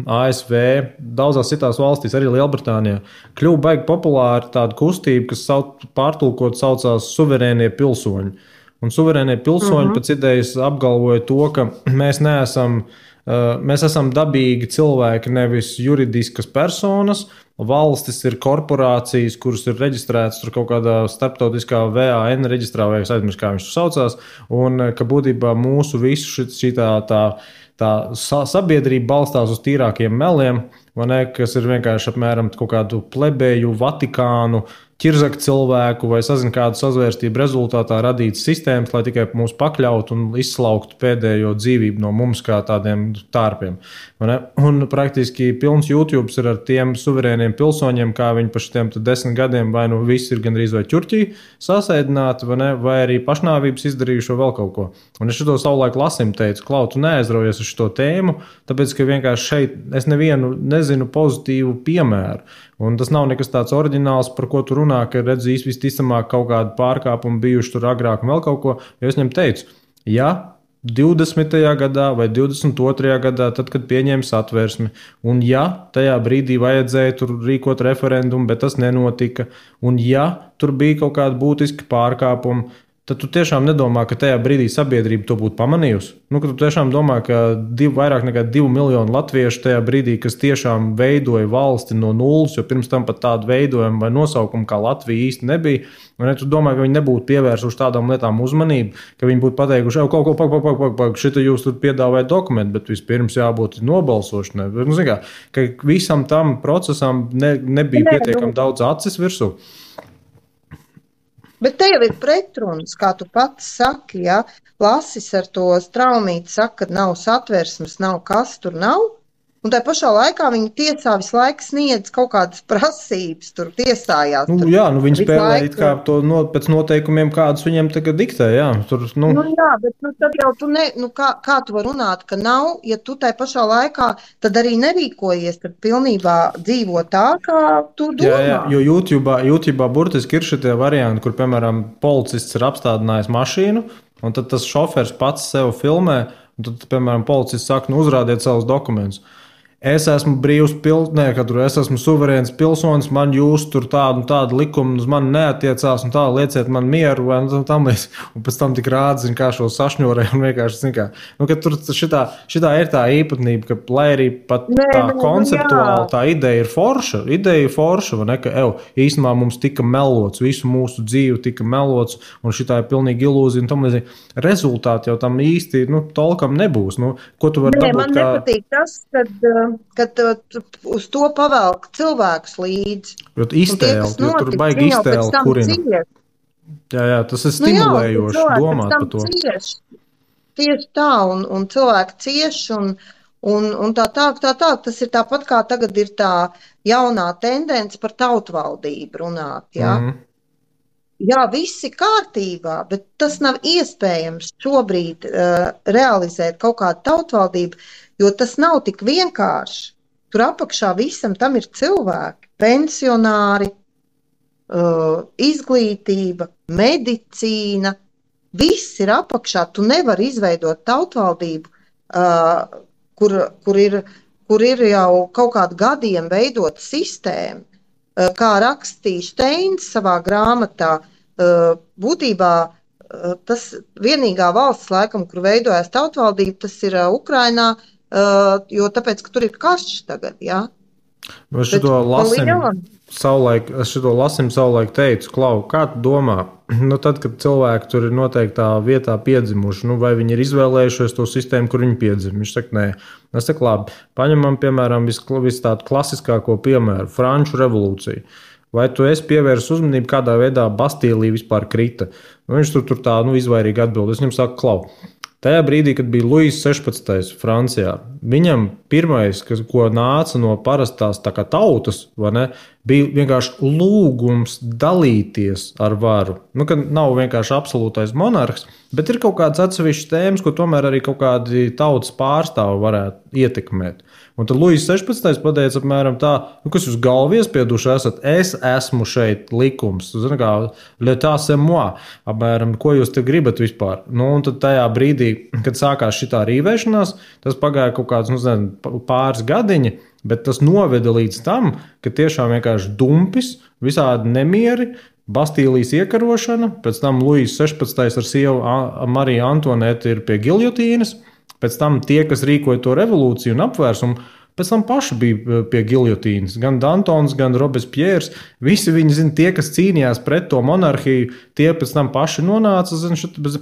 ASV, daudzās citās valstīs, arī Lielbritānijā, kļuva baigi populāra tāda kustība, kas pārtulkot saucās suverēnie pilsoņi. Un suverēnie pilsoņi pēc idejas apgalvoja to, ka mēs esam dabīgi cilvēki, nevis juridiskas personas. Valstis ir korporācijas, kuras ir reģistrētas tur kaut kādā starptautiskā VAN reģistrā, vai es aizmirsu, kā viņš tur saucās, un ka būtībā mūsu visu šī tā sabiedrība balstās uz tīrākiem meliem, kas ir vienkārši apmēram kaut kādu plebeju, Vatikānu, ķirzaka cilvēku vai sazinu kādu sazvērstību rezultātā radītas sistēmas, lai tikai mūs pakļautu un izslauktu pēdējo dzīvību no mums kā tādiem tārpiem. Un praktiski pilns YouTube ir ar tiem suverēniem pilsoņiem, kā viņi pa šitiem 10 gadiem vai nu visi ir gandrīz vai ķurķī sasēdināti, vai arī pašnāvības izdarījuši vēl kaut ko. Un es šito savulaik Lasim teicu, Klau, tu neaizraujies uz šito tēmu, tāpēc, ka vienkārši šeit es nevienu nezinu pozitīvu piemēru. Un tas nav nekas tāds oriģināls, par ko tu runā, ka redz visticamāk kaut kādu pārkāpumu bijuši tur agrāk un vēl kaut ko. Jo es viņam teicu, ja 20. gadā vai 22. gadā, tad, kad pieņēma satversmi, un ja tajā brīdī vajadzēja tur rīkot referendumu, bet tas nenotika, un ja tur bija kaut kādi būtiski pārkāpumi, tad tu tiešām nedomā, ka tajā brīdī sabiedrība to būtu pamanījusi. Ka tu tiešām domā, ka vairāk nekā 2 miljoni latviešu tajā brīdī, kas tiešām veidoja valsti no nulles, jo pirms tam pat tādu veidojumu vai nosaukumu kā Latvija īsti nebija. Un tu domā, ka viņi nebūtu pievērsuši tādām lietām uzmanību, ka viņi būtu pateikuši, šita jūs tur piedāvājat dokumentu, bet vispirms jābūt nobalsošanai. Ka visam tam procesam nebija pietiekami daudz acis virsū. Bet te jau ir pretrunas, kā tu pats saki, ja Lasis ar to Straumīti saka, ka nav satversmes, nav kas tur nav. Un tā pašā laikā viņi tiesā visu laiku sniedz kaut kādas prasības, tur tiesājās. Viņi spēlē kā to pēc noteikumiem, kādus viņiem tagad diktē, jā. Bet tad jau tu kā tu var runāt, ka nav, ja tu tā pašā laikā tad arī nerīkojies, tad pilnībā dzīvo tā, kā tu domā. Jā, jo YouTube'ā burtiski ir šitie varianti, kur, piemēram, policists ir apstādinājis mašīnu, un tad tas šofers pats sev filmē, Un tad, piemēram, policists saka, nu, uzrādiet savus dokumentus. Es esmu brīvs es esmu suverēns pilsonis, man jūs tur tādu likumu uz mani neatiecās, un tā lieciet man mieru, vai tam līdz. Un pēc tam tik rāda, kā šo sašņorē, un vienkārši, ka tur šitā ir tā īpatnība, ka, lai arī pat tā konceptuāli tā ideja ir forša, vai ne, ka, īstenībā mums tika melots, visu mūsu dzīvi tika melots, un šitā ir pilnīgi ilūzija, un tam līdz rezultāti jau tam īsti, tolkam nebūs. Ko tu vari dabūt? Man nepatīk tas, kad uz to pavelk cilvēkus līdzi. Iztēli, jo tur baigi iztēli kurina. Jā, tas ir stimulējoši domāt par to. Tieši tā, un cilvēki cieši, un tā. Tas ir tāpat kā tagad ir tā jaunā tendence par tautvaldību runāt, jā. Jā, viss ir kārtībā, bet tas nav iespējams šobrīd realizēt kaut kādu tautvaldību, jo tas nav tik vienkārši. Tur apakšā visam tam ir cilvēki, pensionāri, izglītība, medicīna. Viss ir apakšā. Tu nevari izveidot tautvaldību, kur ir jau kaut kādu gadiem veidota sistēma. Kā rakstīja Steins savā grāmatā, būtībā tas vienīgā valsts laikam, kur veidojas tautvaldība, tas ir Ukrainā, jo tāpēc, ka tur ir karš tagad, jā. Es šito lasim savulaik teicu, Klau, kā tu domā? Tad, kad cilvēki tur ir noteiktā vietā piedzimuši, vai viņi ir izvēlējušies to sistēmu, kur viņi piedzim? Viņš saka, nē. Es saku, labi, paņemam, piemēram, visu tādu klasiskāko piemēru, Franču revolūciju. Vai tu esi pievērsis uzmanību, kādā veidā Bastīlija vispār krita? Viņš tur tā izvairīgi atbild. Es viņam saku, Klau, tajā brīdī, kad bija Luis 16. Francijā, viņam pirmais, ko nāca no parastās tautas, bija vienkārši lūgums dalīties ar varu. Ka nav vienkārši absolūtais monarhs, bet ir kaut kāds atsevišķs tēmas, ko tomēr arī kaut kādi tautas pārstāvi varētu ietekmēt. Un tad Luis 16. pateica apmēram tā, kas jūs galvu iespieduši esat, es esmu šeit likums, zini kā, l'état c'est moi, apmēram, ko jūs te gribat vispār. Un tad tajā brīdī, kad sākās šitā rīvēšanās, tas pagāja kaut kāds, pāris gadiņi, bet tas noveda līdz tam, ka tiešām vienkārši dumpis, visādi nemieri, Bastīlijas iekarošana, pēc tam Luis 16. ar sievu Mariju Antonētu ir pie giljotīnas, pēc tam tie, kas rīkoja to revolūciju un apvērsumu, pēc tam paši bija pie giljotīnas. Gan Dantons, gan Robespierres, visi viņi, tie, kas cīnījās pret to monarhiju, tie pēc tam paši nonāca,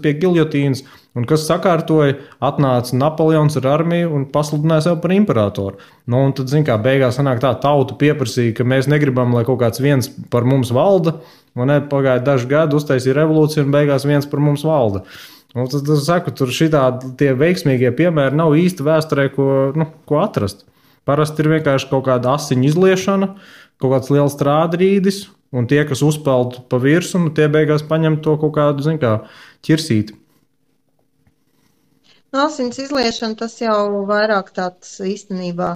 pie giljotīnas, un kas sakārtoja, atnāca Napoleons ar armiju un pasludināja sev par imperatoru. Un tad, beigās sanāk tā, tauta pieprasīja, ka mēs negribam, lai kaut kāds viens par mums valda, un pagāja daži gadi, uztaisīja revolūciju, un beigās viens par mums valda. Tad es saku, tur tie veiksmīgie piemēri nav īsti vēsturē, ko atrast. Parasti ir vienkārši kaut kāda asiņu izliešana, kaut kāds liels strādrīdis, un tie, kas uzpeld pa virsumu, tie beigās paņem to kaut kādu, ķirsīti. Asiņas izliešana, tas jau vairāk tāds īstenībā,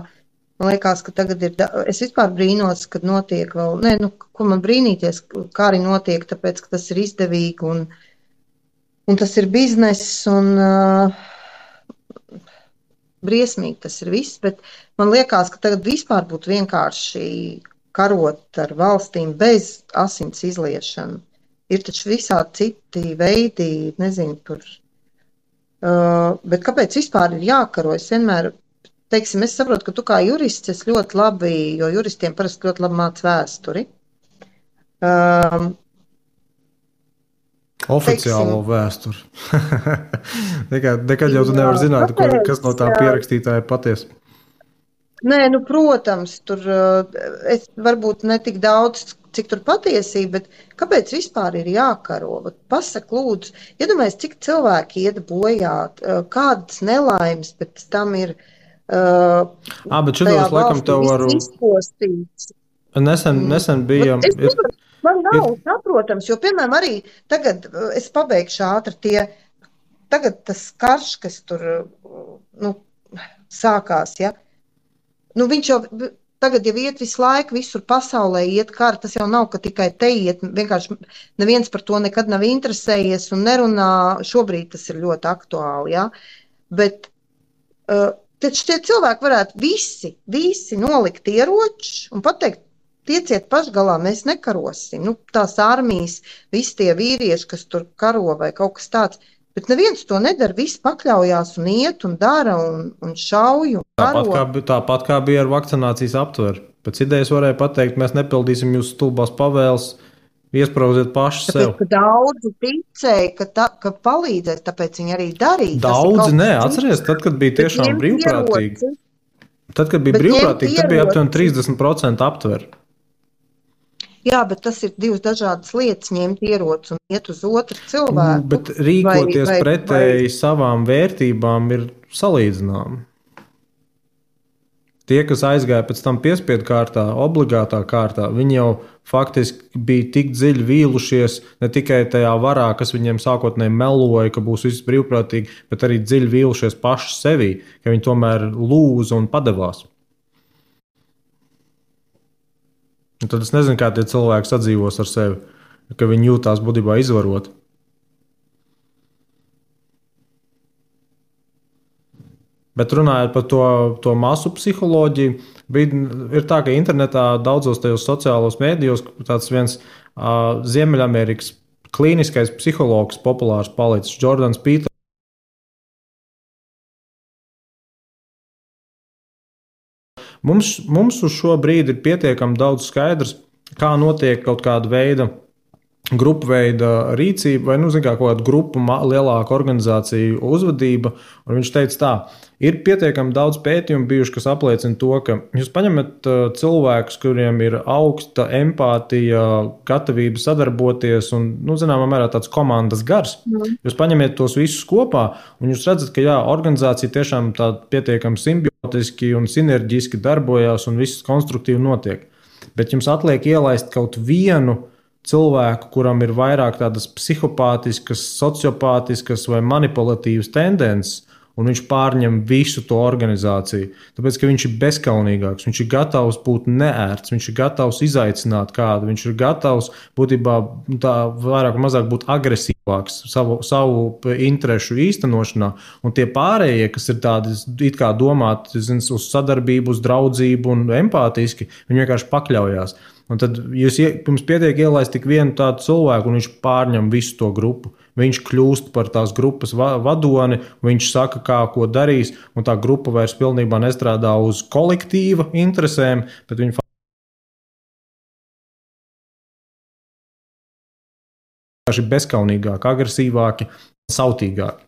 man liekas, ka tagad ir, es vispār brīnos, kad notiek vēl, ko man brīnīties, kā arī notiek, tāpēc, ka tas ir izdevīgi, un tas ir bizness, un briesmīgi tas ir viss, bet man liekas, ka tagad vispār būtu vienkārši karot ar valstīm bez asins izliešanu. Ir taču visādi citi veidi, nezinu, tur. Bet kāpēc vispār ir jākaro? Es vienmēr, teiksim, es saprotu, ka tu kā jurists esi ļoti labi, jo juristiem parasti ļoti labi māc vēsturi. Oficiālo vēsturi. Nekad jau tu nevar zināt, kas no tā pierakstītāja patiesi. Nē, protams, tur es varbūt ne tik daudz, cik tur patiesība, bet kāpēc vispār ir jākaro? Pasak, lūdzu, iedomājies, cik cilvēki iet bojā, kādas nelaimes pēc tam ir bet šitos laikam tev varu izpostīts. Nesen bija... Man nav saprotams, jo, piemēram, arī tagad, es pabeigšu ātri, tagad tas karš, kas tur sākās, ja? Viņš jau tagad jau iet visu laiku, visur pasaulē iet kara, tas jau nav, ka tikai te iet, vienkārši neviens par to nekad nav interesējies un nerunā, šobrīd tas ir ļoti aktuāli, ja? Bet Tad šie cilvēki varētu visi nolikt ieročus un pateikt, tieciet pašgalā, mēs nekarosim. Nu, tās armijas, visi tie vīrieši, kas tur karo vai kaut kas tāds. Bet neviens to nedara, visi pakļaujās un iet un dara un šauj un karo. Tāpat kā bija ar vakcinācijas aptveru. Pēc idejas varēja pateikt, mēs nepildīsim jūsu stulbās pavēles, iespraudziet paši sev. Tāpēc, ka daudzi ticēja, ka palīdzēs, tāpēc viņi arī darīja. Daudzi nē, atceries, tad, kad bija tiešām brīvprātīgi. Tad, kad bija brīvprātīgi, tad bija aptuveni 30% aptver. Jā, bet tas ir divas dažādas lietas, ņemt ieroci un iet uz otru cilvēku. Bet rīkoties pretēji savām vērtībām ir salīdzināmi. Tie, kas aizgāja pēc tam piespiedu kārtā, obligātā kārtā, viņi jau faktiski bija tik dziļi vīlušies ne tikai tajā varā, kas viņiem sākotnēji meloja, ka būs viss brīvprātīgi, bet arī dziļi vīlušies paši sevī, ka viņi tomēr lūza un padevās. Un tad es nezinu, kā tie cilvēki sadzīvos ar sevi, ka viņi jūtās būtībā izvaroti. Bet runājot par to masu psiholoģiju, ir tā, ka internetā daudzos tajos sociālos mēdījos tāds viens Ziemeļamerikas klīniskais psihologs populārs palicis, Jordans Peters. Mums uz šo brīdi ir pietiekami daudz skaidrs, kā notiek kaut kāda veida, grupu veida rīcība vai, kaut kāda grupu lielāka organizācija uzvedība. Un viņš teica tā, ir pietiekami daudz pētījumu bijuši, kas apliecina to, ka jūs paņemat cilvēkus, kuriem ir augsta empātija, gatavība sadarboties un, zināmā mērā tāds komandas gars. Jūs paņemiet tos visus kopā un jūs redzat, ka jā, organizācija tiešām tā pietiekami simbiotiski un sinerģiski darbojās un viss konstruktīvi notiek. Bet jums atliek ielaist kaut vienu cilvēku, kuram ir vairāk tādas psihopātiskas, sociopātiskas vai manipulatīvas tendences, un viņš pārņem visu to organizāciju. Tāpēc, ka viņš ir bezkaunīgāks, viņš ir gatavs būt neērts, viņš ir gatavs izaicināt kādu, viņš ir gatavs būtībā tā vairāk vai mazāk būt agresīvāks savu interešu īstenošanā, un tie pārējie, kas ir tādi it kā domāti uz sadarbību, uz draudzību un empātiski, viņi vienkārši pakļaujās. Un tad jums pietiek ielaist tik vienu tādu cilvēku, un viņš pārņem visu to grupu. Viņš kļūst par tās grupas vadoni, viņš saka, kā ko darīs, un tā grupa vairs pilnībā nestrādā uz kolektīva interesēm, bet viņi vienkārši bezkaunīgāki, agresīvāki, sautīgāki.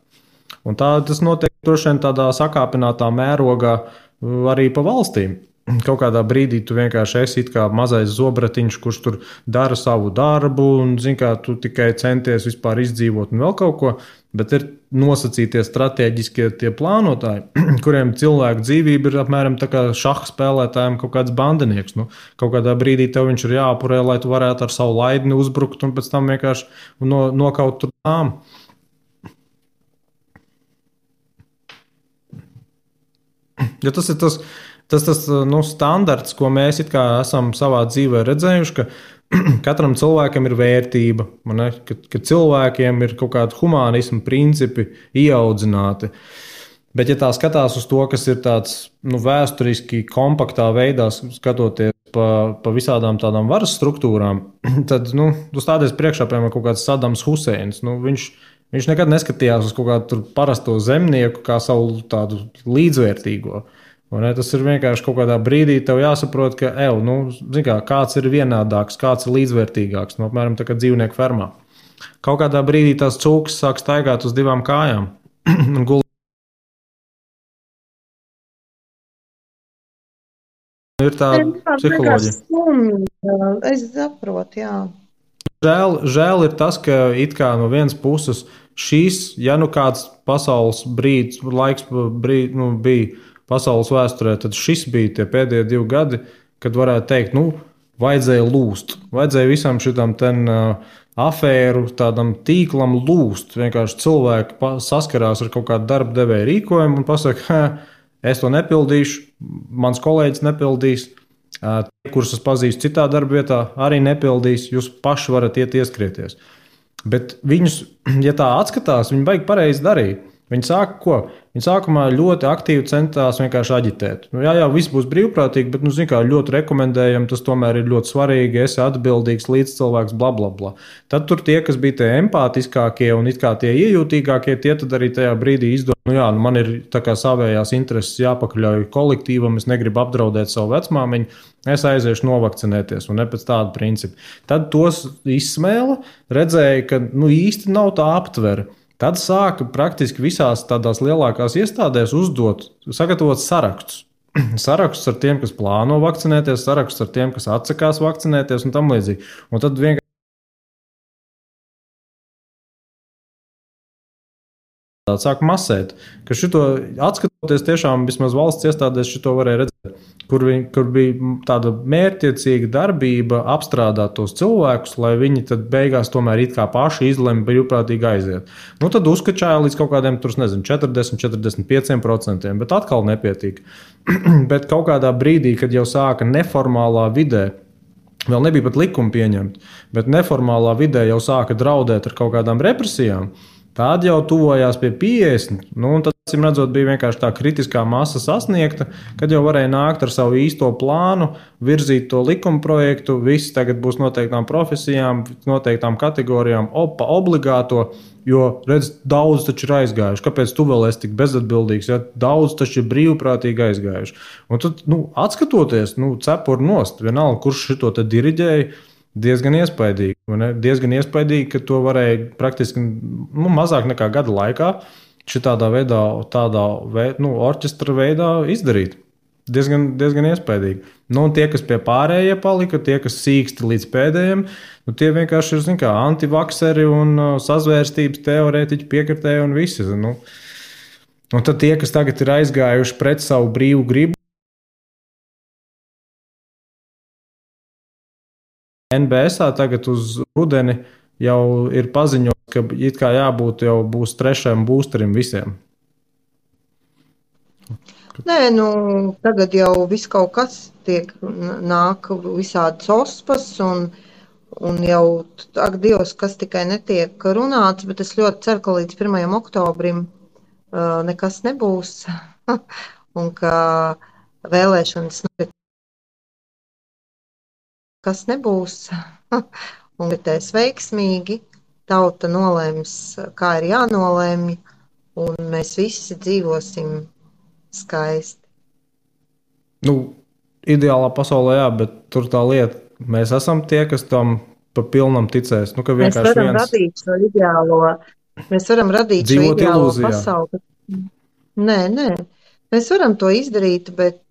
Un tas notiek droši vien tādā sakāpinātā mērogā arī pa valstīm. Kaut kādā brīdī tu vienkārši esi kā mazais zobratiņš, kurš tur dara savu darbu un, tu tikai centies vispār izdzīvot un vēl kaut ko, bet ir nosacītie stratēģiskie tie plānotāji, kuriem cilvēku dzīvība ir apmēram tā kā šaha spēlētājiem kaut kāds bandinieks. Kaut kādā brīdī tev viņš ir jāapurē, lai tu varētu ar savu laidni uzbrukt un pēc tam vienkārši nokaut tur tām. Ja tas ir tas standarts, ko mēs esam savā dzīvē redzējuši, ka katram cilvēkam ir vērtība, ka cilvēkiem ir kaut kādi humānismu principi ieaudzināti. Bet, ja tā skatās uz to, kas ir tāds vēsturiski kompaktā veidā, skatoties pa visādām tādām varas struktūrām, tad tu stādies priekšā, piemēram, kaut kāds Sadams Huseins. Viņš nekad neskatījās uz kaut kādu parasto zemnieku kā savu tādu līdzvērtīgo. Tas ir vienkārši kaut kādā brīdī tev jāsaprot, ka kāds ir vienādāks, kāds ir līdzvērtīgāks, apmēram tā kā dzīvnieku fermā. Kaut kādā brīdī tās cūkas sāk staigāt uz divām kājām un gulēt. Ir tā psiholoģija. Es saprotu, jā. Žēl ir tas, ka it kā no vienas puses šīs, ja kāds pasaules laiks bija pasaules vēsturē, tad šis bija tie pēdējie 2 gadi, kad varētu teikt, vajadzēja lūst. Vajadzēja visam šitam afēru, tādam tīklam lūst. Vienkārši cilvēki saskarās ar kaut kādu darba devēja rīkojumu un pasaka, es to nepildīšu, mans kolēģis nepildīs, kurus es pazīstu citā darba vietā, arī nepildīs, jūs paši varat iet ieskrieties. Bet viņus, ja tā atskatās, viņi baigi pareizi darīt. Viņi sāka ko? Viņi sākumā ļoti aktīvi centās vienkārši aģitēt. Nu, jā, viss būs brīvprātīgi, bet, nu, kā ļoti rekomendējam, tas tomēr ir ļoti svarīgi, esi atbildīgs līdzcilvēks, bla, bla, bla. Tad tur tie, kas bija tie empātiskākie un it kā tie iejūtīgākie, tie tad arī tajā brīdī izdomā, nu jā, nu man ir tā kā savējās intereses jāpakaļauj kolektīvam, es negribu apdraudēt savu vecmāmiņu, es aiziešu novakcinēties un ne pēc tāda principa. Tad tos izsmēla, redzēja, ka nu īsti nav tā aptvere. Tad sāka praktiski visās tādās lielākās iestādēs sagatavot sarakstus. Sarakstus ar tiem, kas plāno vakcinēties, sarakstus ar tiem, kas atsakās vakcinēties un tam līdzīgi. Un tad vienkārši sāk masēt, ka šito atskatoties tiešām vismaz valsts iestādēs šito varēja redzēt, kur bija tāda mērķtiecīga darbība apstrādāt tos cilvēkus, lai viņi tad beigās tomēr it kā paši izlemj brīvprātīgi aiziet. Nu tad uzkačāja līdz kaut kādiem, tur nezinu, 40-45%, bet atkal nepietiek. Bet kaut kādā brīdī, kad jau sāka neformālā vidē, vēl nebija pat likuma pieņemta, bet neformālā vidē jau sāka draudēt ar kaut kādām represijām, tad jau tuvojās pie 50. Nu, tad, acīm redzot, bija vienkārši tā kritiskā masa sasniegta, kad jau varēja nākt ar savu īsto plānu, virzīt to likuma projektu. Viss tagad būs noteiktām profesijām, noteiktām kategorijām, obligāto. Jo, redz, daudz taču ir aizgājuši. Kāpēc tu vēl esi tik bezatbildīgs? Ja? Daudz taču ir brīvprātīgi aizgājuši. Un tad, atskatoties, cepuri nost, vienalga, kurš šito te diriģēja. Diezgan iespaidīgi. Diezgan iespaidīgi, ka to varēja praktiski mazāk nekā gada laikā šitādā veidā, orķestra veidā izdarīt. Diezgan iespaidīgi. Nu, un tie, kas pie pārējie palika, tie, kas sīksti līdz pēdējiem, tie vienkārši ir antivakseri un sazvērstības teorētiķi, piekritēji un visi. Un tad tie, kas tagad ir aizgājuši pret savu brīvu gribu, NBSā tagad uz rudeni jau ir paziņots, ka it kā jābūt jau būs 3. boosterim visiem. Nē, tagad jau viss kaut kas nāk visādas ospas un jau, ak, Dievs, kas tikai netiek runāts, bet es ļoti ceru, ka līdz 1. oktobrim nekas nebūs un ka vēlēšanas kas nebūs un ritēs veiksmīgi. Tauta nolēms, kā ir jānolēmj, un mēs visi dzīvosim skaisti. Ideālā pasaulē, jā, bet tur tā lieta, mēs esam tie, kas tam pa pilnam ticēs. Mēs varam radīt šo ideālo, pasauli. Nē. Mēs varam to izdarīt, bet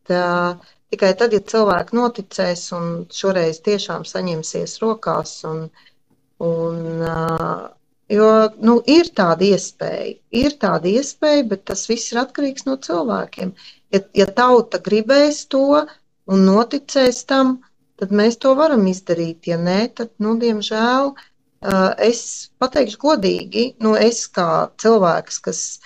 tikai tad, ja cilvēki noticēs un šoreiz tiešām saņemsies rokās. Jo ir tāda iespēja, bet tas viss ir atkarīgs no cilvēkiem. Ja tauta gribēs to un noticēs tam, tad mēs to varam izdarīt. Ja nē, tad, diemžēl, es pateikšu godīgi, es kā cilvēks, kas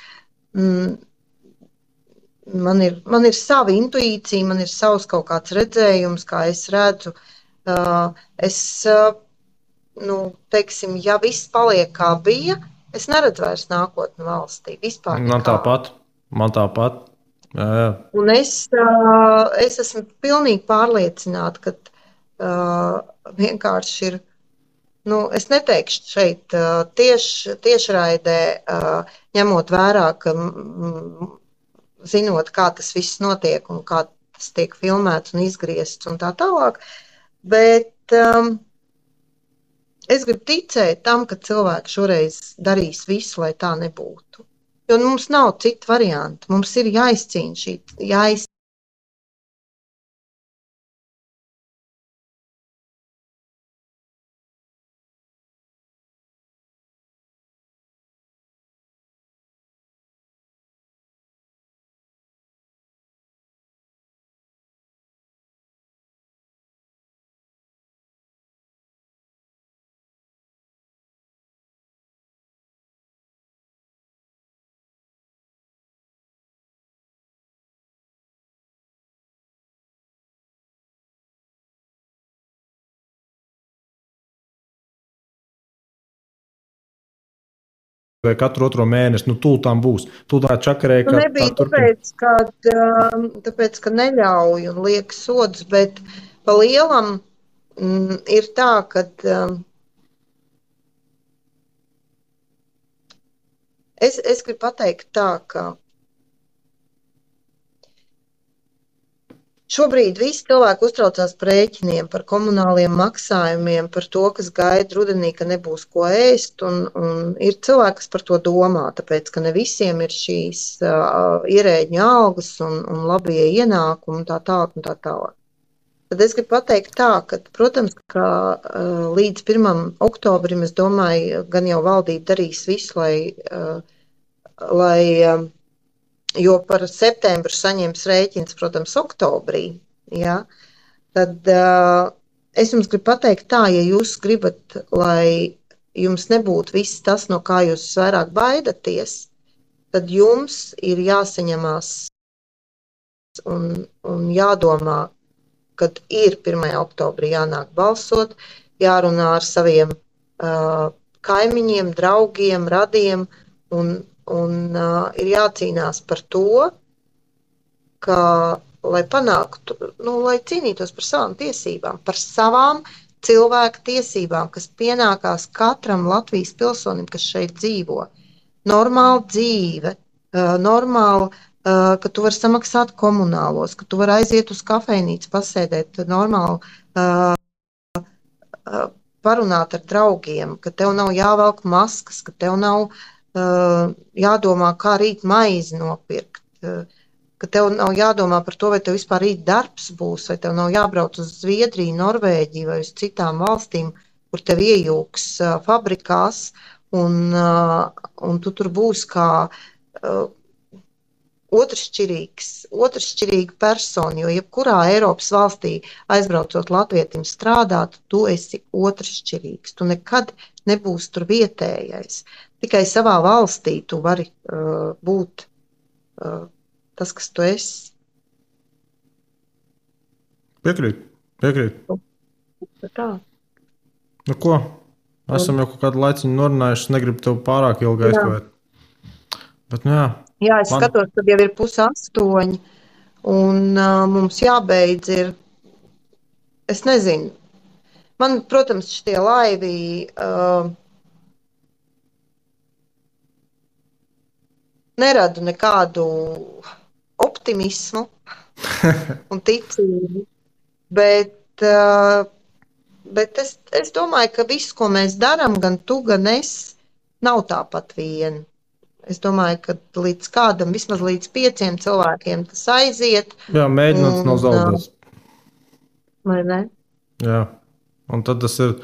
man ir sava intuīcija, man ir savs kaut kāds redzējums, kā es redzu. Teiksim, ja viss paliek kā bija, es neredzu vairs nākotni valstī. Vispār nekā. Man tāpat. Jā. Un es esmu pilnīgi pārliecināta, ka vienkārši ir. Es neteikšu šeit tiešraidē, ņemot vērā, ka zinot, kā tas viss notiek un kā tas tiek filmēts un izgriezts un tā tālāk, bet es gribu ticēt tam, ka cilvēki šoreiz darīs visu, lai tā nebūtu. Jo mums nav citu variantu. Mums ir jāizcīna vai katru otro mēnesi, tūltām būs. Tūltā čakarēja, kā tā Nebija turpina. tāpēc, ka neļauj un liek sodus, bet pa lielam ir tā, ka es gribu pateikt tā, ka šobrīd visi cilvēki uztraucās par rēķiniem, par komunāliem maksājumiem, par to, kas gaida rudenī, ka nebūs ko ēst. Un ir cilvēki, kas par to domā, tāpēc, ka ne visiem ir šīs ierēģņu algas un labie ienākumi un tā tālāk un tā tālāk. Tad es gribu pateikt tā, ka, protams, ka līdz 1. oktobrim, es domāju, gan jau valdība darīs visu, lai jo par septembru saņems rēķins, protams, oktobrī, ja? Tad es jums gribu pateikt tā, ja jūs gribat, lai jums nebūtu viss tas, no kā jūs vairāk baidaties, tad jums ir jāsaņemās un jādomā, kad ir 1. oktobrī jānāk balsot, jārunā ar saviem kaimiņiem, draugiem, radiem un ir jācīnās par to, ka, lai panāktu, lai cīnītos par savām tiesībām, par savām cilvēku tiesībām, kas pienākās katram Latvijas pilsonim, kas šeit dzīvo. Normāla dzīve, normāla, ka tu vari samaksāt komunālos, ka tu vari aiziet uz kafejnīcu, pasēdēt normāli, parunāt ar draugiem, ka tev nav jāvelk maskas, ka tev nav jādomā, kā rīt maizi nopirkt, ka tev nav jādomā par to, vai tev vispār rīt darbs būs, vai tev nav jābrauc uz Zviedriju, Norvēģiju vai uz citām valstīm, kur tev iejūks fabrikās, un tu tur būs kā otršķirīga persona, jo jebkurā Eiropas valstī aizbraucot latvietim strādāt, tu esi otršķirīgs, tu nekad nebūsi tur vietējais. Tikai savā valstī tu vari būt tas, kas tu esi. Piekrīt. Tā. Nu ko? Esam jau kaut kādu laiciņu norunājuši, negribu tev pārāk ilgi aizkavēt. Bet, nu jā. Jā, es skatos, kad jau ir 7:30, un mums jābeidz ir, es nezinu, man, protams, šitie laivi neradu nekādu optimismu un ticību, bet es domāju, ka viss, ko mēs darām, gan tu, gan es, nav tāpat vien. Es domāju, ka līdz kādam, vismaz līdz 5 cilvēkiem tas aiziet. Jā, mēģināt nav zaudēts. Vai ne? Jā, un tad tas ir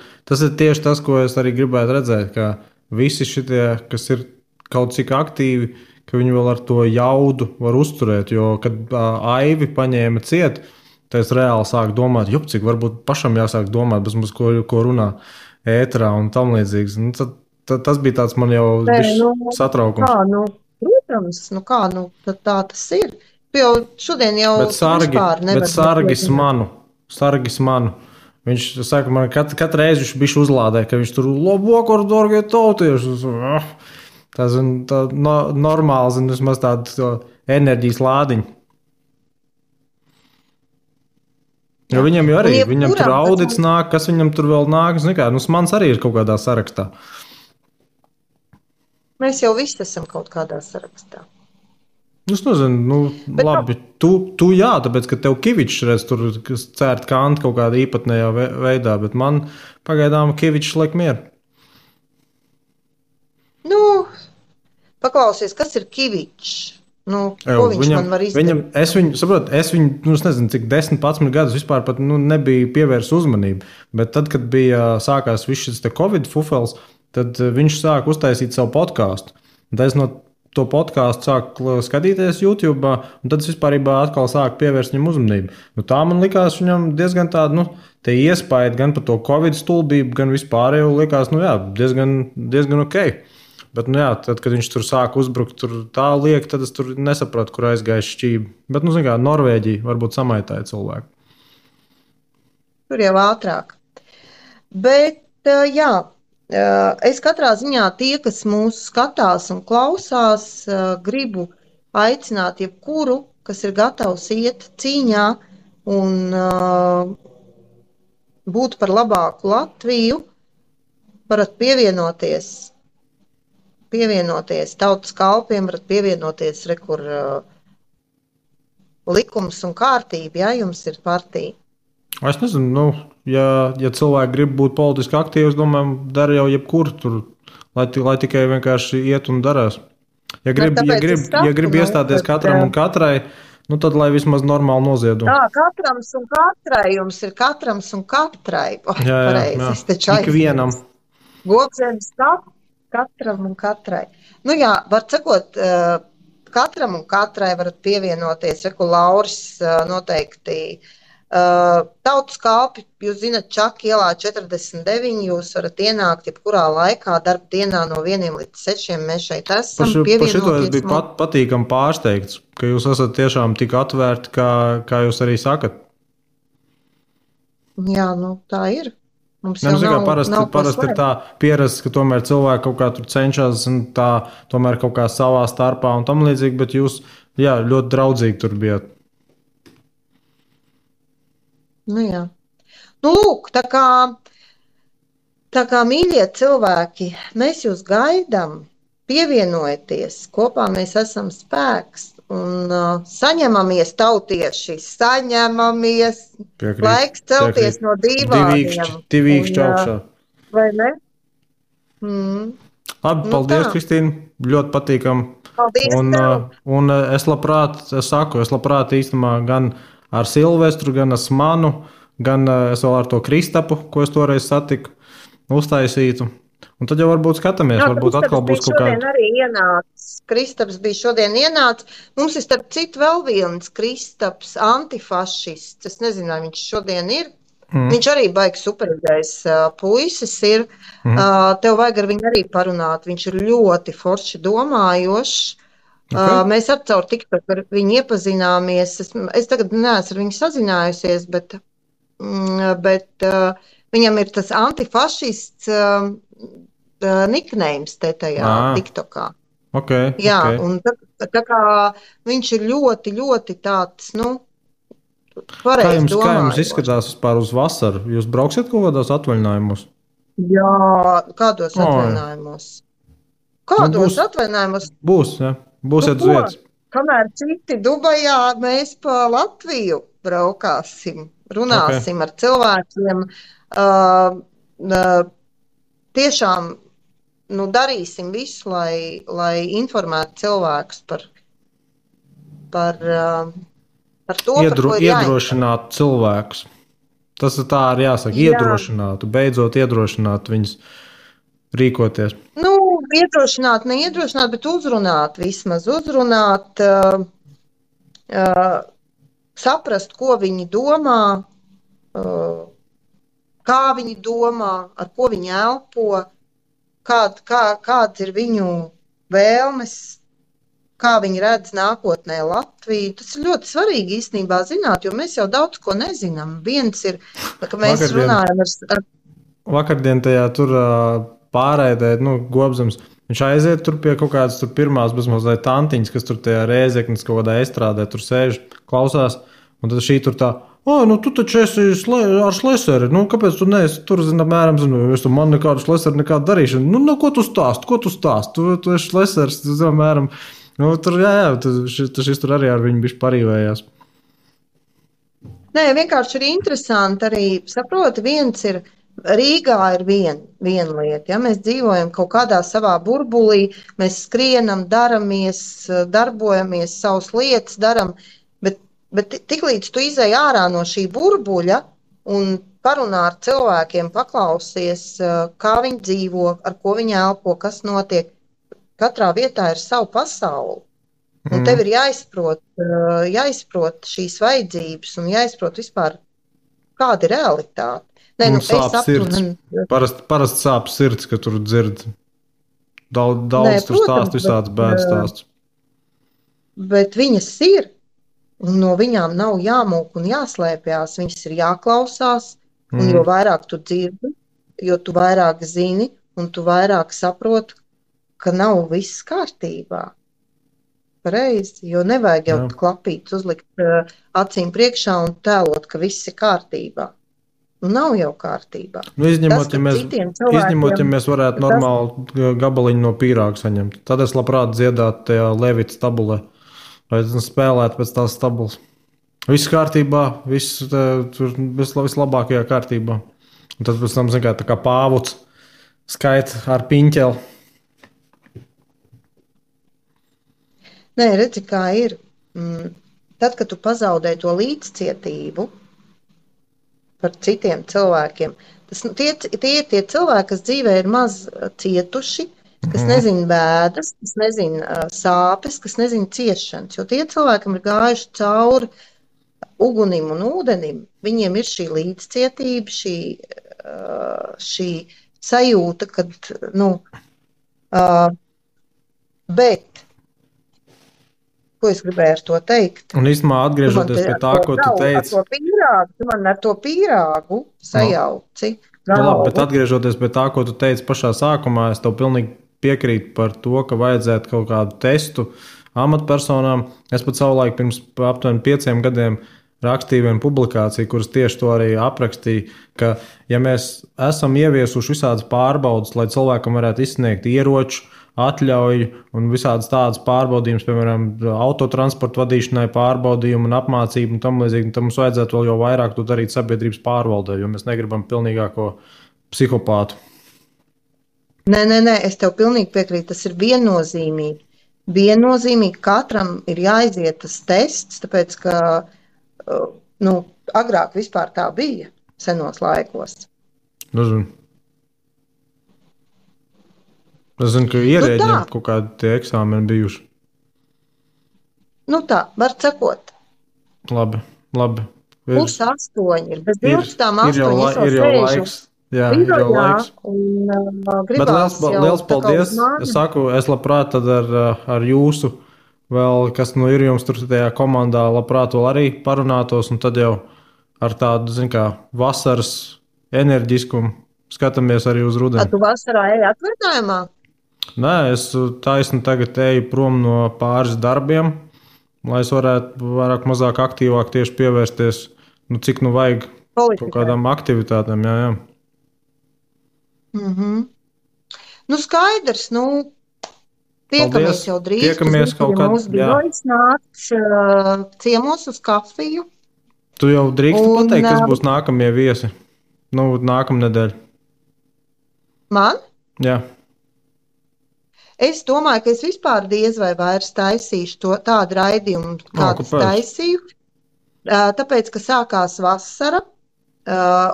tieši tas, ko es arī gribētu redzēt, ka visi šitie, kas ir kaut cik aktīvi, ka viņi vēl ar to jaudu var uzturēt, jo, kad Aivi paņēma ciet, tad es reāli sāku domāt, cik varbūt pašam jāsāk domāt, bez mums, ko runā ēterā un tam līdzīgs. Nu, tad tas bija tāds man jau satraukums. Protams, tā tas ir. Tu jau šodien jau vispār nevar. Bet sargis manu. Viņš saka, man katru reizi viņš bišķi uzlādē, ka viņš tur labokor, dorgie tautieši. Tā normāli, vismaz tāda enerģijas lādiņa. Jo viņam jau arī, viņam tur audits nāk, kas viņam tur vēl nāk, mans arī ir kaut kādā sarakstā. Mēs jau visi esam kaut kādā sarakstā. Es nezinu, labi, tu jā, tāpēc, ka tev Kivičs redz tur cērt kanti kaut kādā īpatnējā veidā, bet man pagaidām Kivičs liek mieru. Paklausies, kas ir Kivičs? Ko viņš man var izdarīt? Es viņu, nezinu, cik 10-11 gadus vispār pat nebija pievērst uzmanību, bet tad, kad sākās viss šis Covid fufels, tad viņš sāka uztaisīt savu podkāstu. Tad es no to podkāstu sāku skatīties YouTube, un tad es vispārībā atkal sāku pievērst viņam uzmanību. Tā man likās viņam diezgan tāda, te iespēja gan par to Covid stulbību, gan vispārējo likās, diezgan ok. Bet, tad, kad viņš tur sāka uzbrukt, tur tā liek, tad es tur nesapratu, kur aizgāja šķība. Bet, Norvēģija varbūt samaitāja cilvēku. Tur jau ātrāk. Bet, jā, Es katrā ziņā tie, kas mūs skatās un klausās, gribu aicināt jebkuru, kas ir gatavs iet cīņā un būt par labāku Latviju, varat pievienoties tautas kalpiem, varat pievienoties, kur likums un kārtība, ja jums ir partija. Es nezinu, ja cilvēki grib būt politiski aktīvi, es domāju, dara jau jebkur tur, lai tikai vienkārši iet un darās. Ja grib iestāties katram un katrai, tad lai vismaz normāli noziedo. Tā, katrams un katrai, jums ir katrams un katrai. Jā. Ikvienam. Gobzemes katram un katrai. Var sakot, katram un katrai varat pievienoties, Lauris noteikti. Tautas kalpi, jūs zināt, Čaka ielā 49, jūs varat ienākt jebkurā laikā, darba dienā no 1 līdz 6, mēs šeit esam. Par šito es biju patīkami pārsteigts, ka jūs esat tiešām tik atvērti, kā jūs arī sakat. Jā, tā ir. Mums jau nav parasti ir tā pierasts, ka tomēr cilvēki kaut kā tur cenšas un tā tomēr kaut kā savā starpā un tam līdzīgi, bet jūs, ļoti draudzīgi tur bijat. Jā. Lūk, tā kā mīļie cilvēki, mēs jūs gaidām, pievienojieties, kopā mēs esam spēks un saņemamies tautieši, saņemamies, laiks celties no dīvāniem. Divīkšķi augšā. Vai ne? Labi, paldies, Kristīna, ļoti patīkam. Paldies un es labprāt īstenībā gan ar Silvestru, gan ar Smanu, gan es vēl ar to Kristapu, ko es toreiz satiku, uztaisītu. Un tad jau varbūt skatāmies, varbūt atkal būs kaut kāda. Kristaps bija šodien ienācis. Mums ir starp citu vēl viens Kristaps, antifašists. Es nezinu, vai viņš šodien ir. Viņš arī baigs superīgais puisis ir. Tev vajag ar viņu arī parunāt. Viņš ir ļoti forši domājošs. Okay. Mēs ar caur TikTok ar viņu iepazināmies. Es tagad neesmu ar viņu sazinājusies, bet viņam ir tas antifašists niknējums te tajā TikTokā. Okay, jā, un tā kā viņš ir ļoti, ļoti tāds, pareizi domājot. Kā jums izskatās vispār uz vasaru? Jūs brauksiet kaut kādos atvaļinājumos? Jā, kādos atvaļinājumos? Kādos atvaļinājumos? Būs, jā. Būsiet uz vietas. Kamēr citi Dubajā, mēs pa Latviju braukāsim, runāsim ar cilvēkiem. Tiešām darīsim visu, lai informētu cilvēkus par to, par ko ir iedrošināt cilvēkus. Tas ir tā arī jāsaka, iedrošinātu, beidzot iedrošināt viņus rīkoties. Iedrošināt, neiedrošināt, bet uzrunāt vismaz. Uzrunāt, saprast, ko viņi domā, kā viņi domā, ar ko viņi elpo, kāds ir viņu vēlmes, kā viņi redz nākotnē Latviju. Tas ir ļoti svarīgi īstenībā zināt, jo mēs jau daudz ko nezinām. Viens ir, ka mēs runājam ar... Vakardien tajā tur... pārēdē, Gobzems. Viņš aiziet tur pie kaut kādas pirmās bezmazliet tantiņas, kas tur tajā Rēzeknes kaut kādā estrādē tur sēž, klausās, un tad šī tur tā, tu taču esi ar Šleseri, kāpēc tu neesi tur, apmēram, es tu man nekādu Šleseri nekādu darīšanu, ko tu stāst, tu esi Šlesers, apmēram, tur, šis tur arī ar viņu bišķi parīvējās. Nē, vienkārši ir interesanti arī, saproti, viens ir, Rīgā ir viena lieta, ja mēs dzīvojam kaut kādā savā burbulī, mēs skrienam, darbojamies, savas lietas daram, bet tiklīdz tu izej ārā no šī burbuļa un parunā ar cilvēkiem, paklausies, kā viņi dzīvo, ar ko viņi elpo, kas notiek, katrā vietā ir savu pasauli. Un tev ir jāizprot šīs vajadzības un jāizprot vispār, kāda ir realitāte. Sāp sirds. Parasti sāp sirds, ka tur dzird daudz tur stāst, visāds bēdas stāsts. Bet viņas ir, un no viņām nav jāmūk un jāslēpjās, viņas ir jāklausās, un jo vairāk tu dzirdi, jo tu vairāk zini, un tu vairāk saproti, ka nav viss kārtībā. Pareizi, jo nevajag jau klapīt, uzlikt acīm priekšā un tēlot, ka viss ir kārtībā. Nav jau kārtībā. Izņemot, ja mēs varētu normāli gabaliņu no pīrāga saņemt. Tad es labprāt dziedātu tajā Levita tabulē, vai spēlētu pēc tās tabulas. Viss kārtībā, viss tur vislabākajā kārtībā. Un tad pēc tam, tā kā pāvuts skaita ar piņķeli. Nē, redzi, kā ir. Tad, kad tu pazaudē to līdzcietību par citiem cilvēkiem, tie ir tie cilvēki, kas dzīvē ir maz cietuši, kas nezina bēdas, kas nezina sāpes, kas nezina ciešanas. Jo tie cilvēkam ir gājuši cauri ugunim un ūdenim. Viņiem ir šī līdzcietība, šī sajūta, kad, bet ko es gribēju ar to teikt? Un īstenībā atgriežoties pie tā, ko tu teici. Tu man ar to pīrāgu sajauci. Labi, bet atgriežoties pie tā, ko tu teici pašā sākumā, es tev pilnīgi piekrītu par to, ka vajadzētu kaut kādu testu amatpersonām. Es pat savulaik pirms aptuveni 5 gadiem rakstīju vienu publikāciju, kuras tieši to arī aprakstīja, ka ja mēs esam ieviesuši visādas pārbaudas, lai cilvēkam varētu izsniegt ieroču, atļauju un visādas tādas pārbaudījumus, piemēram, autotransporta vadīšanai, pārbaudījumu un apmācību un tam līdzīgi, tad mums vajadzētu vēl jau vairāk to darīt sabiedrības pārvaldē, jo mēs negribam pilnīgāko psihopātu. Nē, es tev pilnīgi piekrītu, tas ir viennozīmīgi. Viennozīmīgi katram ir jāiziet tas tests, tāpēc, ka agrāk vispār tā bija senos laikos. Es zinu, ka ierēģiem kaut kādi tie eksāmeni bijuši. Tā, var sakot. Labi. 7:30 ir. Bez 12:08 ir jau laiks. Jā, ir jau laiks. Bet liels paldies. Es labprāt tad ar jūsu vēl, kas ir jums tur tajā komandā, labprāt vēl arī parunātos, un tad jau ar tādu, vasaras enerģiskumu skatāmies arī uz rudeni. Tu vasarā eji atvaļinājumā? Nē, es taisni tagad eju prom no pāris darbiem, lai es varētu vairāk mazāk aktīvāk tieši pievērsties, cik vajag kaut kādām aktivitātēm. Jā. Skaidrs, tiekamies jau drīz. Tiekamies kaut kad. Mūsu birojas nāc ciemos uz kafiju. Tu jau drīksti pateikt, kas būs nākamie viesi? Nākamnedēļ. Man? Jā. Es domāju, ka es vispār diez vai vairs taisīšu tādu raidījumu, kādu taisīju. Tāpēc, ka sākās vasara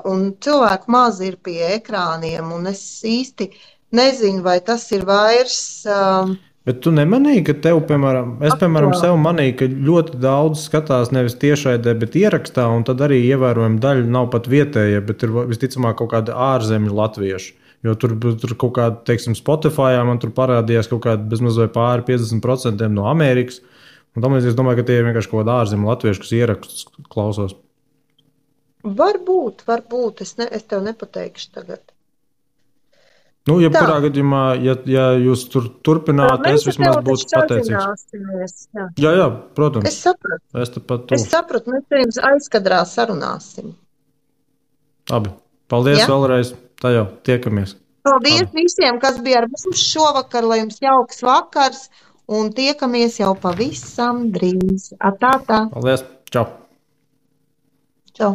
un cilvēku maz ir pie ekrāniem, un es īsti nezinu, vai tas ir vairs. Bet tu nemanīji, ka tev, piemēram, sev manīju, ka ļoti daudz skatās nevis tiešraidē, bet ierakstā, un tad arī ievērojama daļa nav pat vietējie, bet ir visticamāk kaut kādi ārzemju latvieši. Jo tur kaut kāda, teiksim, Spotify, man tur parādījās kaut kāda bezmazliet pāri 50% no Amerikas. Un tam es domāju, ka tie ir vienkārši kaut kādi ārzemju latvieši, kas ierakstus klausās. Varbūt. Es tev nepateikšu tagad. Jebkurā gadījumā, ja jūs tur turpināt, es vismaz būtu pateicīgs. Jā, protams. Es sapratu, mēs pirms aizkadrā sarunāsim. Labi, paldies vēlreiz. Tā jau tiekamies. Paldies visiem, kas bija ar mums šovakar, lai jums jauks vakars, un tiekamies jau pavisam drīz. Tā. Paldies, čau. Čau.